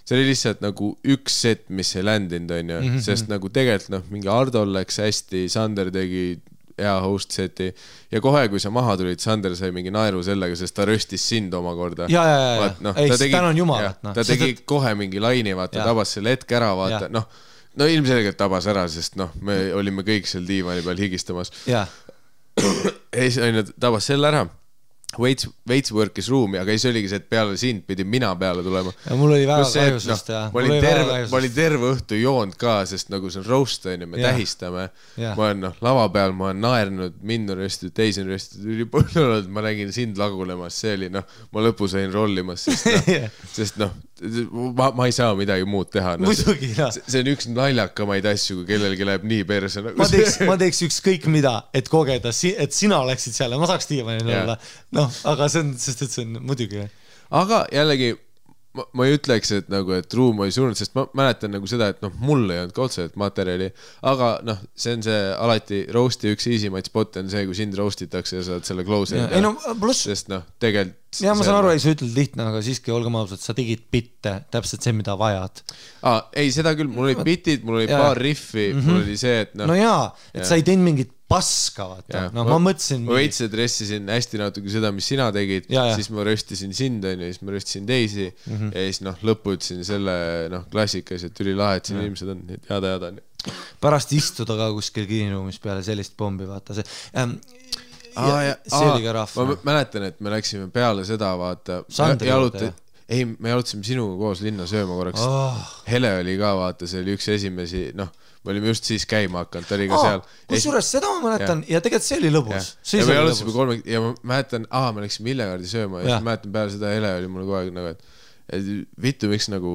see oli lihtsalt nagu üks set, mis ei ländinud, on ju, sest nagu tegelikult mingi Ardol läks hästi, Sander tegi hea host seti ja kohe, kui sa maha tulid, Sander sai mingi naeru sellega, sest ta röstis sind omakorda. Tänan jumalat. Ta tegi kohe mingi laini, vaata, tabas selle hetk ära, vaata, ilmselgelt tabas ära, sest me olime kõik seal diivani peal higistamas. Ja siis tabas selle ära. Veits work'is ruumi, aga siis oligi see, et peale sind pidi mina peale tulema. Ja mul oli väga kahjusest. Ma olin terve õhtu joond ka, sest nagu see on roast, me tähistame. Ma olen lava peal, ma olen naernud, mind on röstitud, teisi on röstitud, ma nägin sind lagulemas, see oli, ma lõpu sain rollimas, sest ma ei saa midagi muud teha. See on üks naljakamaid asju, kui kellelgi läheb nii perse. Ma teeks ükskõik mida, et kogeda, et sina oleksid seal ja ma saaks diivanil olla. Aga see on, sest et see on muidugi. Aga jällegi, ma ei ütleks, et ruum oli surnud, sest ma mäletan nagu seda, et mul ei olnud ka otseselt materjali, aga see on see alati roasti üks easymaid spot on see, kui sind roastitakse ja saad selle close sest tegelikult ja ma saan aru, ei sa ütled lihtne, aga siiski olgem ausad, sa tegid bitte, täpselt see, mida vajad. Ei, seda küll, mul olid bitid, mul oli paar riffi, mul oli see, et et sa ei teinud mingit paska, vaata. Ma mõtlesin ma veits dressisin hästi natuke seda, mis sina tegid, siis ma röstisin sind, siis ma röstisin teisi ja siis lõppu ütlesin selle klassikas, et üli lahe, et siin inimesed on jada pärast istuda ka kuskil kiiniruumis peale sellist pombi, vaata see oli ka rahva. Ma mäletan, et me läksime peale seda, vaata ei, me jalutasime sinuga koos linna sööma korraks. Hele oli ka, vaata, see oli üks esimesi, me olime just siis käima hakanud, ta oli ka seal. Kusjuures seda ma mäletan ja tegelikult see oli lõbus. Ja me jalutasime ja ma mäletan, me läksime Illegardi sööma ja ma mäletan peale seda Hele oli mulle kogu aeg et vittu, miks nagu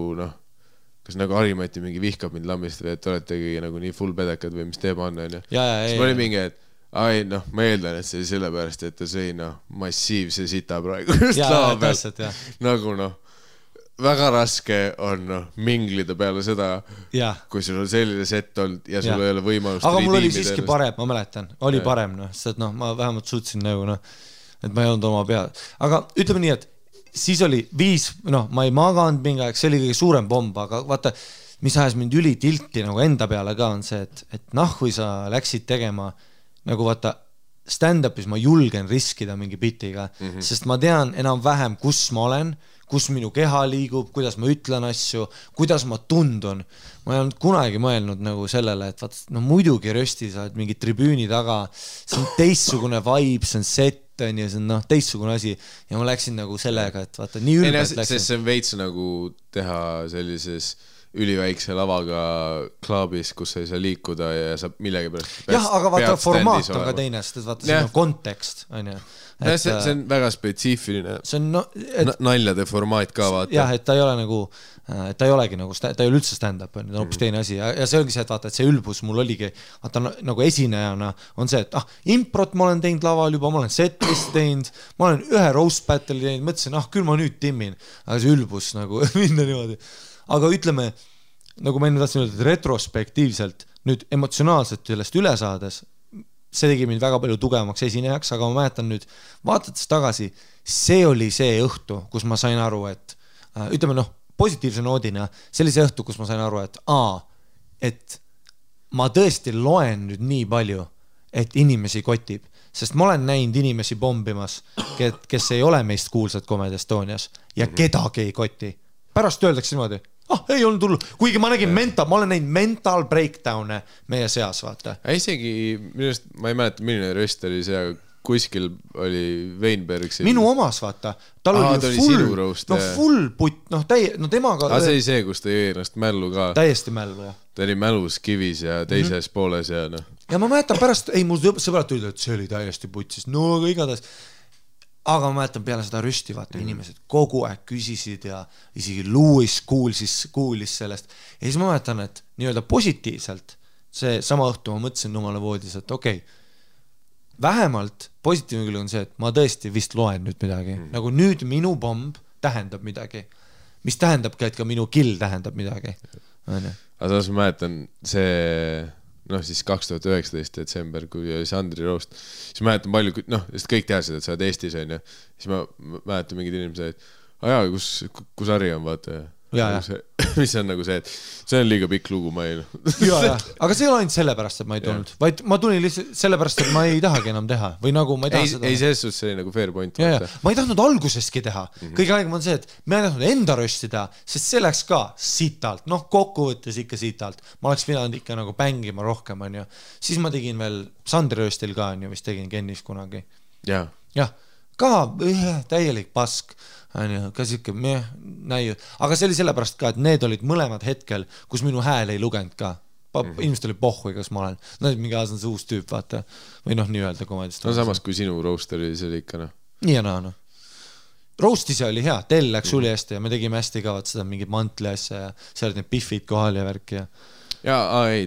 kas nagu Harimati mingi vihkab mind lambist või et oletegi nagu nii full pedekad või mis teeb on, onju. Siis ma olin mingi, et ai, noh, ma eeldan, et see sellepärast, et ta sõi, noh, massiivse sita praegu just lava pealt. Nagu, noh, väga raske on, noh, minglida peale seda, kui sul on selline set olnud ja sul ei ole võimalust. Aga mul oli siiski parem, ma mäletan. Oli parem, noh, sest, noh, ma vähemalt suutsin nagu, noh, et ma ei olnud oma peal. Aga ütleme nii, et siis oli 5, noh, ma ei maganud mingi aeg, see oli kõige suurem bomb, aga vaata, mis ajas mind ülitilti nagu enda peale ka on see, et noh, kui sa läksid tegema nagu vaata stand-upis ma julgen riskida mingi bitiga, sest ma tean enam-vähem, kus ma olen, kus minu keha liigub, kuidas ma ütlen asju, kuidas ma tundun. Ma ei olnud kunagi mõelnud nagu sellele, et vaata, no muidugi rösti sa oled mingi tribüüni taga, see on teistsugune vibe, see on set, ja see on noh, teistsugune asi ja ma läksin nagu sellega, et vaata, nii ülbelt läksin. See on veits nagu teha sellises üliväikse lavaga klaabis, kus sa ei saa liikuda ja saab millegi pärast aga vaata, formaat on ka teine, sest vaata, see on kontekst, on ju. See on väga spetsiifiline naljade formaat ka, vaata. Jah, et ta ei ole nagu, ta ei olegi nagu, ta ei ole üldse stand-up, ta on hoopis teine asi ja see ongi see, et vaata, et see ülbus mul oligi, vaata nagu esinejana on see, et improt ma olen teinud laval juba, ma olen setlist teinud, ma olen ühe roast battle'i teinud, mõtlesin, küll ma nüüd timmin, aga see ülbus nagu minna niimoodi. Aga ütleme, nagu ma enne tahtsin öelda, et retrospektiivselt nüüd emotsionaalselt sellest üle saades, see tegi mind väga palju tugevamaks esinejaks, aga ma mäletan nüüd, vaadates tagasi, see oli see õhtu, kus ma sain aru, et ütleme noh, positiivse noodina, see oli see õhtu, kus ma sain aru, et ma tõesti loen nüüd nii palju, et inimesi kotib, sest ma olen näinud inimesi bombimas, kes ei ole meist kuulsad Comedy Estonias ja kedagi ei koti. Pärast öeldakse niimoodi, ei olnud hullu, kuigi ma nägin ma olen näinud mental breakdown'e meie seas, vaata. Isegi, minust, ma ei mäleta, milline röst oli see, kuskil oli Weinberg siin. Minu omas, vaata. Tal oli full putt, temaga... see oli see, kus ta jõi ennast mällu ka. Täiesti mällu, jah. Ta oli mälus kivis ja teises pooles ja noh. Ja ma mäletan pärast, mul sõbrad tulid, et see oli täiesti putsis, no aga igatahes. Aga ma mäletan peale seda rüsti, vaata, inimesed kogu aeg küsisid ja isegi Louis kuulis sellest. Ja siis ma mäletan, et nii-öelda positiivselt see sama õhtu ma mõtlesin numale voodis, et okei, vähemalt positiivne küll on see, et ma tõesti vist loen nüüd midagi. Nagu nüüd minu bomb tähendab midagi, mis tähendabki, et ka minu kill tähendab midagi. Aga samas ma mäletan see... noh, siis 2019 detsember, kui oli Sandri roast, siis ma mäletan palju, sest kõik teadsid, et sa oled Eestis, on ju, siis ma mäletan mingid inimesed, et kus Harri on, vaata, mis on nagu see, et see on liiga pikk lugu, ma ei aga see ei ole ainult sellepärast, et ma ei tulnud, vaid ma tulin lihtsalt sellepärast, et ma ei tahagi enam teha või nagu ma ei taha seda. Ei, selles suhtes see oli nagu fair point. Ma ei tahtnud alguseski teha. Kõige aegem on see, et ma ei tahtnud enda rösti teha, sest see läks ka sitalt, kokkuvõttes ikka sitalt. Ma oleks pidanud ikka nagu pängima rohkem, on ju. Siis ma tegin veel Sandri röstil ka, on ju, vist tegin Kennis kunagi. Jah, ka täielik pask. Ka siuke näiu. Aga see oli sellepärast ka, et need olid mõlemad hetkel, kus minu hääl ei lugenud ka. Inimesed oli pohhui, kas ma olen. No mingi aas on see uus tüüp, vaata. Või nii öelda komedist. No samas kui sinu roast oli, see oli ikka Nii ja naa. Roast ise oli hea, tell läks uli hästi ja me tegime hästi ka seda mingit mantli asja ja seal olid need piffid kohal ja värki ja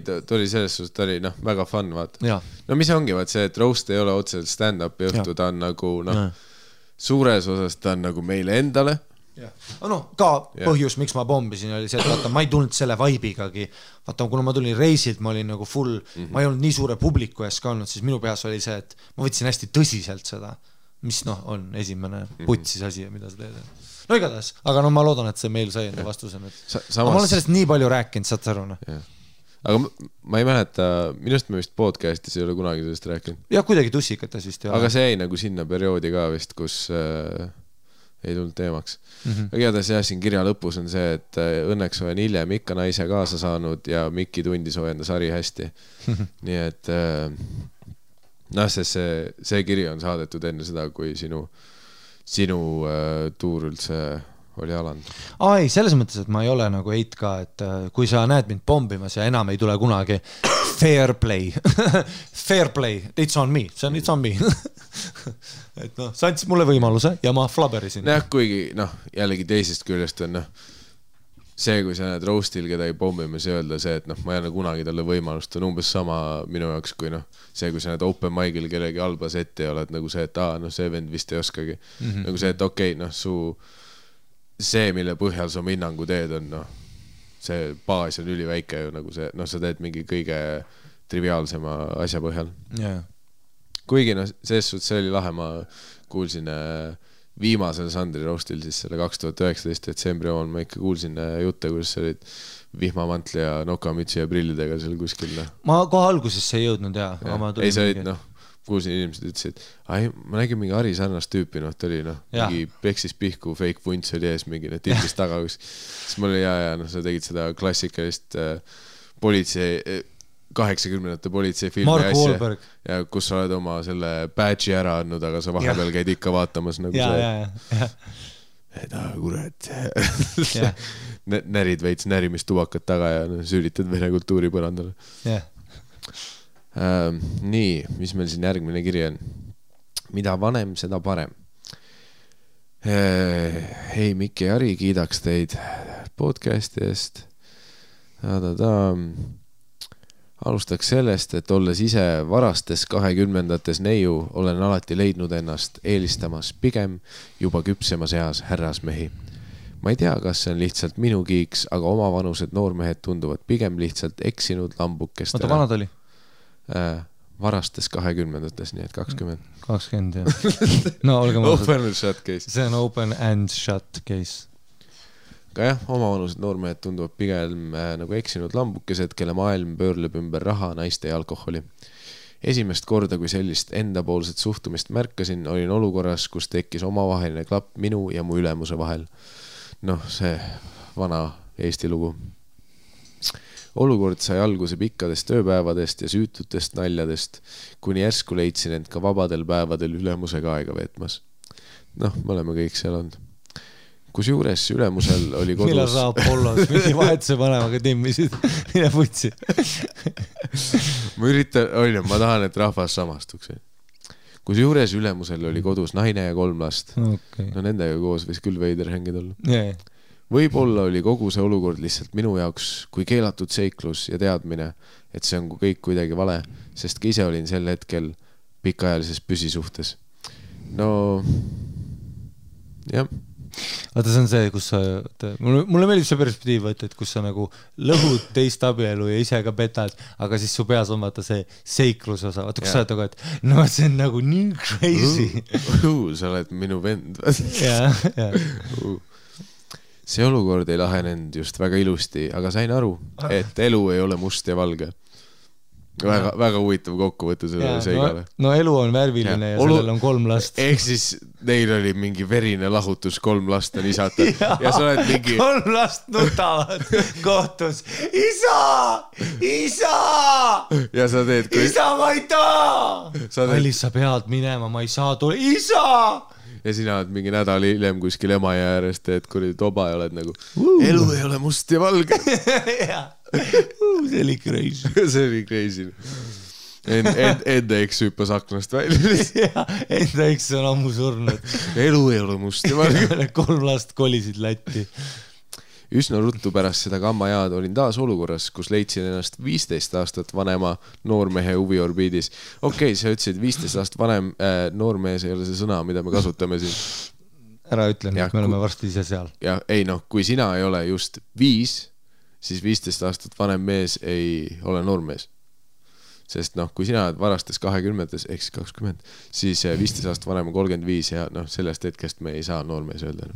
ta oli selles suhtes, ta oli väga fun, vaata. No mis ongi, vaat see, et roast ei ole otseselt stand-upi õhtu, ta on nagu suures osas ta on nagu meile endale. Ka põhjus, miks ma bombisin, oli see, et vaata, ma ei tulnud selle vaibigagi. Vaata, kuna ma tulin reisilt, ma olin nagu full, ma ei olnud nii suure publiku ees ka olnud, siis minu peas oli see, et ma võtsin hästi tõsiselt seda, mis on esimene putsis asi, mida sa teed. No igatahes, aga ma loodan, et see meil sai enda vastusena. Ma olen sellest nii palju rääkinud, saad sa aru? Aga ma ei mäleta, minust me vist podcastis ei ole kunagi sellest rääkinud. Ja kuidagi tussikates vist ei ole. Aga see jäi nagu sinna perioodi ka vist, kus ei tulnud teemaks. Aga igatahes siin kirja lõpus on see, et õnneks olen hiljem ikka naise kaasa saanud ja Mikki tundis hoiendas Harri hästi. Nii et see kiri on saadetud enne seda, kui sinu tuur üldse oli alanud. Ei, selles mõttes, et ma ei ole nagu eit ka, et kui sa näed mind pombimas ja enam ei tule kunagi fair play, it's on me, it's on me. Et sa andsid mulle võimaluse ja ma flaberisin. Kuigi jällegi teisest küljest on see, kui sa näed roastil kedagi pommimas ja öelda see, et noh, ma ei anna kunagi talle võimalust, on umbes sama minu jaoks kui noh, see, kui sa näed open mic'il kellegi halba setti ja oled nagu see, et noh, see vend vist ei oskagi. Nagu see, et okei, noh, see, mille põhjal sa hinnangu teed, on noh, see baas on üliväike ju nagu see, noh, sa teed mingi kõige triviaalsema asja põhjal. Kuigi noh, selles suhtes see oli lahe, ma kuulsin viimasel Sandri roastil siis selle 2019 detsembri omal ma ikka kuulsin jutte, kuidas sa olid vihmamantli ja nokamütsi ja prillidega seal kuskil. Ma kohe algusesse ei jõudnud ei, sa olid noh, kuulsin inimesed ütlesid, ma nägin mingi Ari sarnast tüüpi, noh, ta oli noh, mingi peksis pihku, fake vunts oli ees mingi, noh, tilbis taga, siis mul oli noh, sa tegid seda klassikalist politsei 80-ndate politseifilmi asja, ja kus sa oled oma selle badge'i ära andnud, aga sa vahepeal käid ikka vaatamas nagu kurat närid veits närimistubakat taga ja süüritad vene kultuuri põrandale. Nii, mis meil siin järgmine kiri on? Mida vanem, seda parem. Hei, Mikki ja Ari, kiidaks teid podcasti eest. Alustaks sellest, et olles ise varastes 20-ndates neiu, olen alati leidnud ennast eelistamas pigem juba küpsemas eas härrasmehi. Ma ei tea, kas see on lihtsalt minu kiiks, aga omavanused noormehed tunduvad pigem lihtsalt eksinud lambukestele. Oota, vanad oli? Varastes 20-ndates, nii et 20. 20, jah. No, olge mõnusad. Open and shut case. See on open and shut case. Ka jah, omavanused noormehed tunduvad pigem nagu eksinud lambukesed, kelle maailm pöörleb ümber raha, naiste ja alkoholi. Esimest korda, kui sellist endapoolset suhtumist märkasin, olin olukorras, kus tekkis omavaheline klapp minu ja mu ülemuse vahel. Noh, see vana Eesti lugu. Olukord sai alguse pikkadest tööpäevadest ja süütutest naljadest, kuni järsku leidsin end ka vabadel päevadel ülemusega aega veetmas. Noh, me oleme kõik seal olnud. Kus juures ülemusel oli kodus... Millal sa Apollos mingi vahetuse vanemaga timmisid? Mine putsi. ma tahan, et rahvas samastuks. Kus juures ülemusel oli kodus naine ja 3 last. Okay. No nendega koos võis küll veider hängida olla. Võib-olla oli kogu see olukord lihtsalt minu jaoks kui keelatud seiklus ja teadmine, et see on kõik kuidagi vale, sest ka ise olin sel hetkel pikaajalises püsisuhtes. No, jah. Vaata, see on see, kus sa... Mulle meeldib see perspektiiv, et kus sa nagu lõhud teist abielu ja ise ka petad, aga siis su peas on vaata see seiklus osa. Vaata, kus sa oled nagu, et no see on nagu nii crazy. Sa oled minu vend. See olukord ei lahenenud just väga ilusti, aga sain aru, et elu ei ole must ja valge. Väga huvitav kokkuvõte sellele seigale. No elu on värviline ja sellel on 3 last. Ehk siis neil oli mingi verine lahutus, 3 last on isata. Ja sa oled mingi... 3 last nutavad kohtus. Isa! Isa! Ja sa teed... Isa, ma ei taa! Kallis, sa pead minema, ma ei saa tule. Isa! Ja sina oled mingi nädal hiljem kuskil emaja äärest, et kui toba ja oled nagu elu ei ole must ja valge. See oli crazy. See oli crazy. Enda eks hüppas aknast välja. Enda eks on ammu surnud. Elu ei ole must ja valge. 3 last kolisid Lätti. Üsna ruttu pärast seda kammajaad olin taas olukorras, kus leidsin ennast 15 aastat vanema noormehe huviorbiidis. Okei, sa ütlesid 15 aastat vanem noormees ei ole see sõna, mida me kasutame siin. Ära ütlen, et me oleme varsti ise seal. Ja ei noh, kui sina ei ole just 5, siis 15 aastat vanem mees ei ole noormees. Sest noh, kui sina oled varastes 20-tes, ehk 20, siis 15 aastat vanem on 35 ja noh, sellest hetkest me ei saa noormees öelda.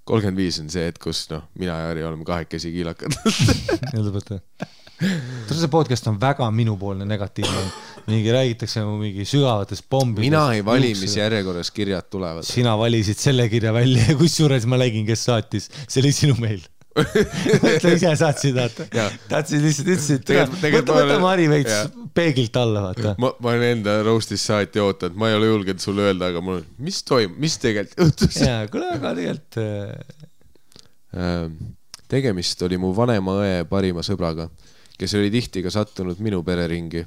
35 on see, et kus mina ja Ari oleme 2 kiilakad. See podcast on väga minupoolne negatiivne. Mingi räägitakse mingi sügavatest bombidest. Mina ei vali, mis järjekorras kirjad tulevad. Sina valisid selle kirja välja ja kusjuures ma nägin, kes saatis. See oli sinu meil. Mõtle ise saatsid, tahtsid lihtsalt ütlesid. Võta Mari veits peegilt alla, vaata. Ma olen enda roastis saati ootanud, ma ei ole julgenud sulle öelda, aga mul on, mis toimub, mis tegelikult juhtus? Jaa, kuule, aga tegelikult... Tegemist oli mu vanema õe parima sõbraga, kes oli tihti ka sattunud minu pereringi.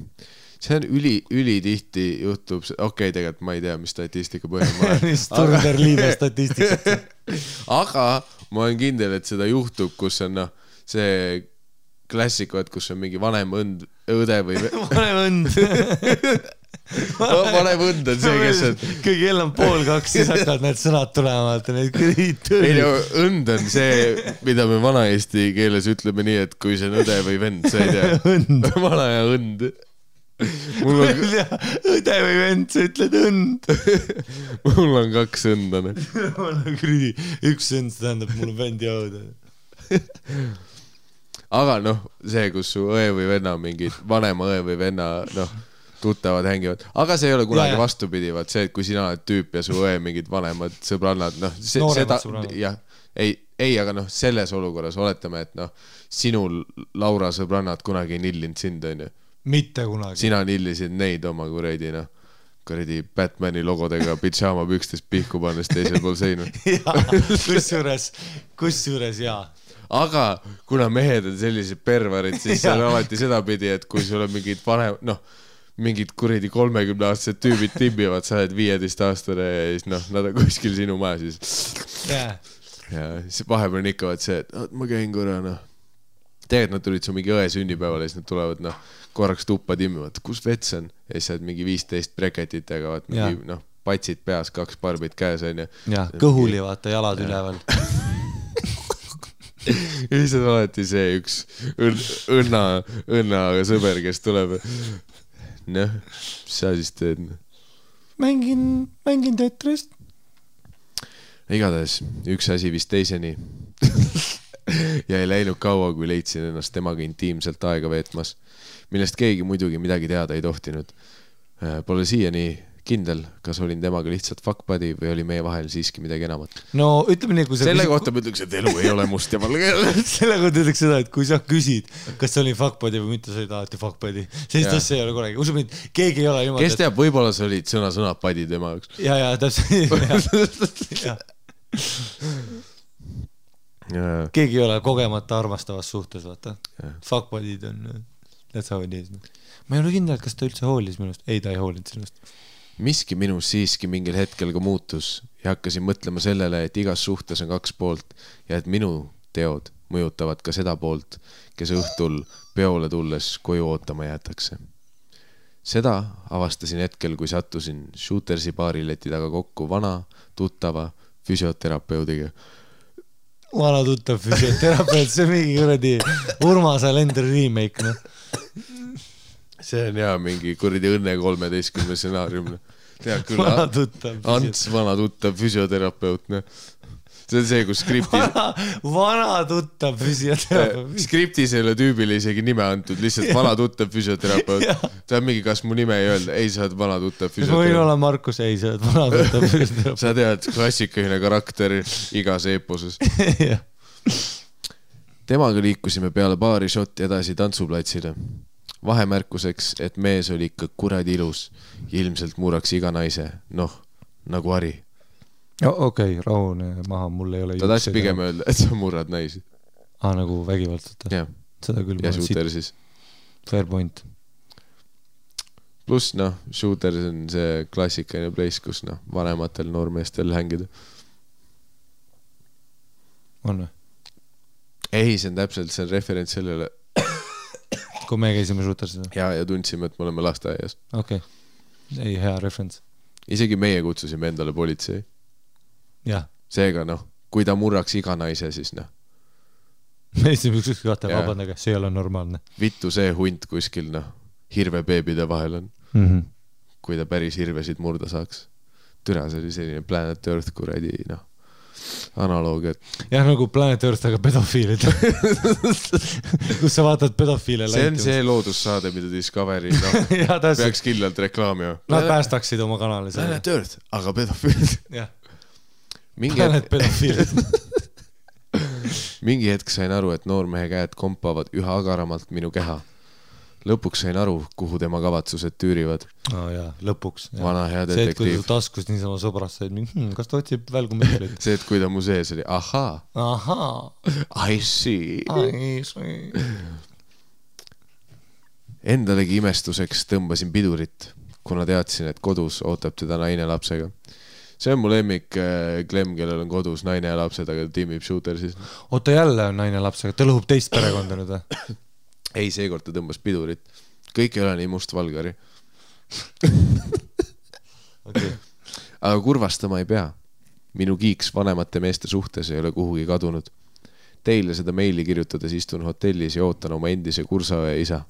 see on ülitihti juhtub, okei, tegelikult ma ei tea, mis statistika põhjal ma olen. Turner liibe statistikat. Aga ma olen kindel, et seda juhtub, kus on see klassikuad, kus on mingi vanem õde või vanem õnd. vanem õnd on see, kes on kui kell on 1:30, siis hakkavad need sõnad tulema. Ei, õnd on see, mida me vana-eesti keeles ütleme nii, et kui see on õde või vend, sa ei tea. Vana ja õnd. Õde või vend, sa ütled õnd. Mul on 2 õnda. Üks õnd, see tähendab, mul on vend ja õde. Aga see, kus su õe või venna mingid vanema õe või venna tuttavad hängivad, aga see ei ole kunagi vastupidi, vaat see, et kui sina oled tüüp ja su õe mingid vanemad sõbrannad, seda, jah, ei, aga selles olukorras oletame, et sinul Laura sõbrannad kunagi ei nillinud sind, on ju. Mitte kunagi. Sina nillisid neid oma kuradi Batmani logodega pidžaama pükstes pihku pannes teisel pool seinu. Kusjuures jaa. Aga kuna mehed on sellised pervarid, siis see on alati sedapidi, et kui sul on mingid mingid kuradi 30-aastased tüübid timbivad, sa oled 15-aastane ja siis nad on kuskil sinu maja siis. Ja siis vahepeal on ikka see, et ma käin korra, tegelikult nad tulid su mingi õe sünnipäevale ja siis nad tulevad korraks tuppa timmivad, kus vets on? Ja siis sa oled mingi 15 breketitega, mingi patsid peas, 2 barbid käes on ja kõhuli vaata jalad üleval. Ja siis on alati see üks õnna sõber, kes tuleb. Mis sa siis teed? Mängin Tetrist. Igatahes, üks asi vist teiseni. Ja ei läinud kaua, kui leidsin ennast temaga intiimselt aega veetmas, millest keegi muidugi midagi teada ei tohtinud. Pole siiani kindel, kas olin temaga lihtsalt fuck buddy või oli meie vahel siiski midagi enamat. No ütleme nii, kui selle kohta ma ütleks, et elu ei ole must ja valge. Selle kohta ütleks seda, et kui sa küsid, kas see oli fuck buddy või mitte, sa olid alati fuck buddy. Sellist asja ei ole korragi. Usub mind, keegi ei ole niimoodi. Kes teab, võib-olla sa olid sõna buddy tema jaoks. Ja, täpselt. Keegi ei ole kogemata armastavas suhtes, vaata. Fuck buddy'd on, that's how it is. Ma ei ole kindel, kas ta üldse hoolis minust. Ei, ta ei hoolinud sinust. Miski minus siiski mingil hetkel ka muutus ja hakkasin mõtlema sellele, et igas suhtes on 2 poolt ja et minu teod mõjutavad ka seda poolt, kes õhtul peole tulles koju ootama jäetakse. Seda avastasin hetkel, kui sattusin Shootersi baarileti taga kokku vana, tuttava füsioterapeudiga. Vana tuttav füsioterapeut, see mingi kuradi Urmas Alender remake, See on mingi kuradi Õnne 13 stsenaarium. Tead küll, Ants vana tuttav füsioterapeut. See on see, kus skriptis Vana tuttav füsioterapeut. Skriptis ei ole tüübile isegi nime antud, lihtsalt vana tuttav füsioterapeut. See on mingi, kas mu nime ei öelda? Ei, sa oled vana tuttav füsioterapeut. Võin olla Markus, ei, sa oled vana tuttav füsioterapeut. Sa tead, klassikaline karakter igas eeposes. Temaga liikusime peale baari šotti edasi tantsuplatsile. Vahemärkuseks, et mees oli ikka kuradi ilus ja ilmselt murraks iga naise, nagu Ari. Okei, rahune maha, mul ei ole ta tahtsi pigem öelda, et sa murrad naisi. Nagu vägivaldselt. Seda küll. Ja Shooter siis. Fair point. Plus, Shooter on see klassikaline place, kus vanematel noormeestel hängida. On või? Ei, see on täpselt, see on referents sellele kui me käisime Shootersid. Ja tundsime, et me oleme lasteaias. Okei. Ei, hea referents. Isegi meie kutsusime endale politsei. Jah. Seega, kui ta murraks iga naise, siis Me ütlesime ükskõik kahte, vabandage, see ei ole normaalne. Vittu see hunt kuskil, hirvebeebide vahel on. Kui ta päris hirvesid murda saaks. Türa, see oli selline Planet Earth kuradi, analoog, et... Jah, nagu Planet Earth, aga pedofiilid. Kus sa vaatad pedofiile see on see loodussaade, mida Discovery peaks kindlalt reklaamima. Nad päästaksid oma kanali. Planet Earth, aga pedofiilid. Jah. Planet pedofiilid. Mingi hetk sain aru, et noormehe käed kompavad üha agaramalt minu keha. Lõpuks sain aru, kuhu tema kavatsused tüürivad. Lõpuks. Vana hea detektiiv. See, et kui ta taskus niisama sõbrast said, kas ta otsib välgumitleid? See, et kui ta mu sees oli, ahaa. I see. Endalegi imestuseks tõmbasin pidurit, kuna teadsin, et kodus ootab teda naine lapsega. See on mu lemmik Clem, kellel on kodus naine ja lapsed, aga tiimib shooter siis. Oota, jälle on naine lapsega, ta lõhub teist perekonda nüüd või? Ei, seekord ta tõmbas pidurit. Kõik ei ole nii mustvalgari. Okay. Aga kurvastama ei pea. Minu kiiks vanemate meeste suhtes ei ole kuhugi kadunud. Teile seda meili kirjutades istun hotellis ja ootan oma endise kursaõe isa.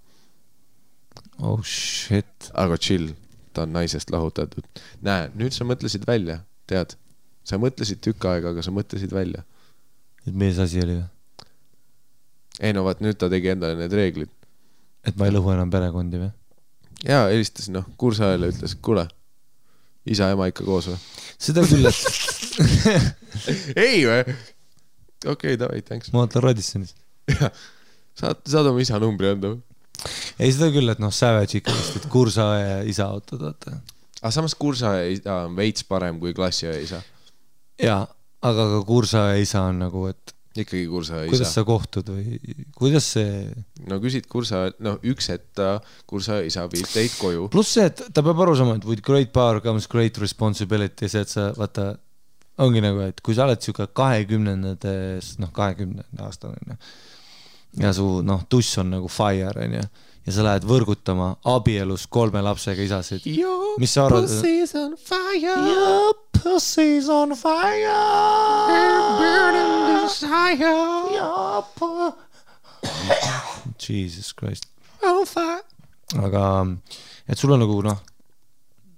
Oh shit. Aga chill, ta on naisest lahutatud. Näe, nüüd sa mõtlesid välja, tead. Sa mõtlesid tükk aega, aga sa mõtlesid välja. Et mees asi oli või? Ei no vaat, nüüd ta tegi endale need reeglid. Et ma ei lõhu enam perekondi või? Jaa, helistas, kursaõele ütles, kuule, isa ja ema ikka koos või? Seda küll, et ei või? Okei, davai, thanks. Ma ootan Radissonis. Saad oma isa numbri anda või? Ei, seda küll, et Savage ikka vist, et kursaõe ja isa autod, vaata. Aga samas kursaõe isa on veits parem kui klassiõe isa. Jaa, aga ka kursaõe isa on nagu, et ikkagi kursaõe isa. Kuidas sa kohtud või kuidas see... No küsid kursaõe, üks etta kursaõe isa viib teid koju. Plus see, et ta peab aru sama, et with great power comes great responsibility, see, et sa, vaata, ongi nagu, et kui sa oled siuke 20-ndades, 20 aastane, ja su, tuss on nagu fire, ja sa lähed võrgutama abielus 3 lapsega isasid. Mis sa arvad? Your pussy's on fire. Your pussy's on fire. Burning desire. Your Jesus Christ. On fire. Aga, et sul on nagu,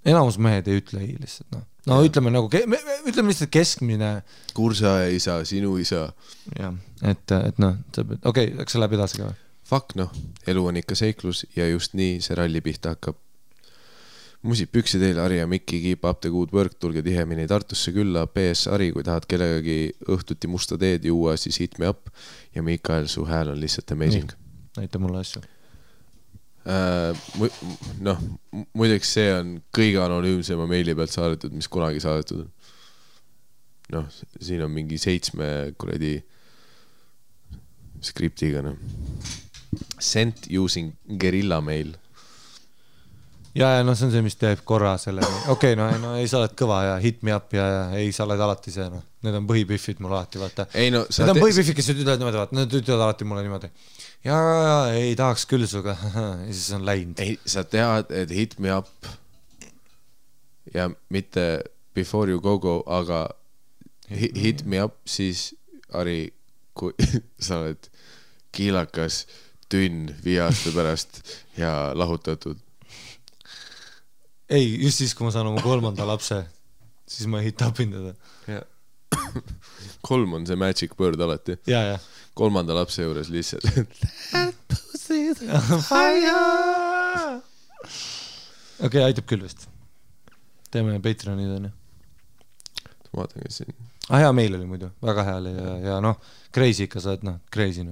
enamus mehed ei ütle ei lihtsalt, ütleme nagu, ütleme lihtsalt keskmine. Kursaõe isa, sinu isa. Jah, et okei, läks sa läbi edasi ka või? Fuck elu on ikka seiklus ja just nii see ralli pihta hakkab. Musid püksi teile, Ari ja Mikki, keep up the good work, tulge tihemini Tartusse külla. PS Ari, kui tahad kellegagi õhtuti musta teed juua, siis hit me up. Ja Mikael, su hääl on lihtsalt amazing. Näita mulle asju. Muideks see on kõige anonüümsema meili pealt saadetud, mis kunagi saadetud on. Siin on mingi 7 kuradi skriptiga. Sent using guerilla mail. Ja see on see, mis teeb korra selle. Okei, ei sa oled kõva ja hit me up ja ei sa oled alati see. Need on põhipiffid mul alati, vaata. Need on põhipiffid, kes ütlevad niimoodi, vaata. Need ütlevad alati mulle niimoodi. Ja ei tahaks küll suga. Ja siis on läinud. Ei, sa tead, et hit me up ja mitte before you go, aga hit me up, siis Ari, kui sa oled kiilakas tünn 5 aasta pärast ja lahutatud. Ei, just siis, kui ma saan oma 3. lapse, siis ma hit upin teda. 3 on see magic word alati. Ja. 3. lapse juures lihtsalt. That pussy's on fire. Okei, aitab küll vist. Teeme Patreonid on ju. Vaatan, kes siin. Hea meil oli muidu, väga hea oli ja crazy ikka sa oled, crazy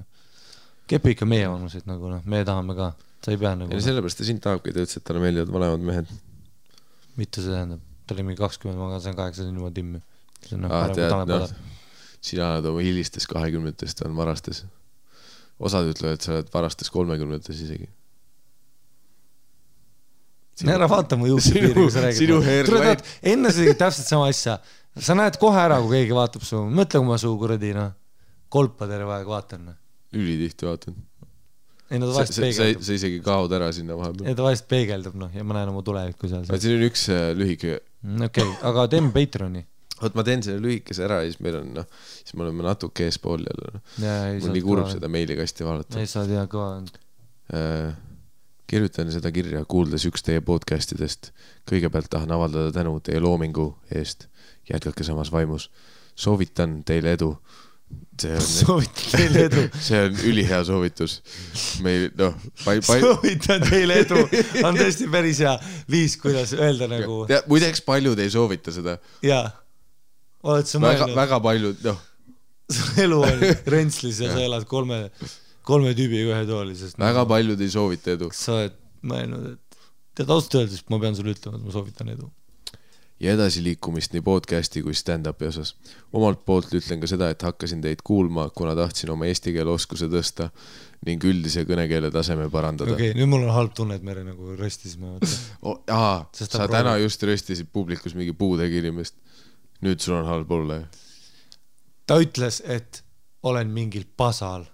Kepi ikka meie vanuseid nagu meie tahame ka, sa ei pea nagu. Ja sellepärast ta sind tahabki, ta ütles, et talle meeldivad vanemad mehed. Mitte see tähendab, ta oli mingi 20, ma sain 8 juba timmi. Tead, sina oled oma hilistes 20-test on varastes. Osad ütlevad, et sa oled varastes 30-tes isegi. Ära vaata mu juuksepiiri, kui sa räägid. Enne sa tegid täpselt sama asja. Sa näed kohe ära, kui keegi vaatab su. Mõtle, kui ma su kuradi kolpa terve aeg vaatan. Ülitihti vaatan. Ei, no ta vahest peegeldab. Sa isegi kaod ära sinna vahepeal. Ei, ta vahest peegeldab, ja ma näen oma tulevikku seal. Siin on üks lühike. Okei, aga teeme Patreoni. Ma teen selle lühikese ära ja siis meil on, siis me oleme natuke eespool jälle. Mul nii kurb seda meilikasti vaadata. Ei saa tea kõva. Kirjutan seda kirja, kuuldes üks teie podcastidest. Kõigepealt tahan avaldada tänu teie loomingu eest. Jätkake samas vaimus. Soovitan teile edu. Soovitan teile edu. See on ülihea soovitus. Soovitan teile edu. On tõesti päris hea viis, kuidas öelda nagu. Muideks paljud ei soovita seda. Jaa. Oled sa mõelnud? Väga paljud, Su elu on Rentslis ja sa elad 3 tüübiga ühe toolises. Väga paljud ei soovita edu. Sa oled mõelnud, et tead ausalt öeldes, ma pean sulle ütlema, et ma soovitan edu. ja edasiliikumist nii podcasti kui stand-upi osas. Omalt poolt ütlen ka seda, et hakkasin teid kuulma, kuna tahtsin oma eesti keele oskuse tõsta ning üldise kõnekeele taseme parandada. Okei, nüüd mul on halb tunne, et me nagu röstisime. Sa täna just röstisid publikus mingi puudegi inimest. Nüüd sul on halb olla. Ta ütles, et olen mingil pasal.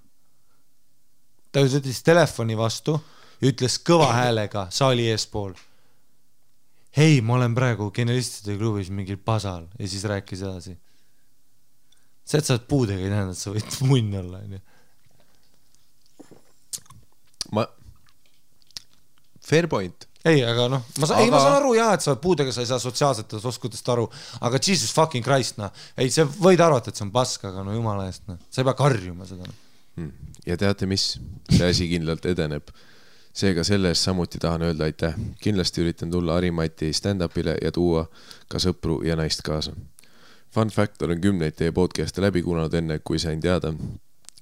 Ta ütles telefoni vastu ja ütles kõva häälega saali eespool. Hei, ma olen praegu Genialistide klubis mingil pasal ja siis rääkis edasi. See, et sa oled puudega, ei tähenda, et sa võid munn olla. Fair point. Ei, aga noh, ma saan aru jah, et sa oled puudega, sa ei saa sotsiaalsetest oskudest aru, aga Jesus fucking Christ, ei, see võid arvata, et see on pask, aga no jumala eest, sa ei pea karjuma seda. Ja teate mis? See asi kindlalt edeneb. Seega selles samuti tahan öelda aitäh. Kindlasti üritan tulla Harimati stand-upile ja tuua ka sõpru ja naist kaasa. Fun fact, olen 10 teie podcast'e läbi kuulanud enne, kui sain teada,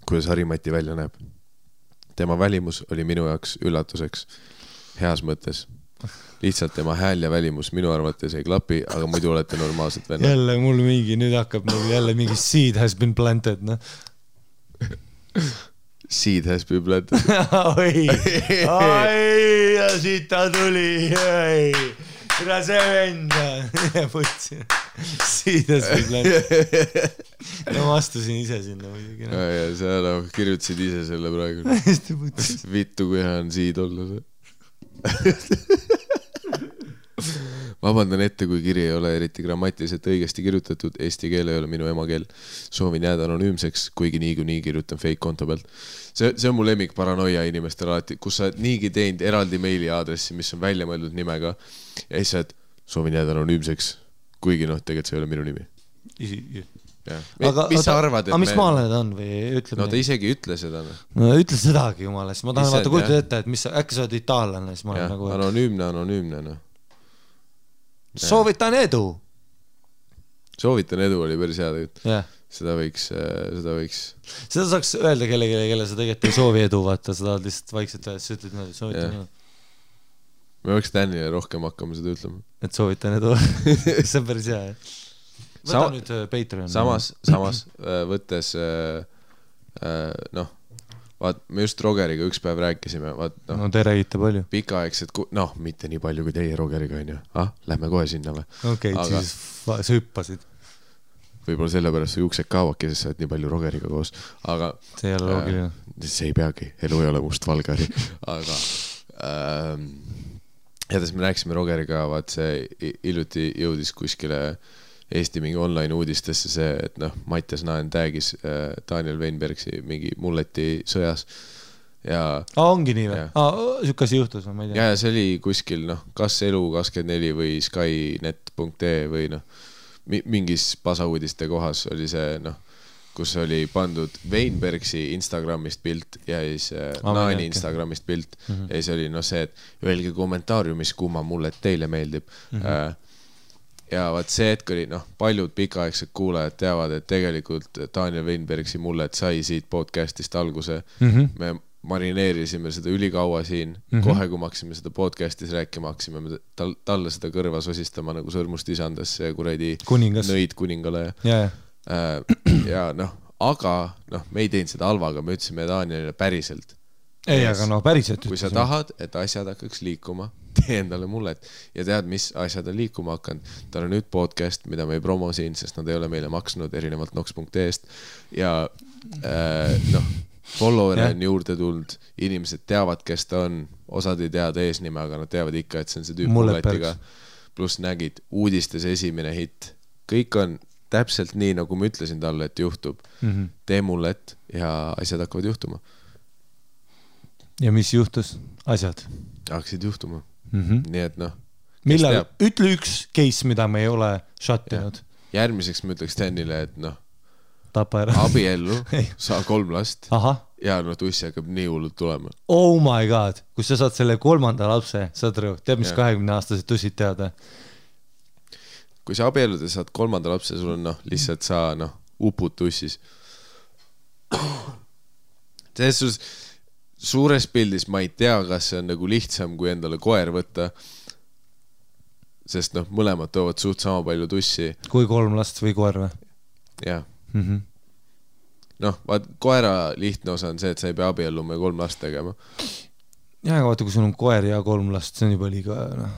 kuidas Harimati välja näeb. Tema välimus oli minu jaoks üllatuseks. Heas mõttes. Lihtsalt tema hääl ja välimus minu arvates ei klapi, aga muidu olete normaalsed vennad. Jälle mul mingi, nüüd hakkab mul jälle mingi seed has been planted, noh. Seed has been planted. Oi, ja siit ta tuli, ega see venda. Võtsin. Seed has been planted. No ma astusin ise sinna muidugi. Ja sa kirjutasid ise selle praegu. Vittu, kui hea on seed olla see. Vabandan ette, kui kiri ei ole eriti grammatiliselt õigesti kirjutatud, eesti keel ei ole minu emakeel. Soovin jääda anonüümseks, kuigi nii kirjutan fake konto pealt. See on mu lemmik paranoia inimestel alati, kus sa niigi teinud eraldi meili aadressi, mis on välja mõeldud nimega ja siis saad soovin jääda anonüümseks, kuigi tegelikult see ei ole minu nimi. Mis sa arvad, et mis maale ta on või ütleb? No ta isegi ütle seda. No ütle sedagi jumala, siis ma tahan vaata kujutada ette, et äkki sa oled itaallane, siis ma olen nagu... Anonüümne, no. Soovitan edu! Soovitan edu oli päris hea tegelikult. Yeah. Seda võiks... Seda saaks öelda kelle sa tegelikult ei soovi edu, vaata, sa tahad lihtsalt vaikselt öelda, sa ütled niimoodi, soovitan edu. Me võiks Danile rohkem hakkama seda ütlema. Et soovitan edu. See on päris hea, jah. Võta nüüd Patreon. Samas võttes vaat me just Rogeriga üks päev rääkisime no te räägite palju pikaaegsed, mitte nii palju kui teie Rogeriga on ju, lähme kohe sinna või? Okei, siis sa hüppasid võib-olla sellepärast su juuksed kaavadki, sest sa oled nii palju Rogeriga koos, aga see ei ole loogiline see ei peagi, elu ei ole mustvalgari aga jättes me rääkisime Rogeriga, vaat see hiljuti jõudis kuskile Eesti mingi online uudistesse see, et Mattias Naen tagis Daniel Weinbergsi mingi mulleti sõjas ja... ongi nii või? Sükasi juhtus, ma ei tea. Ja see oli kuskil, kas Elu24 või Skynet.ee või mingis pasauudiste kohas oli see, kus oli pandud Weinbergsi Instagramist pilt ja siis Naani Instagramist pilt ja siis oli see, et öelge kommentaariumis, kumma mullet teile meeldib ja vaat see hetk oli, paljud pikaaegsed kuulajad teavad, et tegelikult Daniel Weinbergsi mullet sai siit podcastist alguse. Me marineerisime seda ülikaua siin, kohe kui me haksime seda podcastis rääkima, haksime talle seda kõrva sosistama nagu sõrmust isandasse ja kuradi nõid kuningale. Ja aga me ei teinud seda halvaga, me ütlesime Danielile päriselt. Ei, aga päriselt kui sa tahad, et asjad hakkaks liikuma, tee endale mullet ja tead, mis asjad on liikuma hakanud. Ta on nüüd podcast, mida me ei promo siin, sest nad ei ole meile maksnud erinevalt nox.ee-st ja follower on juurde tulnud, inimesed teavad, kes ta on, osad ei teada eesnime, aga nad teavad ikka, et see on see tüüp mulletiga, pluss nägid uudistes esimene hitt, kõik on täpselt nii, nagu ma ütlesin talle, et juhtub, tee mullet ja asjad hakkavad juhtuma. Ja mis juhtus? Asjad? Hakkasid juhtuma. Nii et millal? Ütle üks case, mida me ei ole shottinud. Järgmiseks ma ütleks Danile, et tapa ära. Abiellu, saa 3 last ja tussi hakkab nii hullult tulema. Oh my god, kus sa saad selle 3. lapse, saad rõu, tead mis 20-aastased tussid teada? Kui sa abiellud ja saad 3. lapse, sul on lihtsalt sa upud tussis. Selles suures pildis ma ei tea, kas see on nagu lihtsam kui endale koer võtta. sest noh, mõlemad toovad suht sama palju tussi. Kui 3 last või koer või? Jah. Noh, vaat koera lihtne osa on see, et sa ei pea abielluma ja 3 last tegema. Ja, aga vaata, kui sul on koer ja 3 last, see on juba liiga, noh.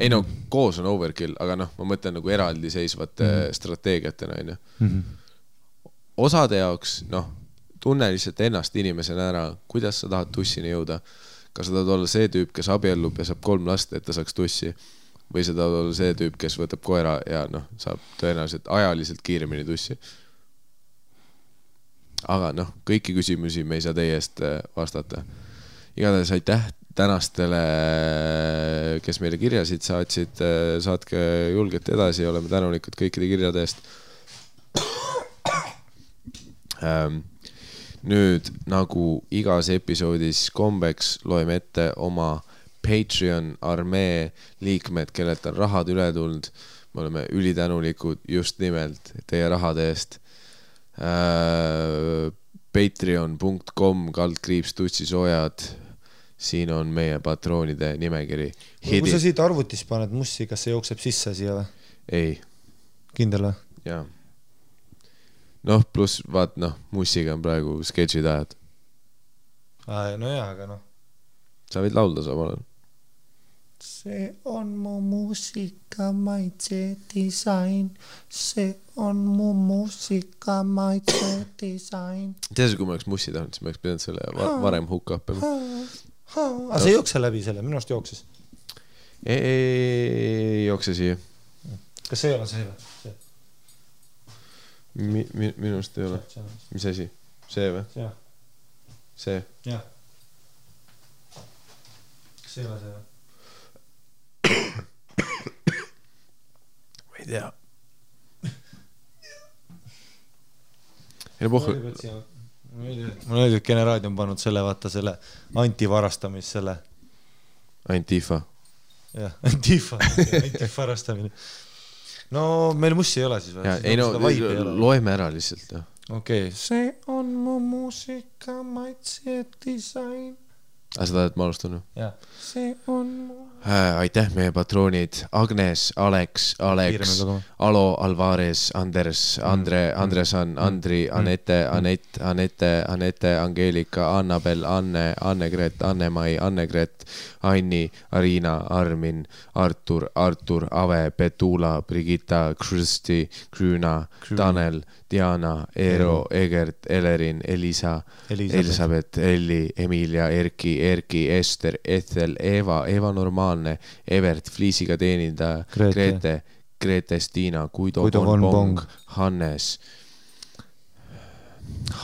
Ei no, koos on overkill, aga noh, ma mõtlen nagu eraldi seisvate strateegiatena, on ju. Osade jaoks, noh, tunne lihtsalt ennast inimesena ära, kuidas sa tahad tussini jõuda. Kas sa tahad olla see tüüp, kes abiellub ja saab 3 last, et ta saaks tussi, või sa tahad olla see tüüp, kes võtab koera ja noh, saab tõenäoliselt ajaliselt kiiremini tussi. Aga noh, kõiki küsimusi me ei saa teie eest vastata. Igatahes aitäh tänastele, kes meile kirjasid saatsid, saatke julgelt edasi, oleme tänulikud kõikide kirjade eest. Nüüd, nagu igas episoodis kombeks, loeme ette oma Patreon armee liikmed, kellelt on rahad üle tulnud. Me oleme ülitänulikud just nimelt teie rahade eest. patreon.com/tussisoojad. Siin on meie patroonide nimekiri. Kui sa siit arvutis paned mussi, kas see jookseb sisse siia või? Ei. Kindel või? Jaa. Noh, pluss vaat noh, mussiga on praegu sketšid ajad. No jaa, aga noh. Sa võid laulda samal ajal. See on mu muusika maitse disain. See on mu muusika maitse disain. Tead, kui ma oleks mussi tahtnud, siis ma oleks pidanud selle varem hukka õppima. Aga see jookse läbi selle, minu arust jookses. Ei jookse siia. Kas see ei ole see või? Minu arust ei ole. Mis asi? See või? See? Jah. Kas see ei ole see või? Ma ei tea. Mul oli, et Generaadio on pannud selle, vaata selle antivarastamis selle. Antifa. Jah, antifarastamine. No meil mussi ei ole siis või? Ei no, loeme ära lihtsalt. Okei. See on mu muusika maitse disain. Aga sa tahad, et ma alustan? Jah. See on mu... Aitäh meie patroonid. Agnes, Alex, Alo, Alvarez, Anders, Andresan, Andri, Anette, Angeelika, Annabel, Anne, Annegret, Anne-Mai, Annegret, Anni, Arina, Armin, Artur, Ave, Petula, Brigitta, Kristi, Krüüna, Tanel, Diana, Eero, Egert, Elerin, Elisa, Elisabeth, Elli, Emilia, Erki, Ester, Ethel, Eva Normaalne, Evert, Fliisiga teenindaja, Grete, Stiina, Guido von Bong, Hannes,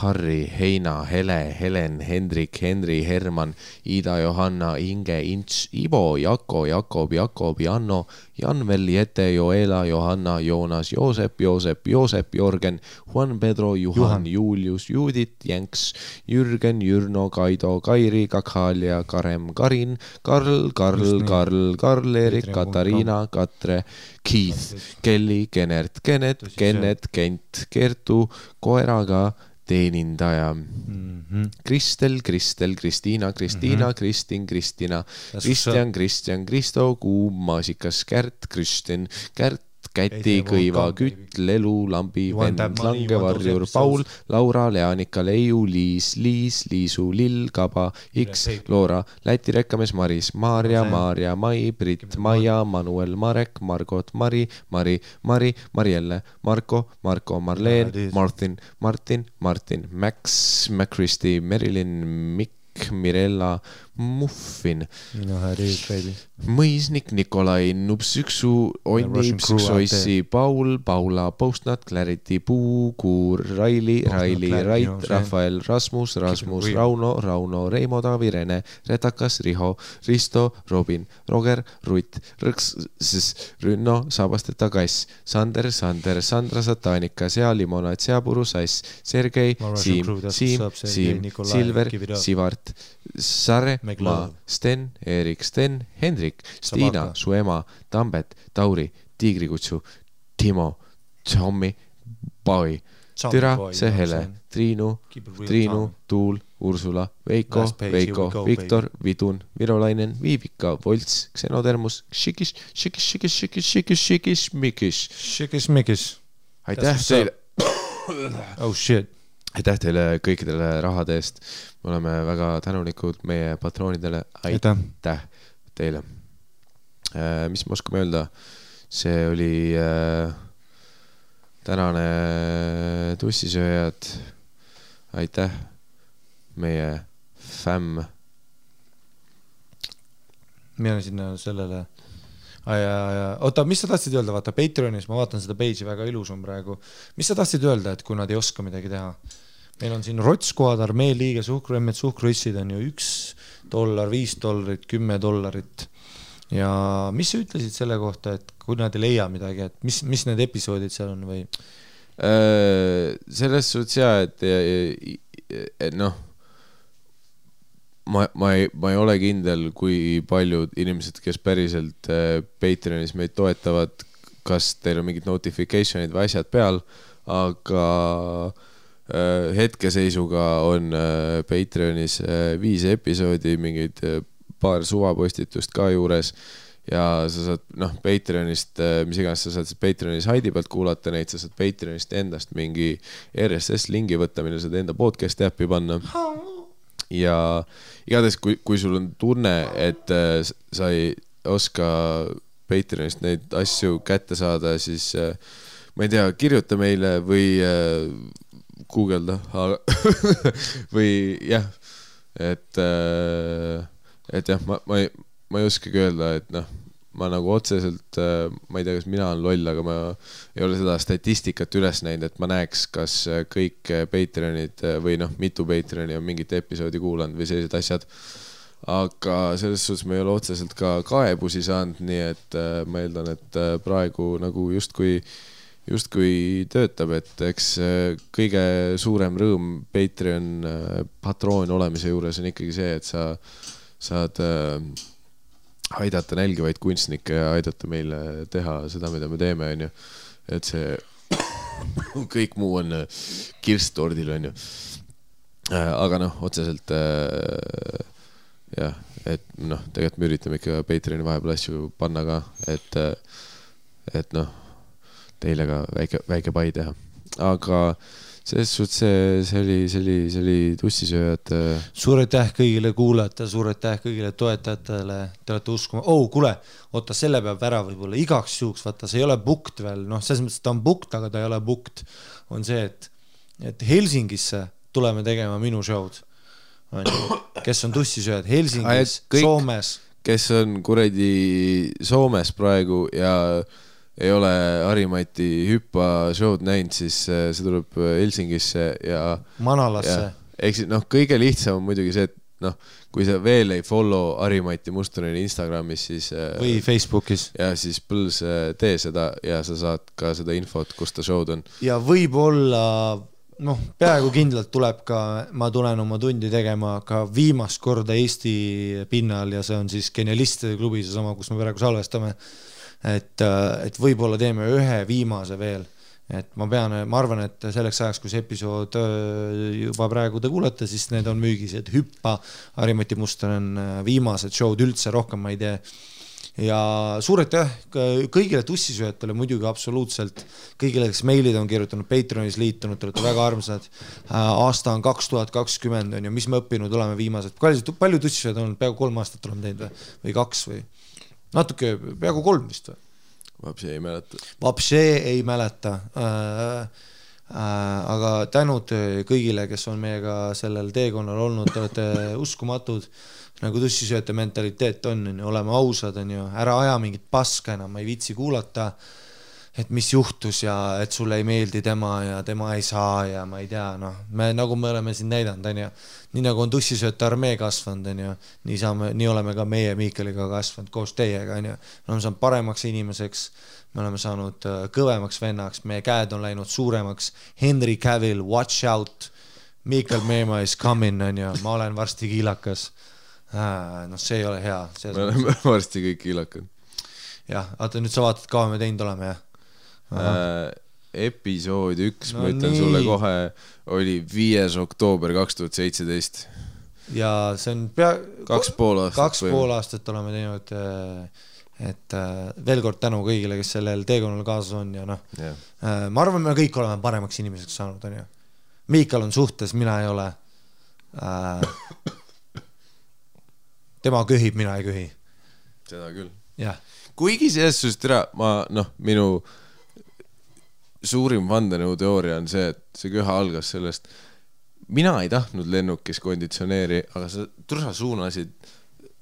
Harri, Heina, Hele, Helen, Hendrik, Henri, Herman, Ida, Johanna, Inge, Ints, Ivo, Jako, Jakob, Janno, Janvel, Jete, Joela, Johanna, Joonas, Joosep, Jorgen, Juan Pedro, Juhan, Julius, Judit, Jänks, Jürgen, Jürno, Kaido, Kairi, Kakhalia, Karem, Karin, Karl, Erik, Katariina, Katre, Keith, Kelly, Kennet, Kent, Kertu, Koeraga, teenindaja. Kristel, Kristiina, Kristin, Kristina, Kristjan, Kristo, Kuum, Maasikas, Kristjan, Käti, Kõiva, Kütt, Lelu, Lambi, Vend, Langevarjur, Paul, Laura, Leanika, Leiu, Liisu, Lill, Kaba, X, Loora, Läti rekkamees, Maris, Maarja, Mai, Brit, Maia, Manuel, Marek, Margot, Mari, Marielle, Marko, Marleen, Martin, Max, Kristi, Merilin, Mikk, Mirella, Muffin, Mõisnik, Nikolai, Nupsüksu, Onni, Psüksoissi, Paul, Paula, Postnat, Clarity, Puukuur, Raili, Rait, Rafael, Rasmus, Rauno, Reimo, Taavi, Rene, Retakas, Riho, Risto, Robin, Roger, Rutt, Rõks, Rünno, Sabasteta, Kass, Sander, Sandra, Satanika, Limonad, Seapuru, Sass, Sergei, Siim, Silver, Sivart, Sare, Ma, Sten, Erik, Hendrik, Stiina, su ema, Tambet, Tauri, Tiigrikutsu, Timo, Tommi, Paui, Türa, Sehele, Triinu, Tuul, Ursula, Veiko, Last page, Veiko, here we go, Viktor, Vidun, Virolainen, Viivika, Volts, Xenotermus, Šikis, Šikis-mikis. aitäh teile Oh shit. aitäh teile kõikidele rahade eest. Me oleme väga tänulikud meie patroonidele. Aitäh teile. Mis me oskame öelda? See oli tänane tussisööjad. Aitäh meie fämm. Mina sinna sellele oota, mis sa tahtsid öelda? Vaata Patreonis, ma vaatan seda page'i, väga ilus on praegu. Mis sa tahtsid öelda, et kui nad ei oska midagi teha? Meil on siin Rotskoad, Armee liige, suhkruemmed, suhkruissid on ju $1, $5, $10. Ja mis sa ütlesid selle kohta, et kui nad ei leia midagi, et mis need episoodid seal on või? Selles suhtes jah, et noh, ma ei ole kindel, kui paljud inimesed, kes päriselt Patreonis meid toetavad, kas teil on mingid notificationid või asjad peal, aga hetkeseisuga on Patreonis 5 episoodi, mingid paar suvapostitust ka juures ja sa saad, Patreonist, mis iganes sa saad Patreonis Haidi pealt kuulata neid, sa saad Patreonist endast mingi RSS-lingi võtta, mille saad enda podcasti äppi panna. Ja igatahes, kui sul on tunne, et sa ei oska Patreonist neid asju kätte saada, siis ma ei tea, kirjuta meile või guugelda või jah, et jah, ma ei oskagi öelda, et ma nagu otseselt, ma ei tea, kas mina olen loll, aga ma ei ole seda statistikat üles näinud, et ma näeks, kas kõik Patreonid või mitu Patreoni on mingit episoodi kuulanud või sellised asjad. Aga selles suhtes ma ei ole otseselt ka kaebusi saanud, nii et ma eeldan, et praegu nagu justkui töötab, et eks kõige suurem rõõm Patreon patroon olemise juures on ikkagi see, et sa saad aidata nälgivaid kunstnikke ja aidata meile teha seda, mida me teeme, on ju. Et see kõik muu on kirstordil, on ju. Aga otseselt jah, et tegelikult me üritame ikka Patreoni vahepeal asju panna ka, et teile ka väike pai teha. Aga selles suhtes see oli tussisööjad. Suur aitäh kõigile kuulajatele, suur aitäh kõigile toetajatele. Te olete uskuma. Kuule, oota, selle peab ära võib-olla igaks juhuks, vaata, see ei ole booked veel. Selles mõttes ta on booked, aga ta ei ole booked. On see, et Helsingisse tuleme tegema minu show'd. Kes on tussisööjad Helsingis, Soomes. Kes on kuradi Soomes praegu ja ei ole Harimati hüppa show'd näinud, siis see tuleb Helsingisse ja Manalasse. Eks kõige lihtsam on muidugi see, et kui sa veel ei follow Harimati Mustoneni Instagramis, siis või Facebookis. Ja siis põls tee seda ja sa saad ka seda infot, kus ta show'd on. Ja võib-olla peaaegu kindlalt tuleb ka, ma tulen oma tundi tegema ka viimast korda Eesti pinnal ja see on siis Genialistide klubi, see sama, kus me praegu salvestame. Et võib-olla teeme ühe viimase veel, et ma arvan, et selleks ajaks, kui see episood juba praegu te kuulete, siis need on müügis, et hüppa, Harimati Muston on viimased show'd üldse, rohkem ma ei tee. Ja suur aitäh kõigile tussisööjatele, muidugi absoluutselt kõigile, kes meilid on kirjutanud, Patreonis liitunud, te olete väga armsad. Aasta on 2020 on ju, mis me õppinud oleme viimased. Palju tussisööjad on, peaaegu 3 aastat oleme teinud või 2 või? Natuke, peaaegu 3 vist või? Vapsee ei mäleta. Aga tänud kõigile, kes on meiega sellel teekonnal olnud, te olete uskumatud, nagu tussisööjate mentaliteet on, oleme ausad, on ju, ära aja mingit paska enam, ma ei viitsi kuulata, et mis juhtus ja et sulle ei meeldi tema ja tema ei saa ja ma ei tea, nagu me oleme siin näidanud, on ju, nii nagu on tussisööjate armee kasvanud, on ju, nii oleme ka meie Miikeliga kasvanud koos teiega, on ju, me oleme saanud paremaks inimeseks, me oleme saanud kõvemaks vennaks, meie käed on läinud suuremaks, Henry Cavill, watch out, Miikel Meema is coming, on ju, ma olen varsti kiilakas, see ei ole hea. Me oleme varsti kõik kiilakad. Jah, vaata nüüd sa vaatad, kaua me teinud oleme, jah? episood 1, ma ütlen sulle kohe, oli 5. oktoober 2017. Ja see on 2,5 aastat oleme teinud, et veel kord tänu kõigile, kes sellel teekonnal kaasas on ja noh, ma arvan, me kõik oleme paremaks inimeseks saanud, on ju. Miikal on suhtes, mina ei ole. Tema köhib, mina ei köhi. Seda küll. Jah. Kuigi selles suhtes minu suurim vandenõuteooria on see, et see köha algas sellest, mina ei tahtnud lennukis konditsioneeri, aga sa suunasid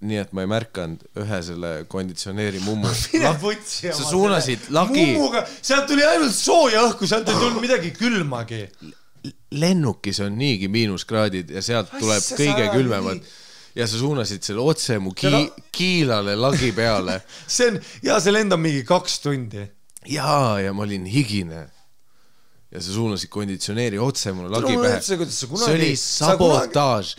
nii, et ma ei märkanud ühe selle konditsioneeri mummu. Sa suunasid lagi. Mummuga, sealt tuli ainult sooja õhku, sealt ei tulnud midagi külmagi. Lennukis on niigi miinuskraadid ja sealt tuleb kõige külmemad. Ja sa suunasid selle otse mu kiilale lagi peale. See lendab mingi 2 tundi. Ja ma olin higine. Ja sa suunasid konditsioneeri otse mulle lagi pähe. See oli sabotaaž.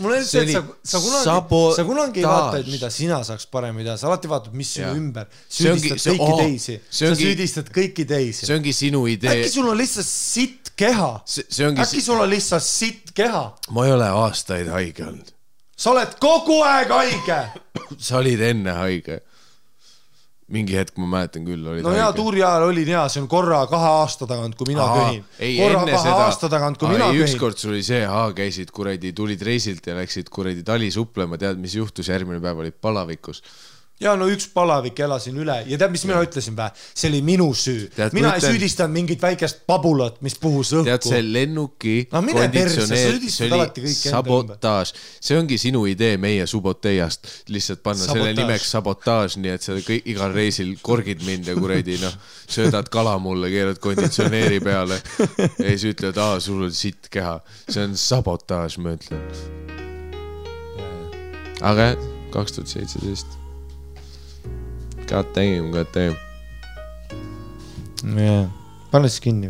Sa kunagi ei vaata, et mida sina saaks paremini teha. Sa alati vaatad, mis sinu ümber. Süüdistad kõiki teisi. Sa süüdistad kõiki teisi. See ongi sinu idee. Äkki sul on lihtsalt sitt keha? Äkki sul on lihtsalt sitt keha? Ma ei ole aastaid haige olnud. Sa oled kogu aeg haige. Sa olid enne haige. Mingi hetk ma mäletan küll, olid haige. No hea, tuuri ajal olin hea, see on korra 2 aasta tagant, kui mina köhin. Korra 2 aasta tagant, kui mina köhin. Ükskord sul oli see, käisid kuradi, tulid reisilt ja läksid kuradi tali suplema, tead, mis juhtus, järgmine päev olid palavikus. Ja no üks palavik elasin üle ja tead, mis mina ütlesin vä? See oli minu süü. Mina ei süüdistanud mingit väikest pabulat, mis puhus õhku. Tead, see lennuki konditsioneer, see oli sabotaaž. See ongi sinu idee meie suboteiast. Lihtsalt panna selle nimeks sabotaaž, nii et sa igal reisil korgid mind ja kuredi, söödad kala mulle, keerad konditsioneeri peale. Ja siis ütled, sul on sitt keha. See on sabotaaž, ma ütlen. Aga 2017. God damn. Pane siis kinni.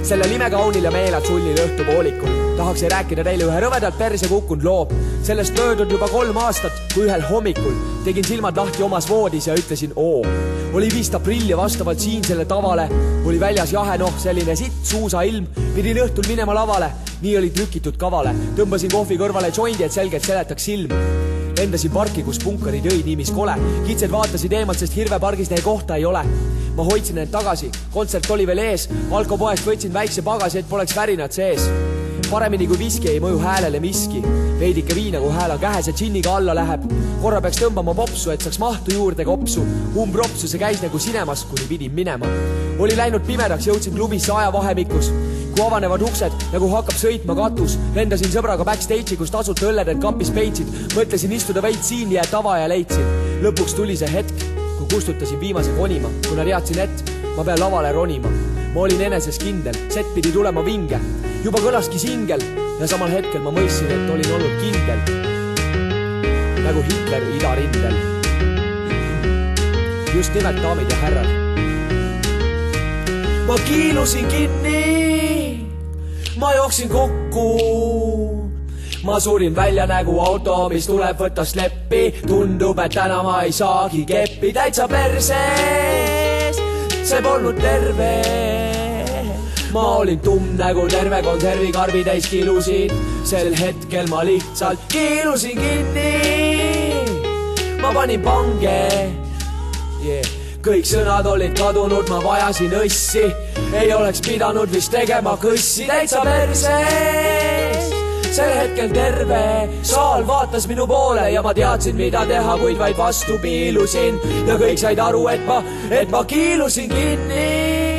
Selle nime kaunil ja meelad sullil õhtu poolikul. Tahaks ei rääkida teile ühe rõvedalt perse kukkunud loo. Sellest möödud juba 3 aastat, kui ühel hommikul tegin silmad lahti omas voodis ja ütlesin oo. Oli 5. aprill ja vastavalt siinsele tavale oli väljas jahe selline sitt suusa ilm. Pidin õhtul minema lavale, nii oli trükitud kavale. Tõmbasin kohvi kõrvale joindi, et selgelt seletaks silm. Lendasin parki, kus punkarid õid niimis kole. Kitsed vaatasid eemalt, sest hirvepargis neil kohta ei ole. Ma hoidsin end tagasi, kontsert oli veel ees. Alkopoest võtsin väikse pagasi, et poleks värinad sees. Paremini kui viski ei mõju häälele miski. Veidike viina, kui hääl on kähes ja džinniga alla läheb. Korra peaks tõmbama popsu, et saaks mahtu juurde kopsu. Umbropsu see käis nagu sinemas, kuni pidin minema. Oli läinud pimedaks, jõudsin klubisse ajavahemikus. Kui avanevad uksed, nagu hakkab sõitma katus. Lendasin sõbraga backstage'i, kus tasult õlledelt kapis peitsid. Mõtlesin istuda veid siin ja tava ja leidsin. Lõpuks tuli see hetk, kui kustutasin viimase konima. Kuna teadsin, et ma pean lavale ronima. Ma olin eneses kindel, set pidi tulema vinge. Juba kõlaski singel ja samal hetkel ma mõistsin, et olin olnud kindel. Nagu Hitler idarindel. Just nimelt, daamid ja härrad. Ma kiilusin kinni, ma jooksin kokku. Ma surin välja nägu auto, mis tuleb võtta sleppi. Tundub, et täna ma ei saagi keppi. Täitsa perses, see polnud terve. Ma olin tumm nägu terve konservikarbi täis kilusin. Sel hetkel ma lihtsalt kiilusin kinni. Ma panin pange. Kõik sõnad olid kadunud, ma vajasin õssi. Ei oleks pidanud vist tegema kõssi. Täitsa perses, sel hetkel terve saal vaatas minu poole ja ma teadsin, mida teha, kuid vaid vastu piilusin. Ja kõik said aru, et ma kiilusin kinni.